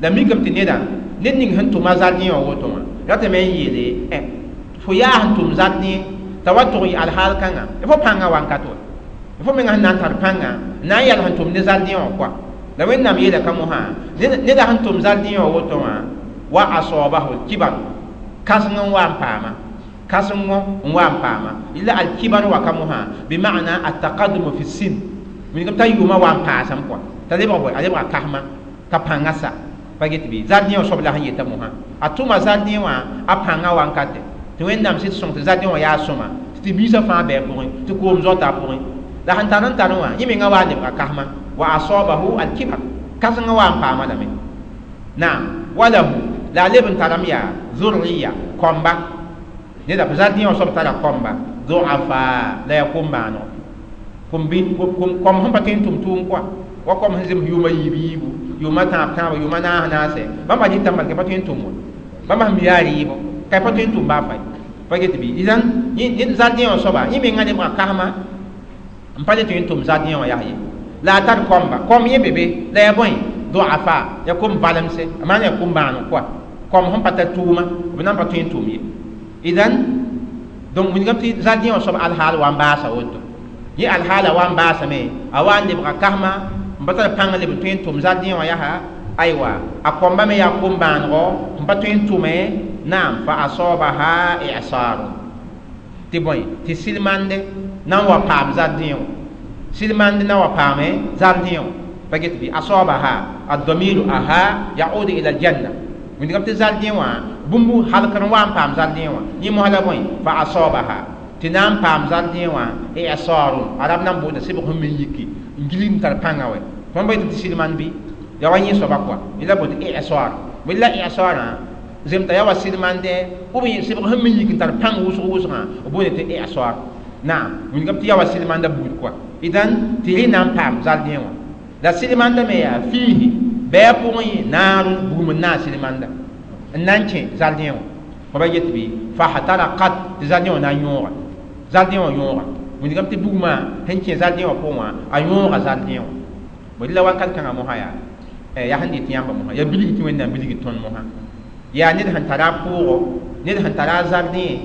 la mikame tɩ neda ned ning sẽn tʋma zardẽ wã woto wã ratame n yeele fo yaa sẽn tʋm zardẽ t'a wa tʋg yɩ alhaal kãnga fo pãngã wankat wa fo menga sẽn na n tar pãnga n na n yɛl sẽn tʋm ne zardẽ wã kɔa la wẽnnaam yeela ka mosã neda sẽn tʋm zardẽ wã woto wã wa asabahu al-kibar kãseng n wa n paama kãsengo n wa n paama illa al-kibar wa ka mosã bima'na at-taqaddum fi sin wilgame t'a yʋʋmã wa n paasame kɔa t'a lebg bõe a lebga kasma t'a pãngã sa pa get bɩ zardẽ wã soab la sẽn yeta mosã a tʋma zardẽ wã a pãngã wankate tɩ wẽnnaam sɩd sõng tɩ zardẽ wã yaa sõma tɩ tɩ-biisã fãa bɩ a pʋgẽ tɩ koom zoata a pʋgẽ la sẽn tar n tar wã yẽ menga wa n lebga kasma wa asabahu al-kibar kãsengã wa n paama lame naam walahu la a leb n tarame yaa zurriya kɔmba neda zardẽ wã soab tara kɔmba duafa la yaa kom-bãanego kom sẽn pa tõe n tʋm tʋʋm kɔa wa kom sẽn zems yʋʋma yiib yiibu yʋʋma tãab tãaba yʋʋma naas naasɛ bãmba dɩta malka pa tõe n tʋm wã bãmba sẽn mi yaa rɩɩbɔ ka pa tõe n tʋm baa fay pa get bɩ idan zardẽ wã soaba yẽ menga lebga kasma n pa le tõe n tʋm zardẽ wã yaa ye la a tar kɔmba kɔm yẽ be be la yaa bõe duafa yaa kom valemse a maan yaa kom-bãaneg kɔa kɔm sẽn pa tar tʋʋma b na n pa tõe n tʋm ye idan donc wilgame tɩ zardẽ wã soab alhaal wa n baasa woto yẽ alhaala wa n baasame a wa n lebga kasma n pa tar pãng leb n tõe n tʋm zardẽ wã yaa aywa a kõmba me yaa kom-bãanego n pa tõe n tʋme naam fa asabaha i'sarun tɩ bõe tɩ silmande na n wa paam zardẽ wã silmande na wa paame zardẽ wã pa get bɩ asabaha ad-damiru aha yaudu ila aljanna wẽndgame tɩ zardẽ wã bũmb halkr n wa n paam zardẽ wã yẽ mosã la bõe fa asabaha tɩ na n paam zardẽ wã i'sarun arab na n boonda sebg sẽn me yiki n gilg n tar pãngã wɛ Tõnd pa yetɩ tɩ silmand bɩ ya wa yẽ soaba kɔa yẽla boond tɩ i'sar bõe la i'sarã zemta ya wa silmandɛ b sɩbg sẽn me yik n tar pãng wʋsg wʋsgã b boonde tɩ i'sar naam wilgame tɩ ya wa silmanda buud kɔa idan tɩ rẽ na n paam zardẽ wã la silmanda me yaa fiihi bɩ a pʋgẽ yẽ naarun bugum n naag silmanda n na n kẽ zardẽ wã fo ba yet bɩ fahtarakat tɩ zardẽ wã na n yõoga zardẽ wã yõoga wilgame tɩ bugmã sẽn kẽ zardẽ wã pʋgẽ wã a yõoga zardẽ wã bõe la wakat kãngã mosã yaa yaa sẽn dɩt yãmba mosã yaa bilg tɩ Wẽnnaam bilg tõnd mosã yaa ned sẽn tara a pʋʋgo ned sẽn tara a zardẽ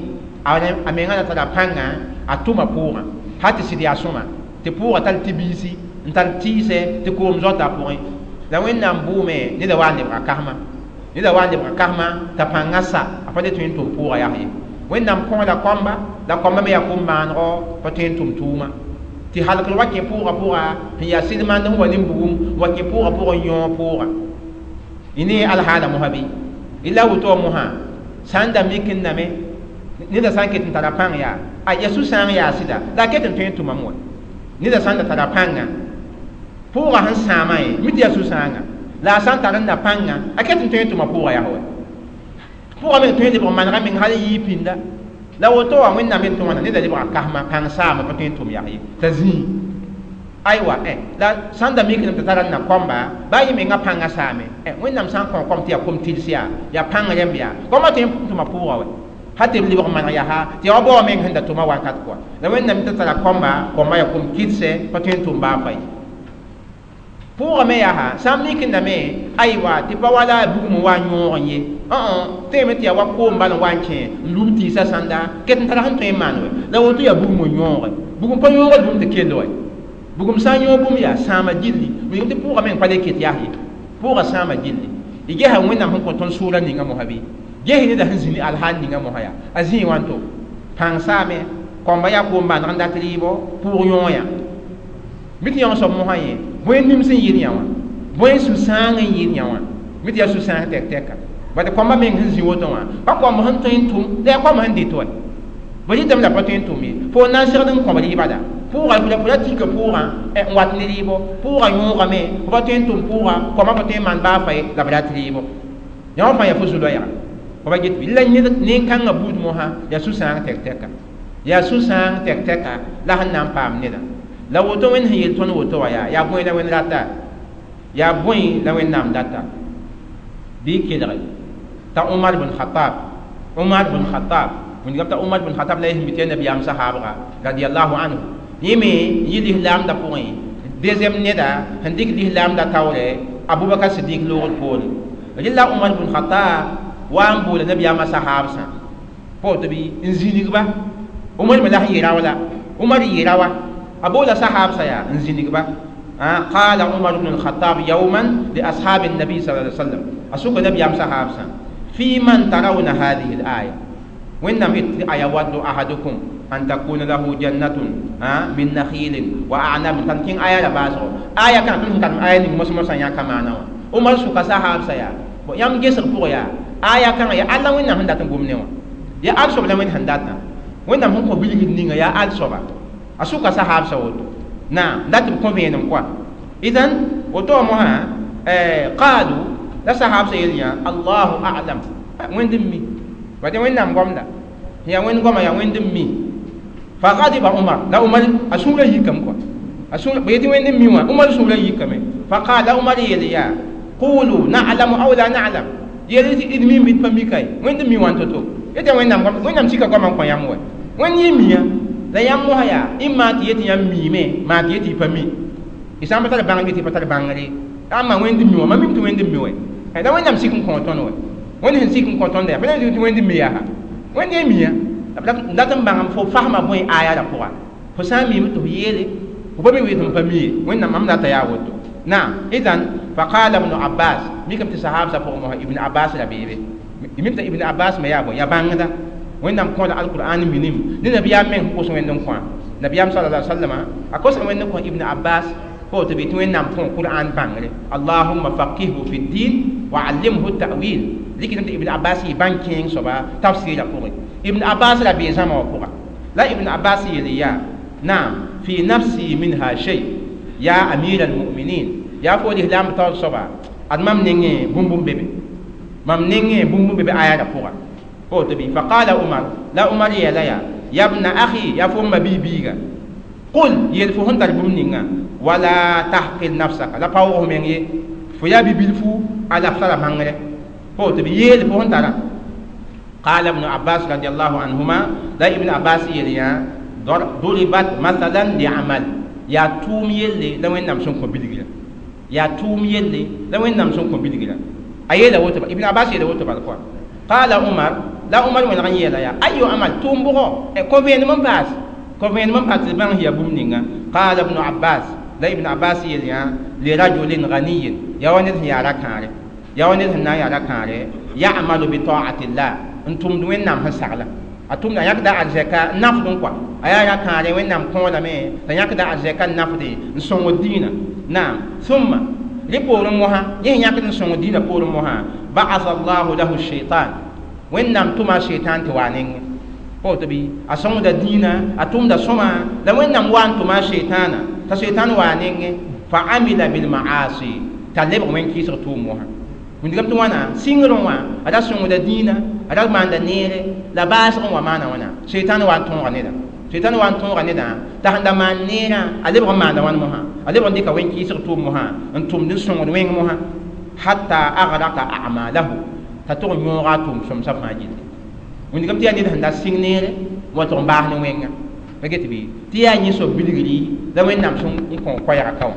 a menga la tara pãnga a tʋma pʋʋgã hal tɩ sɩd yaa sõma tɩ pʋʋga tar tɩ-biisi n tar tɩɩsɛ tɩ koom zoata a pʋgẽ la Wẽnnaam bʋʋme neda wa n lebga kasma neda wa n lebga kasma t'a pãngã sa a pa le tõe n tʋm pʋʋga yaa ye Wẽnnaam kõ la kɔmba la kɔmba me yaa kom-bãanegɔ pa tõe n tʋm tʋʋma tɩ halkr wa kẽ pʋʋga pʋga sẽn yaa silmand sẽn wa ne bugum wa kẽ pʋʋga pʋgẽ n yõog pʋʋga y ne alhaala mosã bɩ la woto mosã sã n da mik n name neda sã n ket n tara pãng yaa a ya sũ-sãang yaa sɩda la a ket n tõe n tʋmame wa neda sã n da tara pãnga pʋʋga sẽn sãamã ye mi tɩ yaa sũ-sãanga la a sã n tar n na pãnga a ket n tõe n tʋma pʋʋga yaa wa pʋʋga me tõe n lebg manega meng hal yɩɩ pĩnda la woto wã Wẽnnaam yet tɩ wãna neda lebga kasma pãng saama pa tõe n tʋm yaa ye t'a zĩig aywa la sã n da mikdame tɩ tara n na kõmba baa yẽ menga pãngã saame Wẽnnaam sã n kõ kom tɩ yaa kom tɩls yaa yaa pãng rẽmb yaa kõma tõe n tʋma pʋʋga wɛ hal tɩ b lebg maneg yaa tɩ yaa wa bao meng sẽn da tʋma wakat kɔa la Wẽnnaam tɩ tara kõmba kõma yaa kom kɩdsɛ pa tõe n tʋm baa fay pʋʋga me yaa sã n mik n dame aywa tɩ pa wala bugum n wa n yõog n ye tẽeme tɩ yaa wa koom bal n wa n kẽ n lub tɩɩsã sãnda ket n tara sẽn tõe n maan wɛ la woto yaa bugum n yõoge bugum pa yõogd bũmb tɩ kell wɛ bugum sã n yõog bũmb yaa sãama gilli wilgame tɩ pʋʋga meng pa le ket yaa ye pʋʋga sãama gilli y gesa Wẽnnaam sẽn kõ tõnd sʋʋra ninga mosã bɩ ges neda sẽn zĩni alhaal ninga mosã yaa a zĩig wãnto pãng saame kõmba yaa koom-bãaneg n dat rɩɩbɔ pʋʋg yõoyã mi tɩ yãng soab mosã yẽ bõe nims n yɩɩd yã wã bõe sũ-sãang n yɩɩd yã wã mi tɩ yaa sũ-sãang tɛk-tɛka bad kõmba meng sẽn zĩ woto wã pa kõmb sẽn tõe n tʋm la yaa kõmb sẽn dɩt wɛ bõ rɩtame la pa tõe n tʋm ye fo na n segd n kõb rɩɩbada pʋʋga fo ra tika pʋʋgã n wat ne rɩɩbɔ pʋʋga yõogame fo pa tõe n tʋm pʋʋga kõma pa tõe n maan baa fa ye la b rat rɩɩbɔ yã wã fãa yaa fo zu-loɛɛga fo ba get bɩ la nin-kãngã buud mosã yaa sũ-sãang tɛk-tɛka yaa sũ-sãang tɛk-tɛka la sẽn na n paam neda la woto Wẽnd sẽn yel tõnd woto wã yaa yaa bõe la Wẽnd rata yaa bõe la Wẽnnaam data bɩ kelge t'a Umar bn Khatab Umar bn Khatab wilgame t'a Umar bn Khatab la y sẽn mi tɩ yaa nabiyaam sahaabga radiallahu anhu yẽ me yɩ lislaamda pʋgẽ deuxième neda sẽn dɩk lislaamda taoorɛ Abubakar Sidik loogd poore rɩla Umar bn Khatab wa n boola nabiyaamã sahaabsã pa woto bɩ n zĩnigba Umar me la sẽn yɩ rao la Umar yɩ rawa a boola sahaabsã yaa n zĩnigba قال عمر بن الخطاب يوما لأصحاب النبي صلى الله عليه وسلم أسوك نبي أم صحابسا في من ترون هذه الآية وإنما أيود أحدكم أن تكون له جنة من نخيل وأعناب تنكين آية لباسو آية كانت تنكين آية مسمى يا كمان عمر سوك صحابسا يا يام جسر بويا آية كان يا الله وين هندات غومنيوا يا ألسوب لوين هنداتنا وإنما هم قبيل نينغا يا ألسوب أسوك صحابسا وتو نعم لا تبقون بينهم كوا إذن وتومها قالوا لا صحاب سيدنا الله أعلم وين دمي بعدين وين نام قمنا هي وين قم يا وين دمي فغضب عمر لا عمر أسول يكم كوا أسول بيتي وين دمي وين عمر أسول يكم فقال عمر يليا قولوا نعلم أو لا نعلم يلي إدمي ميت بميكاي وين دمي وين تتو يتي وين نام قم وين نام سيكا قم قم يا مو وين يميا la yãmb mosã yaa y maa tɩ yetɩ yãmb miime maa tɩ yetɩ y pa mi y sã n pa tar bãngr tɩ y pa tar bãngre ãmba Wẽnd mi wã mam mim tɩ Wẽnd mi wɛ la Wẽnnaam sik n kõ tõnd wɛ Wẽnd sẽn sik n kõ tõnd yaa pa tɩ Wẽnd mi yaa Wẽnd ye miya dat n bãngame fo fasma bõe aya la pʋga fo sã n miime tɩ f yeele fo pa mi wee tɩ m pa mi ye Wẽnnaam mam rata yaa woto naam idan faqala ibnu Abbas mikame tɩ sahaabsã pʋgẽ mosã Ibn Abbas ra beebe mim t'a Ibn Abbas me yaa bõe yaa bãngda Wẽnnaam kõ la alqur'an minim ne nabiyaam meng kos Wẽnd n kõ nabiyaam sallallahu alaihi wasallam a kos Wẽnd n kõ Ibn Abbas pa woto bɩ tɩ Wẽnnaam kõ Qur'an bãngre Allahumma faqihhu fi ddin wa allimhu ta'wil rɩkdame tɩ Ibn Abbas yɩ bãng kẽeng soaba tafsɩɩrã pʋgẽ Ibn Abbas ra bee zãma wã pʋga la Ibn Abbas yeel yaa naam fi nafsi minha shay ya amir almuminin Yaa fo lislaam taoor soaba, ad mam nengẽ bũmb bebe, mam nengẽ bũmb bebe aya ra pʋga. Woto bɩ faqala Umar, la Umar yeela yaa: yabna akhi, yaa fo m ma-bi-biiga, qul, yeel fo sẽn tar bũmb ninga, wala tahqir nafsaka, la paoog f meng ye, fo yaa bi-bilfu a la f tara bãngre. Woto bɩ yeel fo sẽn tara. قال ابن عباس رضي الله عنهما، لا ابن عباس يليا ضربت مثلا لعمل، yaa tʋʋm yelle la Wẽnnaam sẽn kõ bilgra, yaa tʋʋm yelle la Wẽnnaam sẽn kõ bilgra. A yeela woto, Ibn Abbas yeela woto bal kɔa. Qala Umar, la Umar wẽneg n yeela yaa: ayu amal, tʋʋm bʋgɔ, kõ vẽenem n paas, kõ vẽenem n paas tɩ d bãng yaa bũmb ninga. Qala ibn Abbas, la Ibn Abbas yeel yã: lirajulin ganiyin, yaa wa ned sẽn yaa ra-kãare, yaa wa ned sẽn na n yaa ra-kãare, ya'malu bi ta'atillah, n tʋmd Wẽnnaam sẽn sagla, a tʋmda, a yãkda arzɛka n nafd kɔa, a yaa ra-kãare, Wẽnnaam kõolame t'a yãkda arzɛka n nafde n sõngd dĩinã. Naam, thumma, rẽ poorẽ mosã, yẽ sẽn yãkd n sõngd dĩinã poorẽ mosã, ba'atha Allahu lahu shaitan, Wẽnnaam tʋma a shaitan tɩ wa a nengẽ. Woto bɩ a sõngda dĩinã, a tʋmda sõma, la Wẽnnaam wa n tʋma a shaitana t'a shaitan wa a nengẽ, fa amila bilmaasi, t'a lebg wẽn-kɩɩsg tʋʋm mosã. Wilgame tɩ wãna sɩngrẽ wã a ra sõngda dĩinã, a ra maanda neere, la baasg n wa maana wãna, shaitan wa n tõoga neda, shaitan wa n tõoga nedã t'a sẽn da maan neerã, a lebg n maanda wãn mosã, a lebg n dɩka wẽn-kɩɩsg tʋʋm mosã n tʋmd n sõngd wẽng mosã, hatta agraka a'malahu, t'a tʋg n yõoga a tʋʋm sõmsã fãa gilli. Wilgame tɩ yaa ned sẽn da sɩng neere n wa tʋg n baas ne wẽnga pa get bɩ tɩ yaa yẽ soab bilgri la Wẽnnaam sẽn n kõ koɛɛgã ka wã.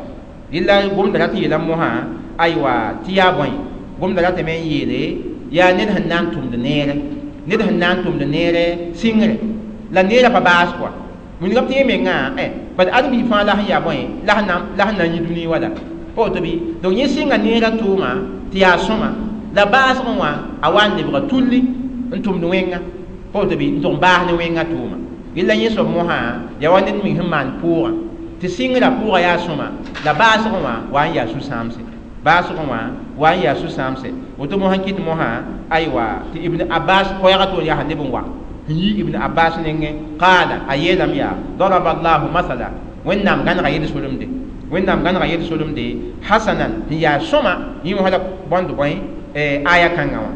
Rɩla gomda rat n yeela mosã, aywa, tɩ yaa bõe gomda ratame n yeele, yaa ned sẽn na n tʋmd neere, ned sẽn na n tʋmd neere sɩngre, la neerã pa baas kɔa. Wilgame tɩ yẽ mengã bad ãdem-biig fãa la sẽn yaa bõe la sẽn na n yĩ dũni wala pa woto bɩ. Donc yẽ sɩnga neerã tʋʋma tɩ yaa sõma, la baasgẽ wã a wa n lebga tulli n tʋmd wẽnga, pa woto bɩ, n tʋg n baas ne wẽngã tʋʋma. Rɩla yẽ soab mosã yaa wa ned meng sẽn maan pʋʋgã tɩ sɩngrã pʋʋgã yaa sõma, la baasgẽ wã wa n yaa sũ-sãamse, baasgẽ wã wa n yaa sũ-sãamse. Woto mosã kɩt mosã, aywa, tɩ Ibn Abbas koɛɛgã toor yaa sẽn leb n wa n yi Ibn Abbas nengẽ, qaala, a yeelame yaa: daraba Allahu masala, Wẽnnaam gãnega yel-solemde, Wẽnnaam gãnega yel-solemde, hasanan, sẽn yaa sõma, yẽ mosã la bõnd bõe aya kãngã wã,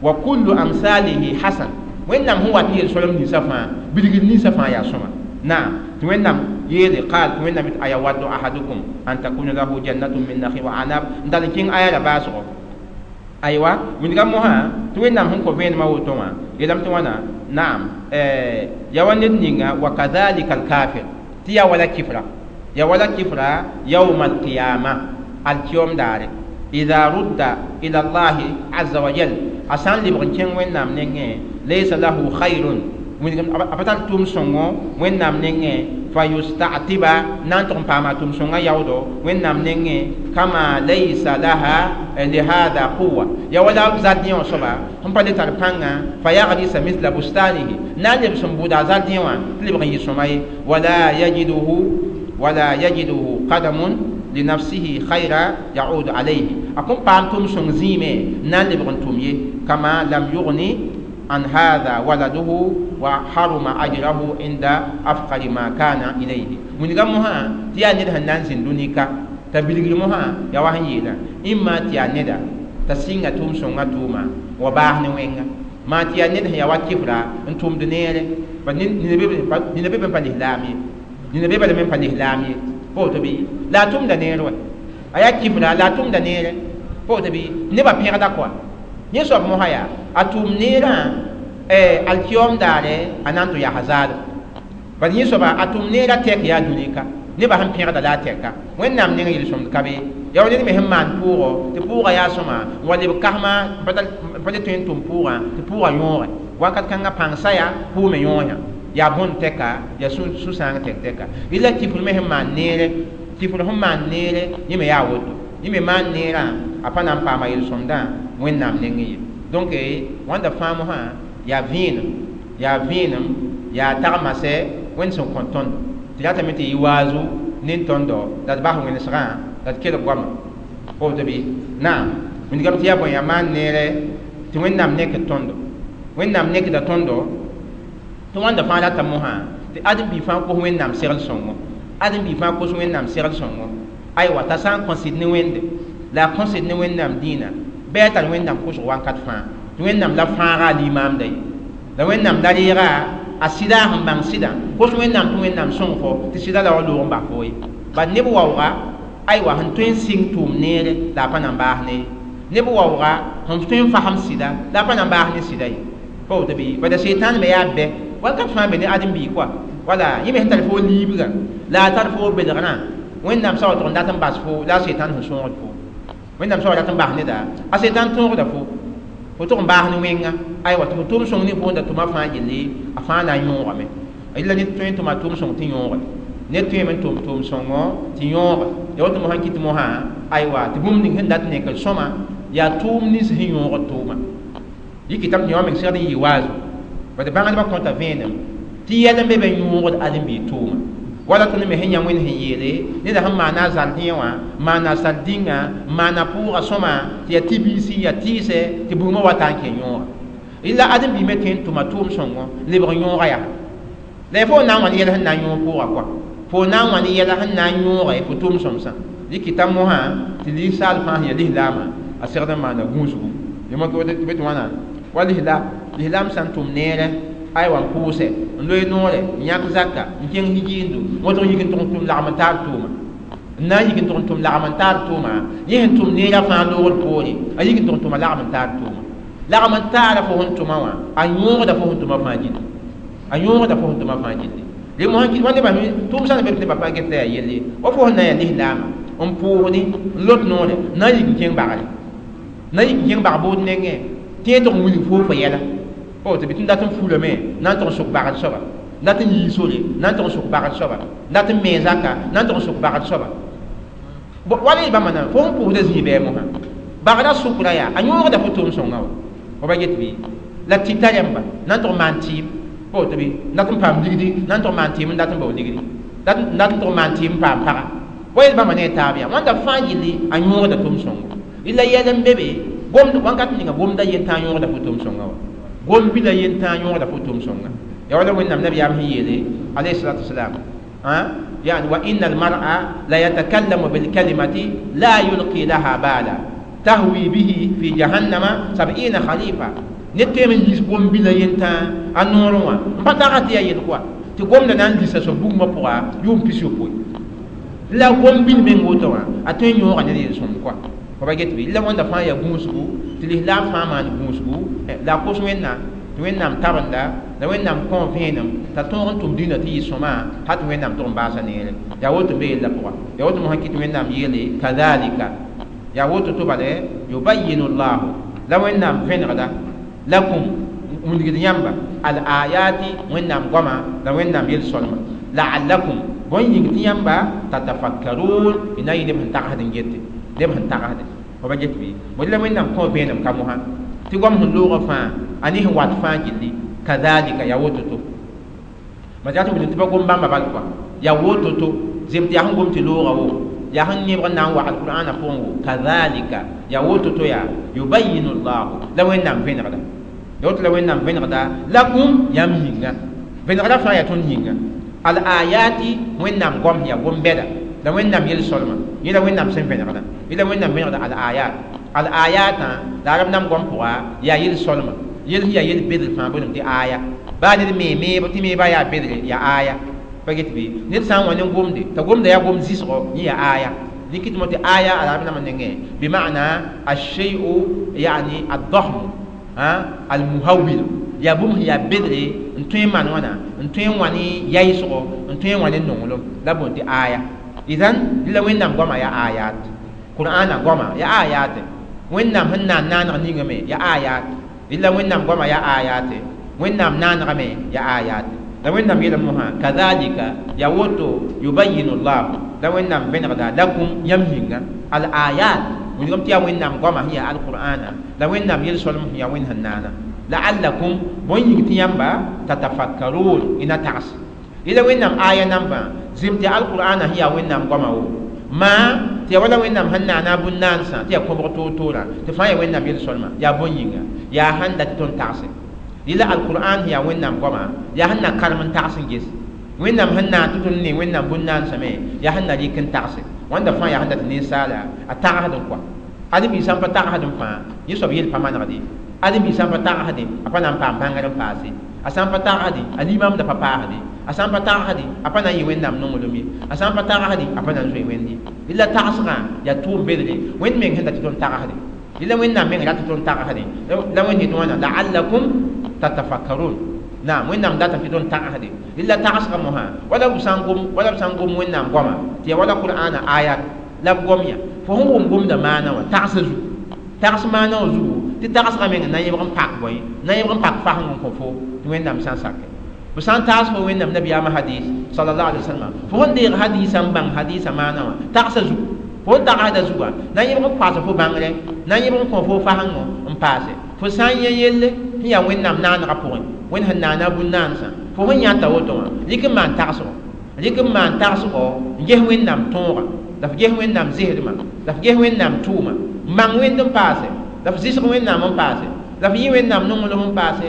wa kullu amsalihi hasan, Wẽnnaam sẽn wat n yel-solem ninsã fãa, bilgr ninsã fãa yaa sõma. Naam, tɩ Wẽnnaam yeele qaal, tɩ Wẽnnaam yet: ayawaddu ahadukum an takuna lahu jannatun min nakhil wa anab, n dal n kẽng aya la baasgo. Aywa, wilga mosã tɩ Wẽnnaam sẽn kõ vẽenemã woto wã yeelame tɩ wãna. Naam, yaa wa ned ninga, wa kadhalika alkafir, tɩ yaa wala kifra, yaa wala kifra, yawma alqiyama, alkiyom daare, idha rudda ila Allahi azza wa jal, a sã n lebg n kẽng Wẽnnaam nengẽ, laysa lahu khayrun, a pa tar tʋʋm sõngo Wẽnnaam nengẽ, fa yusta'tiba, na n tʋg n paama a tʋʋm sõngã yaoodo Wẽnnaam nengẽ, kama laysa laha lihada quwa, yaa wala zardẽ wã soaba sẽn pa le tar pãnga, fa yagrisa misla bustanihi, na n lebs n bʋʋda a zardẽ wã tɩ lebg n yɩ sõma ye, wala yajiduhu qadamun linafsihi khayra yaudu alayhi, a kõn paam tʋʋm sõng zĩime na n lebg n tʋm ye, kama lam yugni an hadha waladuhu wa haruma ajrahu inda afqari ma kana ilayhi. Wilga mosã tɩ yaa ned sẽn na n zĩnd dũni ka t'a bilgr mosã yaa wa sẽn yeelã, ĩmma tɩ yaa neda t'a sɩnga tʋʋm sõngã tʋʋma wa baas ne wẽnga, maa tɩ yaa ned sẽn yaa wa kɩfra n tʋmd neere, nina be b pa lislaam ye, nina be balame n pa lislaam ye, pa woto bɩ, la a tʋmda neer wa, a yaa kifra la a tʋmda neere, pa woto bɩ, nebã pẽgda kɔa. Yẽ soab mosã yaa a tʋʋm neerã alkiyom daare a na n tɩ yaa zaalem, bad yẽ soaba a tʋm neerã tɛk yaa dũni ka nebã sẽn pẽgda la a tɛka Wẽnnaam neng yel-sõmd ka be. Yaa wa ned me sẽn maan pʋʋgɔ tɩ pʋʋgã yaa sõma n wa leb kasmã n pa le tõe n tʋm pʋʋgã tɩ pʋʋgã yõoge wakat kãngã pãng saya pʋʋme yõoyã yaa bõn tɛka, yaa sũ-sãang tɛk tɛka. Rɩla kifr me sẽn maan neere, kifr sẽn maan neere, yẽ me yaa woto, yẽ me maan neerã a pa na n paama yel-sõmdã Wẽnnaam nengẽ ye. Donc wãnda fãa mosã yaa vẽenem, yaa vẽenem, yaa tagmasɛ Wẽnd sẽn kõ tõndo tɩ ratame tɩ yɩ waazu nin tõndo la d bas wẽnesgã la d kelg goama woto bɩ. Naam, wilgame tɩ yaa bõe, yaa maan neere tɩ Wẽnnaam nekd tõndo, Wẽnnaam nekda tõndo tɩ wãnda fãa rata mosã tɩ ãdem-biig fãa kos Wẽnnaam segl sõngo, ãdem-biig fãa kos Wẽnnaam segl sõngo. Aywa t'a sã n kõ sɩd ne Wẽnde la a kõ sɩd ne Wẽnnaam dĩinã bɩ a tar Wẽnnaam kʋsg wakat fãa tɩ Wẽnnaam la fãaga a limaamda ye la Wẽnnaam la reega a sɩda a sẽn bãng sɩdã kos Wẽnnaam tɩ Wẽnnaam sõng fo tɩ sɩda la wa loog n bas fo ye bad neb waooga aywa sẽn tõe n sɩng tʋʋm neere la a pa na n baas ne ye neb waooga sẽn tõe n fasem sɩda la a pa na n baas ne sɩda ye pa woto bɩ bala sɩtan me yaa bɛ wakat fãa be ne ãdem-biig kɔa wala yẽ me sẽn tar fo liibgã la a tar fo belgrã Wẽnnaam sa wa tʋg n dat n bas fo la a sɩtan sẽn sõogd fo Wẽnnaam sa wa rat n bas neda a sɩtan tõogda fo fo tʋg n baas ne wẽnga aywa tɩ fo tʋʋm sõng ne fo n da tʋma fãa gilli a fãa na n yõogame la ned tõe n tʋma tʋʋm sõng tɩ yõoge ned tõeme n tʋm tʋʋm sõngo tɩ yõoge ya woto mosã kɩt mosã aywa tɩ bũmb ning sẽn dat n nekd sõma yaa tʋʋm nins sẽn yõogd tʋʋma yikɩtame tɩ yõ meng segd n yɩ waazu bad bãngdbã kõta vẽenem tɩ yɛl n be be yõogd ãdem-biig tʋʋma wala tõnd me sẽn yã Wẽnd sẽn yeele neda sẽn maana a zardẽ wã maana a sal-dĩngã maana pʋʋga sõma tɩ yaa tɩ-biisi yaa tɩɩsɛ tɩ bugmã wa ta n kẽ yõoga la ãdem-biig me tõe n tʋma tʋʋm sõngo lebg yõoga yaa la ya fo na n wãn yɛl sẽn na n yõog pʋʋga kɔa fo na n wãn yɛla sẽn na n yõoge fo tʋʋm sõmsã dɩkɩta mosã tɩ linsaal fãa sẽn yaa lislaamã a segd n maana gũusgu tɩ be tɩ wãna wa lislaam sã n tʋm neerẽ aywa n pʋʋsɛ n loe noore n yãk zaka n kẽng hijiindo wõtg yik n tʋg n tʋm lagm n taar tʋʋma n na n yik n tʋg n tʋm lagm n taar tʋʋma yẽ sẽn tʋm neerã fãa loogd poore a yik n tʋg n tʋma lagm n taar tʋʋma lagm n taara fo sẽn tʋma wã a yõogda fo sẽn tʋma fãa gilli a yõogda fo sẽn tʋma fãa gilli dẽ mosã wa nebã tʋʋm sã n be tɩ nebã fãa get la yaa yelle wa fo sẽn na n yaa lislaamã n pʋʋsdi n lot noore n na n yik n kẽng bagre na n yik n kẽng bag bood nengẽ tɩ yẽ tʋg n wilg foo fo yɛla pa woto bɩ tɩ n dat n fulame na n tʋg n sʋk bagd soaba n dat n yii sore na n tʋg n sʋk bagd soaba n dat n mee zaka na n tʋg n sʋk bagd soaba wala y bãmba na fo sẽn pʋʋsda zĩig bɩ mosã bagrã sʋkra yaa a yõogda fo tʋʋm sõngã wa fo ba get bɩ la tɩta rẽmba na n tʋg n maan tɩɩm pa woto bɩ n dat n paam ligdi na n tʋg n maan tɩɩm n dat n bao ligdi n dat n tʋg n maan tɩɩm n paam paga wa yel bãmba ne a taab yaa wãnda fãa gilli a yõogda tʋʋm sõngo la yɛl n be be gomd wãnkat ninga gomda yentã yõogda fo tʋʋm sõnga wa gom bila yentã yõogda fo tʋʋm sõnga ya wala Wẽnnaam nabiyaam sẽn yeele alayhi salatu wasalam yani wa inna almar'a la yatakallamu bilkalimati la yulqi laha bala tahwi bihi fi jahannama 70 khalifa ned tõeme n yiis gom bila yentã a noorẽ wã n pa taga tɩ yaa yel kɔa tɩ gomda na n lisa soab bugmã pʋga yʋʋm 60 la gom bil meng woto wã a tõe n yõoga ned yel-sõmd kɔa fo ba get bɩ la wãnda fãa yaa gũusgu tɩ lislaam fãa maan gũusgu la a kos Wẽnnaam tɩ Wẽnnaam tabenda la Wẽnnaam kõ vẽenem t'a tõog n tʋm dĩnã tɩ yɩ sõma hal tɩ Wẽnnaam tʋg n baasa neere yaa woto n be yella pʋga yaa woto mosã kɩ tɩ Wẽnnaam yeele kadhalika yaa woto tɩ bale yubayinu llahu la Wẽnnaam vẽnegda lakum wilgd yãmba al ayati Wẽnnaam goama la Wẽnnaam yel-sõlma la'allakum bõn yĩng tɩ yãmba tatafakkarun y na n yɩ neb sẽn tagsd n gete neb sẽn tagsde fo ba get bɩ bõe la Wẽnnaam kõ vẽenem ka mosã tɩ goam sẽn loogã fãa a ne sẽn wat fãa gilli kadhalika yaa woto-to ma tɩ wilg tɩ pa gom bãmba bal kɔa yaa woto-to zem tɩ yaa sẽn gom tɩ loogã wo yaa sẽn yẽbg n na n wa alqur'ana pʋgẽ wo kadhalika yaa woto-to yaa yubayinu llahu la Wẽnnaam vẽnegda ya woto la Wẽnnaam vẽnegda lakum yãmb yĩnga vẽnegrã fãa yaa tõnd yĩnga al ayati Wẽnnaam goam yaa gom-bɛda la Wẽnnaam yel-sõlma yẽ la Wẽnnaam sẽn vẽnegda yẽ la Wẽnnaam vẽnegda al ayat al ayatã la arab nam goam pʋga yaa yel-sõlma yel sẽn yaa yel-bedr fãa boolem tɩ aya baa ned mee meebo tɩ meebã yaa bedre yaa aya pa get bɩ ned sã n wa ne gomde t'a gomda yaa gom zɩsgo yẽ yaa aya dɩk tɩ mo tɩ aya arab nambã nengẽ bima'na alshei'u yani addahm almuhawil yaa bũmb sẽn yaa bedre n tõe n maan wãna n tõe n wã ne yaɩsgo n tõe n wã ne nonglem la boond tɩ aya idan la Wẽnnaam goama yaa ayat qur'ana goama yaa ayat Wẽnnaam sẽn na n naaneg ninga me yaa ayat la Wẽnnaam goama yaa ayat Wẽnnaam naanegame yaa ayat la Wẽnnaam yeelame mosã kadhalika yaa woto yubayinu llahu la Wẽnnaam vẽnegda lakum yãmb yĩnga al ayat wilgame tɩ yaa Wẽnnaam goama sẽn yaa alqur'ana la Wẽnnaam yel-sõlem sẽn yaa Wẽnd sẽn naana la'allakum bõn yĩng tɩ yãmba tatafakkarun y na tags yẽla Wẽnnaam aya nambã zem tɩ alqur'ana sẽn yaa Wẽnnaam goama wo maa tɩ yaa wala Wẽnnaam sẽn naana a bũn-naansã tɩ yaa kõbg toor-toorã tɩ fãa yaa Wẽnnaam yel-sõlma yaa bõn yĩnga yaa sãn dat tɩ tõnd tagse yẽla alqur'an sẽn yaa Wẽnnaam goama yaa sẽn na karem n tags n ges Wẽnnaam sẽn naan tɩ tõnd ne Wẽnnaam bũn-naansame yaa sẽn na rɩk n tagse wãnda fãa yaa sẽn dat ninsaala a tagsd n kɔa ãdem-biig sã n pa tagsd n fãa yẽ soab yel pa manegd ye ãdem-biig sã n pa tagsdẽ a pa na n paam bãngr n paase a sã n pa tagsdẽ a limamda pa paasde a sã n pa tagsdẽ a pa na n yɩ Wẽnnaam nonglem ye a sã n pa tagsdẽ a pa na n zoe Wẽnd ye rɩla tagsgã yaa tʋʋm bedre Wẽnd meng sẽn dat tɩ tõnd tagsdẽ rɩla Wẽnnaam meng rat tɩ tõnd tagsdẽ la Wẽnd yetɩ wãna la'allakum tatafakkarun naam Wẽnnaam datame tɩ tõnd tagsdẽ rɩla tagsgã mosã wala b sã n gom wala b sã n gom Wẽnnaam goama tɩ yaa wala Qur'ana ayat la b gom ya fo sẽn wʋm gomda maana wã tagsã zugu tags maana wã zugu tɩ tagsgã meng na n yẽbg n pak bõe na n yẽbg n pak faseng n kõ fo tɩ Wẽnnaam sã n sake b sã n taas fo Wẽnnaam nabiyaamã hadis sallallahu alaihi wasallam fo sẽn deeg hadisã n bãng hadisã maana wã tagsã zugu fo sẽn tagsda zugã na n yẽbg n koas fo bãngre na n yẽbg n kõ fo fasengo n paase fo sã n yẽ yelle sẽn yaa Wẽnnaam naanegã pʋgẽ Wẽnd sẽn naana bũn-naansã fo sẽn yãta woto wã rɩk n maan tagsgo rɩk n maan tagsgo n ges Wẽnnaam tõoga la f ges Wẽnnaam zɩsdmã la f ges Wẽnnaam tʋʋma n bãng Wẽnd n paase la f zɩsg Wẽnnaam n paase la f yɩ Wẽnnaam nonglem n paase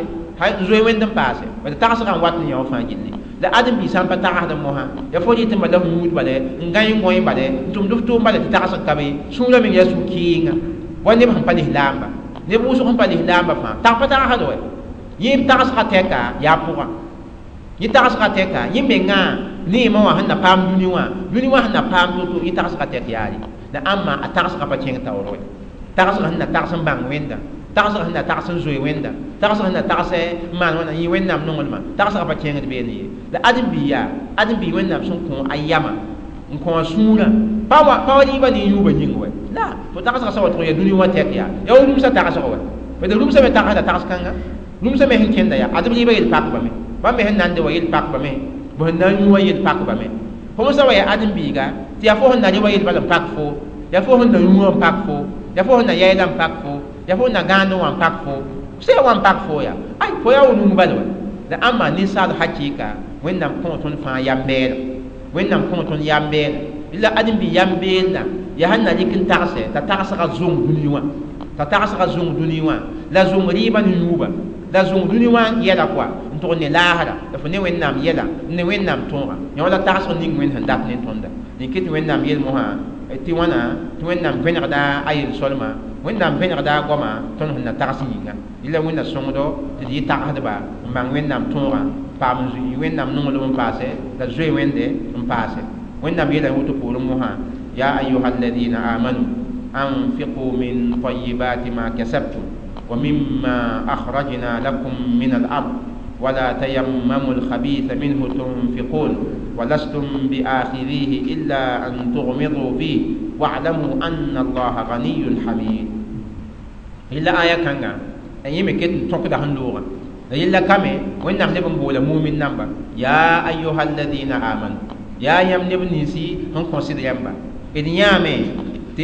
n zoe Wẽnd n paase bala tagsgã n wat n yã wã fãa gilli la ãdem-biig sã n pa tagsd mosã yaa fo rɩt n bala f yũud bala n gãe n gõe bala n tʋmd f tʋʋm bala tɩ tagsg ka be sũurã meng yaa sũ-kɩɩnga wa neb sẽn pa lislaamba neb wʋsg sẽn pa lislaamba fãa tag pa tagsd wɛ yẽ tagsgã tɛka yaa pʋgã yẽ tagsgã tɛka yẽ mengã neemã wã sẽn na paam dũni wã dũni wã sẽn na paam to-to yẽ tagsgã tɛk yaare la ãmba a tagsgã pa kẽng taoor wɛ tagsgã sẽn na tags n bãng Wẽnda tagsgã sẽn na tags n zoe Wẽnda tagsgã sẽn na tags n maan wãna yẽ Wẽnnaam nonglmã tagsgã pa kẽngd beene ye la ãdem-biig yaa ãdem-biig Wẽnnaam sẽn kõ a yamã n kõ a sũurã pa wa rɩɩbã ne yũubã yĩng wɛ la fo tagsgã sã wa tʋg yaa dũni wã tɛk yaa yaa wa rũmsã tagsg wɛ bad rũmsã me tagsda tags-kãnga rũmsã me sẽn kẽnda yaa adb rɩɩbã yel pakbame bãmb me sẽn nande wa yel pakbame b sẽn na n yũ wã yel pakbame fo sã wa yaa ãdem-biiga tɩ yaa fo sẽn na rɩ wa yel bala n pak fo yaa fo sẽn na yũ wã n pak fo yaa fo sẽn na yɛɛla n pak fo yaa fo sẽn na gãand wã n pak fo sẽn wa n pak fo yaa ay fo yaa wa rũm bala wa la ãmba ninsaal hakɩɩka Wẽnnaam kõ tõnd fãa yam-beelg Wẽnnaam kõ tõnd yam-beelg la ãdem-biig yam-beelda yaa sẽn na rɩk n tagse t'a tagsgã zõng dũni wã t'a tagsgã zõng dũni wã la zõng rɩɩbã ne yũuba la zõng dũni wã yɛla kɔa n tʋg ne laasra la fo ne Wẽnnaam yɛla n ne Wẽnnaam tõoga yã wala tagsg ning Wẽnd sẽn dat ne tõnda dẽn tɩ Wẽnnaam yel mosã tɩ wãna tɩ Wẽnnaam vẽnegda a yel-solma Wẽnnaam vẽnegda a goama tõnd sẽn na tags yĩnga rɩla Wẽnna sõngdo tɩ d yɩ tagsdba n bãng Wẽnnaam tõogã paam n Wẽnnaam nonglem n paase la zoe Wẽnde n paase Wẽnnaam yeela woto poorẽ mosã ya ayuha alladina amanu anfiqu min tayibati ma kasabtum wa mimma akhrajna lakum min al-ard ولا تيمموا الخبيث منه تنفقون ولستم بآخذيه إلا أن تغمضوا فيه واعلموا أن الله غني حميد إلا آية كانغا أن يمكن تنقد هندوغا إلا كامي وإن نحن بولا مؤمن نمبا يا أيها الذين آمنوا يا يم نبنسي هم consider يمبا إذن يامي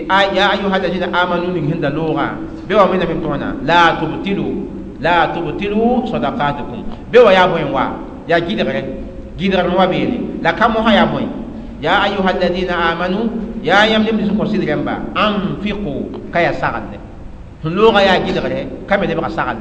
يا أيها الذين آمنوا من هند لغة بوا من من لا تبتلوا لا تبتلوا صدقاتكم بوا يا بوين وا يا جدغره جدغره وا بيني لا كم يا بوين يا أيها الذين آمنوا يا يم نبنسي consider يمبا أنفقوا كيا سغل لغة يا جدغره كم يبقى سغل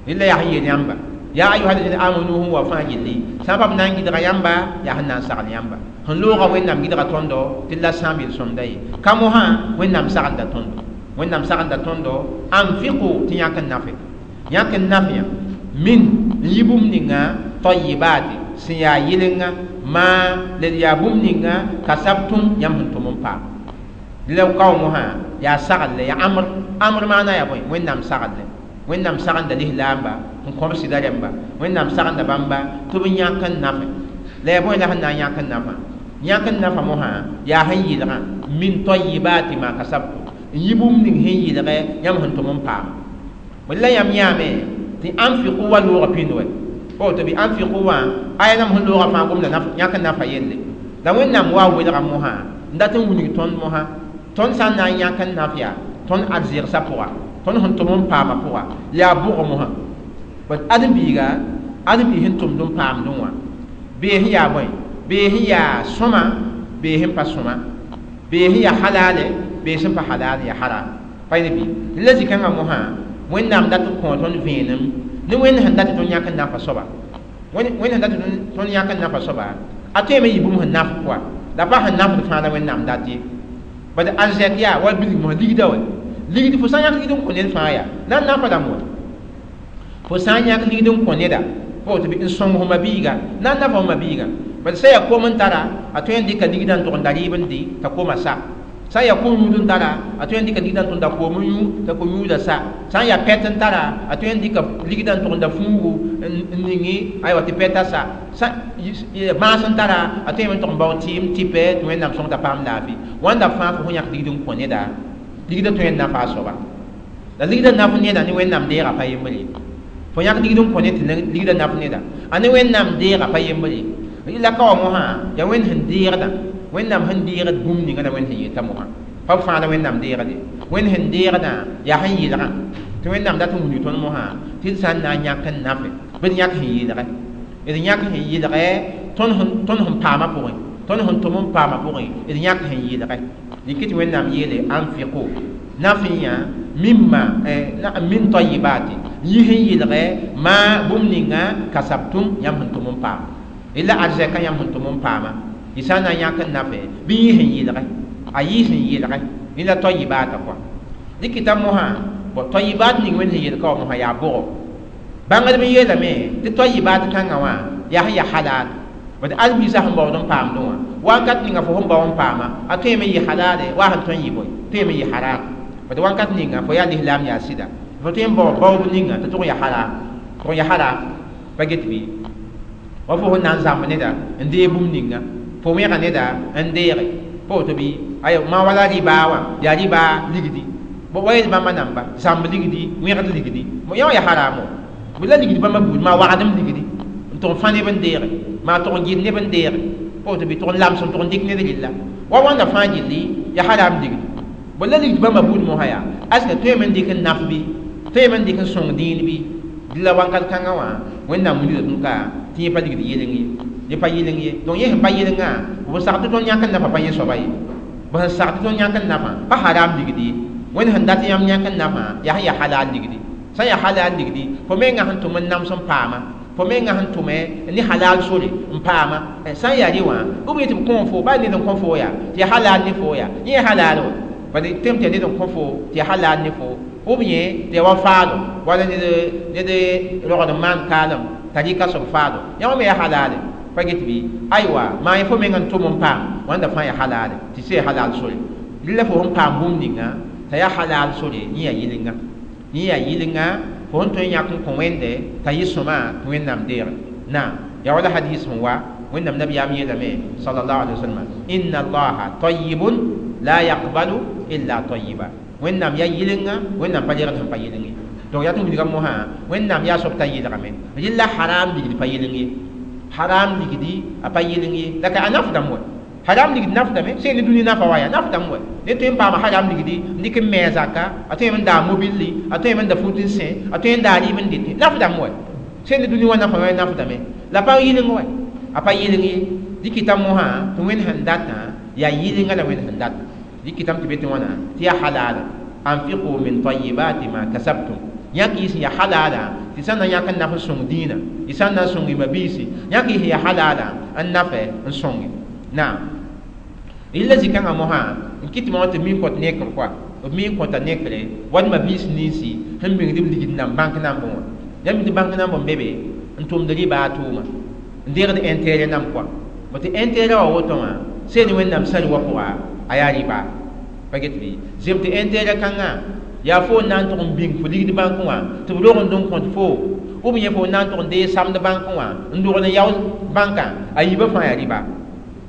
إلا يا هي يمبا يا أيها الذين آمنوا هو فاجلي سبب نانجي يمبا يا هنا سغل يمبا sẽn loogã Wẽnnaam gɩdga tõndo tɩ la sãam yel-sõmda ye ka mosã Wẽnnaam sagenda tõndo Wẽnnaam sagenda tõndo anfiqu tɩ yãk n nafe yãk n naf yã min n yɩ bũmb ninga tayibati sẽn yaa yɩlenga maa la d yaa bũmb ninga kasabtum yãmb sẽn tʋm n paam la kao mosã yaa saglle yaa amr amr maana yaa bõe Wẽnnaam saglle Wẽnnaam sagenda lislaamba n kõb sɩda rẽmba Wẽnnaam sagenda bãmba tɩ b yãk n nafe la yaa bõe la sẽn na n yãk n nafa yãk n nafa mosã yaa sẽn yɩlgã min tayibati ma kasabtum n yɩ bũmb ning sẽn yɩlgɛ yãmb sẽn tʋm n paam la yãmb yãame tɩ anfiqu wa loogã pĩnd wɛ o tɩ bɩ anfiqu wã aya nam sẽn loogã fãa gomda yãk n nafa yelle la Wẽnnaam wa welga mosã n dat n wilg tõnd mosã tõnd sã n na n yãk n naf yaa tõnd arzɩgsã pʋga tõnd sẽn tʋm n paamã pʋga yaa bʋgã mosã bat ãdem-biiga ãdem-biig sẽn tʋmd n paamdẽ wã bee sẽn yaa bõe bee sẽn yaa sõma bee sẽn pa sõma bee sẽn yaa halale bee sẽn pa halal yaa haram pa yẽ bɩ la zĩ-kãngã mosã Wẽnnaam dat n kõ tõnd vẽenem ne Wẽnd sẽn dat tɩ tõnd yãk n nafa soaba Wẽnd sẽn dat tɩ tõnd yãk n nafa soaba A tõeme yɩ bũmb sẽn naf kɔa la pa sẽn nafd fãa la Wẽnnaam dat ye. Bad arzɛk yaa wala bilg mosã ligda wɛ ligd fo sã n yãk ligd n kõ ned fãa yaa na n nafa rãmb wɛ fo sã n yãk ligd n kõ neda pa woto bɩ n sõng fo mabiiga na n nafa fo mabiiga. Bad sã yaa kom n tara a tõe n dɩka ligdã n tʋg n da rɩɩb n dɩ t'a koma sa. Sã n yaa kom-yũud n tara a tõe n dɩka ligdã n tʋg n da koom n yũ t'a ko-yũudã sa. Sã n yaa pɛt n tara a tõe n dɩka ligdã n tʋg n da fuugu n ningi aywa tɩ pɛtã sa. Sã bãas n tara a tõe n tʋg n bao tɩɩm tɩpɛ tɩ Wẽnnaam sõng t'a paam laafɩ. Wãnda fãa fo sẽn yãk ligd n kõ neda ligdã tõe n nafa a soaba. La ligdã naf neda ne Wẽnnaam deegã pa yembre ye. Fo yãk ligd n kõ ned tɩ ligdã naf neda a ne Wẽnnaam deegã pa yembre ye. La ka wa mosã yaa Wẽnd sẽn deegdã Wẽnnaam sẽn deegd bũmb ninga la Wẽnd sẽn yeta mosã pa b fãa la Wẽnnaam deegde. Wẽnd sẽn deegdã yaa sẽn yɩlgã tɩ Wẽnnaam dat n wilg tõnd mosã tɩ d sã n na n yãk n nafe bɩ d yãk sẽn yɩlgɛ d yãk sẽn yɩlgɛ tõnd sẽn paamã pʋgẽ tõnd sẽn tʋm n paamã pʋgẽ d yãk sẽn yɩlgɛ. Dɩk tɩ Wẽnnaam yeele anfiqu naf n yã mimma min tayibati yɩ sẽn yɩlgɛ maa bũmb ninga kasabtum yãmb sẽn tʋm n paama. La arzɛka yãmb sẽn tʋm n paama y sã n na n yãk n nafe bɩ yɩ sẽn yɩlgɛ a yɩ sẽn yɩlgɛ la tayibata kɔa. Dɩkɩta mosã bõ tayibat ning Wẽnd sẽn yel ka wa mosã yaa bʋgo. Bãngdb n yeelame tɩ tayibat kãngã wã yaa sẽn yaa halal. Bad al-biisã sẽn baood n paamdẽ wã wakat ninga fo sẽn bao n paama a tõeme n yɩ halale wa sẽn tõe n yɩ bõe tõeme n yɩ haram. Bad wakat ninga fo yaa lislaam yaa sɩda fo tõe n bao baoob ninga tɩ tʋg n yaa haram tʋg n yaa haram pa get bɩ wa fo sẽn na n zãmb neda n deeg bũmb ninga fo wẽga neda n deege pa woto bɩ ay ma wala rɩbaa wã yaa rɩbaa ligdi bõ wa yel bãmba namba zãmb ligdi wẽgd ligdi yã wã yaa haramo bɩ la ligdi bãmba buud maa wagdem ligdi n tʋg n fã neb n deege maa tʋg n gɩd neb n deege pa woto bɩ tʋg n lams n tʋg n dɩk ned rɩlla wa wãnda fãa gilli yaa haram ligdi bõ la ligdi bãmba buud mosã yaa aska tõeme n dɩk n naf bɩ tõeme n dɩk n sõng dĩin bɩ la wakat kãngã wã Wẽnnaam wilga tõnd ka tɩ yẽ pa ligd yɩleng ye yẽ pa yɩleng ye. Donc yẽ sẽn pa yɩlengã b sag tɩ tõnd yãk n nafa pa yẽ soaba ye b sẽn sag tɩ tõnd yãk n nafã pa haram ligdi ye. Wẽnd sẽn dat yãmb yãk n nafã yaa sẽn yaa halal ligdi. Sã n yaa halal ligdi fo mengã sẽn tʋm n nams n paama fo mengã sẽn tʋme ne halal sore n paama sã n yaa rẽ wã b yetɩ b kõ fo baa ned n kõ fo yaa tɩ yaa halal ne fo yaa yẽ yaa halal wã bad tẽm tɩ yaa ned n kõ fo tɩ yaa halal ne fo b yẽ tɩ yaa wa faado wala ned rogd n maan kaalem t'a rɩka soab faado yã wã me yaa halale pa get bɩ aywa maa yẽ fo meng n tʋm n paam wãnda fãa yaa halale tɩ sã yaa halal sore rɩla fo sẽn paam bũmb ninga t'a yaa halal sore yẽ yaa yɩlenga yẽ yaa yɩlenga fo sẽn tõe n yãk n kõ Wẽnde t'a yɩ sõma tɩ Wẽnnaam deege. Naam yaa wala hadis sẽn wa Wẽnnaam nabiyaam yeelame sallallahu alaihi wasallam inna allaha tayyibun la yaqbalu illa tayyiba. Wẽnnaam yaa yɩlenga Wẽnnaam pa legd sẽn pa yɩleng ye. Donc yaa tɩ wilga mosã Wẽnnaam yaa soab t'a yɩlgame rɩla haram ligd pa yɩleng ye haram ligdi a pa yɩleng ye la ka a nafdame wɛ haram ligd nafdame sẽn ne dũni nafa wa yaa nafdame wɛ ne tõe n paama haram ligdi n dɩk n me a zaka a tõe n daa mobilli a tõe n da fut n sẽ a tõe n daa rɩɩb n dɩtẽ nafdame wɛ sẽn ne dũni wã nafa wã nafdame la pa yɩleng wɛ a pa yɩleng ye. Dɩkɩta mosã tɩ Wẽnd sẽn datã yaa yɩlenga la Wẽnd sẽn data dɩkɩtame tɩ be tɩ wãna tɩ yaa halala anfiqu min tayyibati ma kasabtum yãk yɩ sẽn yaa halala tɩ sã n na yãk n naf n sõng dĩinã y sã n na n sõng y mabiisi yãk yɩ sẽn yaa halala n nafɛ n sõnge. Naam rɩla zĩ-kãngã mosã n kɩt tɩ tɩ mi n kõt nekr koa b mi n kõta nekre wa mabiis ninsi sẽn bĩngd b ligd nan bãnk nambẽ wã yãmb tɩ bãnk namb n be be n tʋmd rɩbaa tʋʋma n deegd intérêt nam koa bõ tɩ intérêt wã woto wã seen Wẽnnaam sã wã pʋga a yaa rɩbaa pa get bɩ zem tɩ intérêt kãngã yaa fo n na n tʋg n bĩng fo ligd bãnkẽ wã tɩ b rogend n kõt fo b yẽ fo n na n tʋg n deeg samd bãnkẽ wã n dogl n yao bãnkã a yiibã fãa yaa rɩba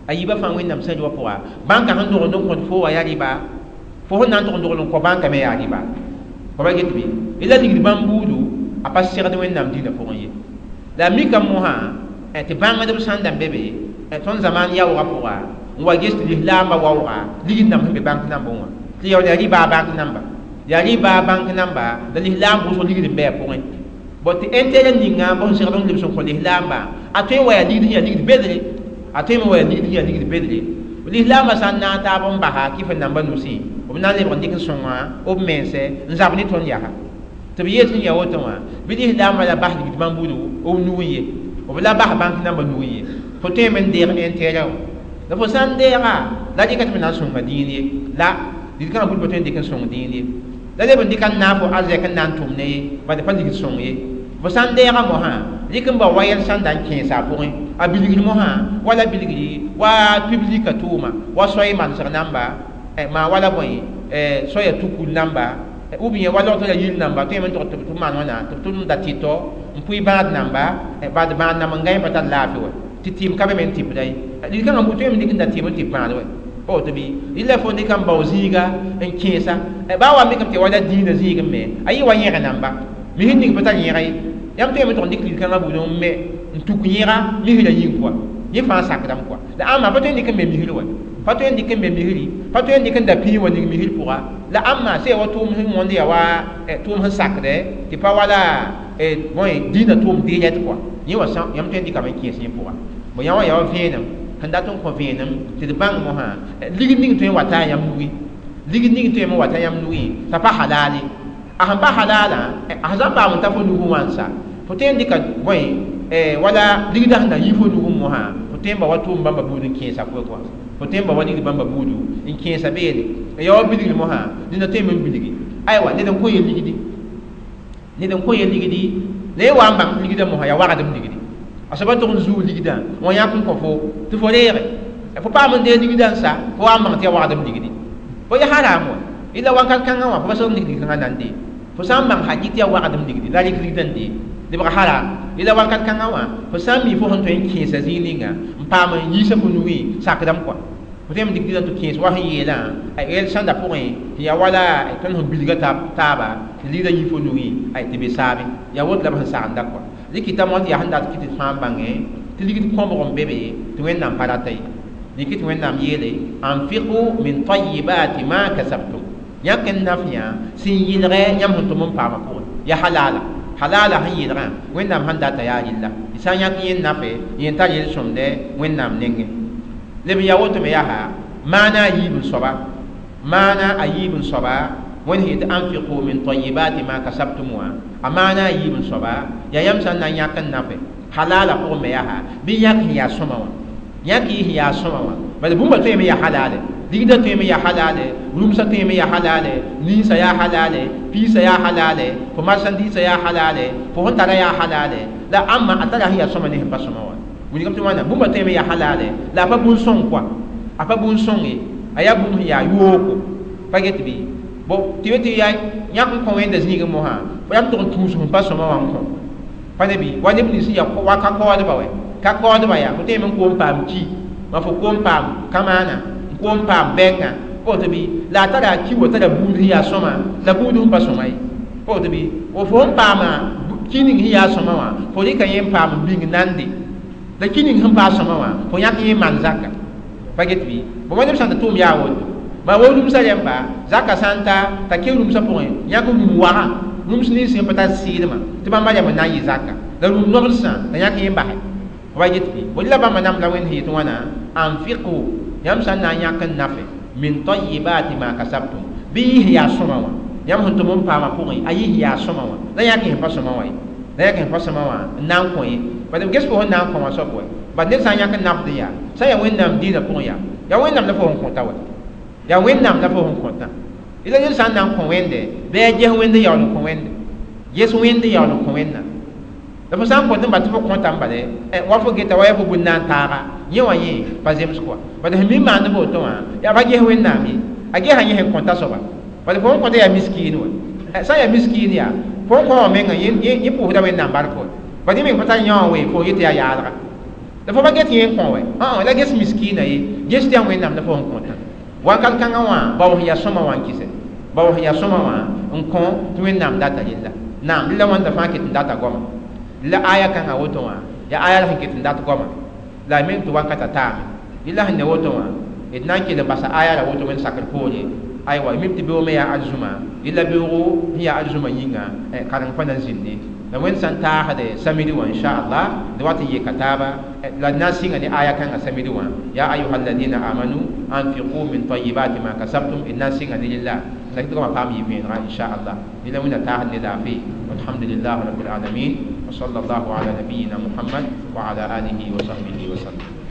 a yiibã fãa Wẽnnaam sã wã pʋga bãnkã sẽn dogend n kõt fo wã yaa rɩba fo sẽn na n tʋg n dogl n kõ bãnkã me yaa rɩba fo pa get bɩ la ligd bãmb buudu a pa segd Wẽnnaam dĩinã pʋgẽ ye. La a mika mosã tɩ bãngdb sãn da n be be tõnd zamaan yaoogã pʋga n wa ges tɩ lislaambã waooga ligd namba sẽn be bãnk nambẽ wã tɩ yaool yaa rɩbaa bãnk namba yaa rɩbaa bãnk namba la lislaam wʋsg ligd n bɩ a pʋgẽ bõ tɩ intérêt ninga bõ sẽn segd n lebs n kõ lislaambã a tõe n wa yaa ligd sẽn yaa ligd bedre a tõe me wa yaa ligd sẽn yaa ligd bedre lislaambã sã n na n taab n basa kɩf n namba nusẽ b na n lebg n dɩk n sõnga b mense n zab ne tõnd yaa tɩ b yeel sẽn yaa woto wã bɩ lislaambã la bas ligd bãmb buudu b nug n ye b la bas bãnk namba nug n ye. Fo tõe me n deeg intérêt la fo sã n deega la dɩka tɩ b na n sõnga dĩin ye la ligd-kãngã buud pa tõe n dɩk n sõng dĩin ye la leb n dɩka n naag fo arzɛk n na n tʋm ne ye bad pa ligd sõng ye fo sã n deega mosã rɩk n bao wa yɛl sẽn da n kẽesa a pʋgẽ a bilgr mosã wala bilgri wa piblika tʋʋma wa soay manesg namba maa wala bõe soaya tukul namba ou bien wa log tɩ la yir namba tõe me n tog tɩ b maan wãna tɩ b tʋm da tɩtɔ n pʋɩ bãad namba bad bãad nam n gãe pa tar laafɩ wa tɩ tɩɩm ka be me n tɩpda ye ligd-kãngã bu tõe me dɩk n da tɩɩm n tɩ bãad wa pa woto bɩ rɩla fo dɩka n bao zĩiga n kẽesa baa wa mikame tɩ wala dĩinã zĩigẽ me a yɩ wa yẽg namba misr ning pa tar yẽga ye yãmb tõe me tʋg n dɩk ligd-kãngã buud n me n tuk yẽga misrã yĩng kɔa yẽ fãa sakdame kɔa la ãmba pa tõe n dɩk n me misr wa pa tõe n dɩk n me misri pa tõe n dɩk n da pĩig wa ning misr pʋga la ãmba sẽn ya wa tʋʋm sẽn wõnd ya wa tʋʋm sẽn sakdɛ tɩ pa wala bõe dĩinã tʋʋm deelɛt kɔa yẽ wa yãmb tõe n dɩkame n kẽes yẽ pʋga bõ yã wã ya wa vẽenem sẽn dat n kõ vẽenem tɩ d bãng mosã ligd ning tõe n wa taa yãmb nugẽ ligd ning tõe n wa ta yãmb nugẽ t'a pa halal ye a sẽn pa halalã a sẽn paam n ta fo nugẽ wã n sa fo tõe n dɩka bõe wala ligdã sẽn na yi fo nugẽ mosã fo tõe n ba wa tʋʋm bãmba buud n kẽesa pʋgẽ kɔa fo tõe n ba wa ligd bãmba buudu n kẽesa beene n ya wa bilgr mosã neda tõe me n bilgi aywa ned n kõ ye ligdi ned n kõ ye ligdi la ye wa n bãng ligdã mosã yaa wagdem ligdi a soaba tʋg n zuu ligdã wã yãk n kõ fo tɩ fo reege fo paam n dee ligdã n sa fo wa n bãng tɩ yaa wagdem ligdi fo ya haram wa ila wakat kãngã wã fo pa seg n ning kãngã na n dee fo sã n bãng hakɩ tɩ yaa wagdem ligdi la rɩk ligdã n dee lebg haram ila wakat kãngã wã fo sã n mi fo sẽn tõe n kẽesa zĩig ninga n paam n yiisa fo nugẽ sakdame kɔa fo tõe n dɩk ligdã tɩ kẽes wa sẽn yeelã yɛl sãnda pʋgẽ tɩ yaa wala tõnd sẽn bilga taaba tɩ ligdã yi fo nugẽ tɩ be saame yaa woto la b sẽn sagenda kɔa dɩk tɩ mot yaa sẽn dat kɩ tɩ fãa bãngẽ tɩ ligd kõbg n be be tɩ Wẽnnaam pa rata ye dɩk tɩ Wẽnnaam yeele anfiqu min tayibati ma kasabtum yãk n naf yã sẽn yɩlgɛ yãmb sẽn tʋm n paamã pʋgẽ yaa halala halala sẽn yɩlgã Wẽnnaam sẽn data yaa rɩlla y sã n yãk yẽ nafe yẽ tar yel-sõmdɛ Wẽnnaam nengẽ leb n yaa woto me yaa maana a yiib n soaba maana a yiib n soaba Wẽnd sẽn yetɩ anfiqu min tayibati ma kasabtum wã a maana a yiib n soaba yaa yãmb sã n na n yãk n nafe halala pʋgẽ me yaa bɩ yãk sẽn yaa sõma wã yãk y sẽn yaa sõma wã bala bũmba tõe me yaa halale ligdã tõe me yaa halale rũmsã tõe me yaa halale ninsã yaa halale piisã yaa halale fo marchandise yaa halale fo sẽn tara yaa halale la ãmba a tara sẽn yaa sõma ne sẽn pa sõma wã wilgame tɩ wãna bũmba tõe me yaa halale la a pa bũn-sõng kɔa a pa bũn-sõng ye a yaa bũmb sẽn yaa yooko pa get bɩ bo tɩ be tɩ yaa yãk n kõ wẽnda zĩigẽ mosã fo yam tʋg n tũus sẽn pa sõma wã n kõ pa ne bɩ wa neb nins sẽn yaa wa ka kaoodba wɛ ka kaoodba yaa fo tõe me n koom paam ki ma fo koom paam kamaana n koom paam bɛngã pa woto bɩ la a tara ki wa tara buud sẽn yaa sõma la buud sẽn pa sõma ye pa woto bɩ fo sẽn paama ki ning sẽn yaa sõma wã fo rɩka yẽ n paam n bĩng nande la ki ning sẽn paa sõma wã fo yãk yẽ maan zaka pa get bɩ bõ wa neb sã n tɩ tʋʋm yaa woto ma wo rũmsã rẽmba zaka sã n ta t'a ke rũmsã pʋgẽ yãk rũm wagã rũms nins sẽn pa tar sɩɩlmã tɩ bãmba rẽmb n na n yɩ zaka la rũm nobdsã la yãk yẽ basɛ wa get bɩ bõ la bãmba nam la Wẽnd sẽn yetɩ wãna anfiqu yãmb sã n na n yãk n nafe min tayibati ma kasabtum bɩ yɩ sẽn yaa sõma wã yãmb sẽn tʋm n paamã pʋgẽ a yɩ sẽn yaa sõma wã la yãk sẽn pa sõma wã ye la yãk sẽn pa sõma wã n na n kõ ye bad ges fo sẽn na n kõ wã soab wɛ bad ned sã n yãk n nafd n yaa sã n yaa Wẽnnaam dĩinã pʋgẽ yaa yaa Wẽnnaam la fo sẽn kõta wɛ yaa Wẽnnaam la fo sẽn kõtã ila ned sã n na n kõ Wẽnde bɩ a ges Wẽnd yaool n kõ Wẽnde ges Wẽnd yaool n kõ Wẽnnaam la fo sã n kõt n bal tɩ fo kõta n bale wa fo geta wa yaa fo bũn na n taaga yẽ wã yẽ pa zems kɔa bad sẽn mi maand woto wã yaa pa ges Wẽnnaam ye a gesa yẽ sẽn kõta soaba bad fo sẽn kõta yaa miskiin wɛ sã n yaa miskiin yaa fo n kõ wã menga yẽ pʋʋsda Wẽnnaam bark wɛ bad yẽ meng pa tar yã wã wee fo yetɩ yaa yaalga la fo pa get yẽ n kõ wɛ la ges miskiinã ye ges tɩ yaa Wẽnnaam la fo sẽn kõtã wakat kãngã wã bao sẽn yaa sõma wã n kɩsɛ bao sẽn yaa sõma wã n kõ tɩ Wẽnnaam data yella naam la wãnda fãa ket n data goama la aya kãngã woto wã yaa aya la sẽn ket n dat goama la a meng tɩ wakata taame yella sẽn ne woto wã d na n kell n basa aya la woto wẽnd sakr poore aywa mim tɩ beoog me yaa arzũma yella beoogo sẽn yaa arzũma yĩnga kareng pa na n zĩnde la wẽnd sã n taasde samidi wã inchallah d wat n yeka taaba la d na n sɩnga ne aya kãngã samidi wã ya ayuha alladina amanu anfiqu min tayibati ma kasabtum d na n sɩnga ne rella la tɩ goamã paam yɩ vẽenega inchallah yella wẽnna taasd ne laafɩ walhamdulillah rabbil alamin. وصلى الله على نبينا محمد وعلى آله وصحبه وسلم.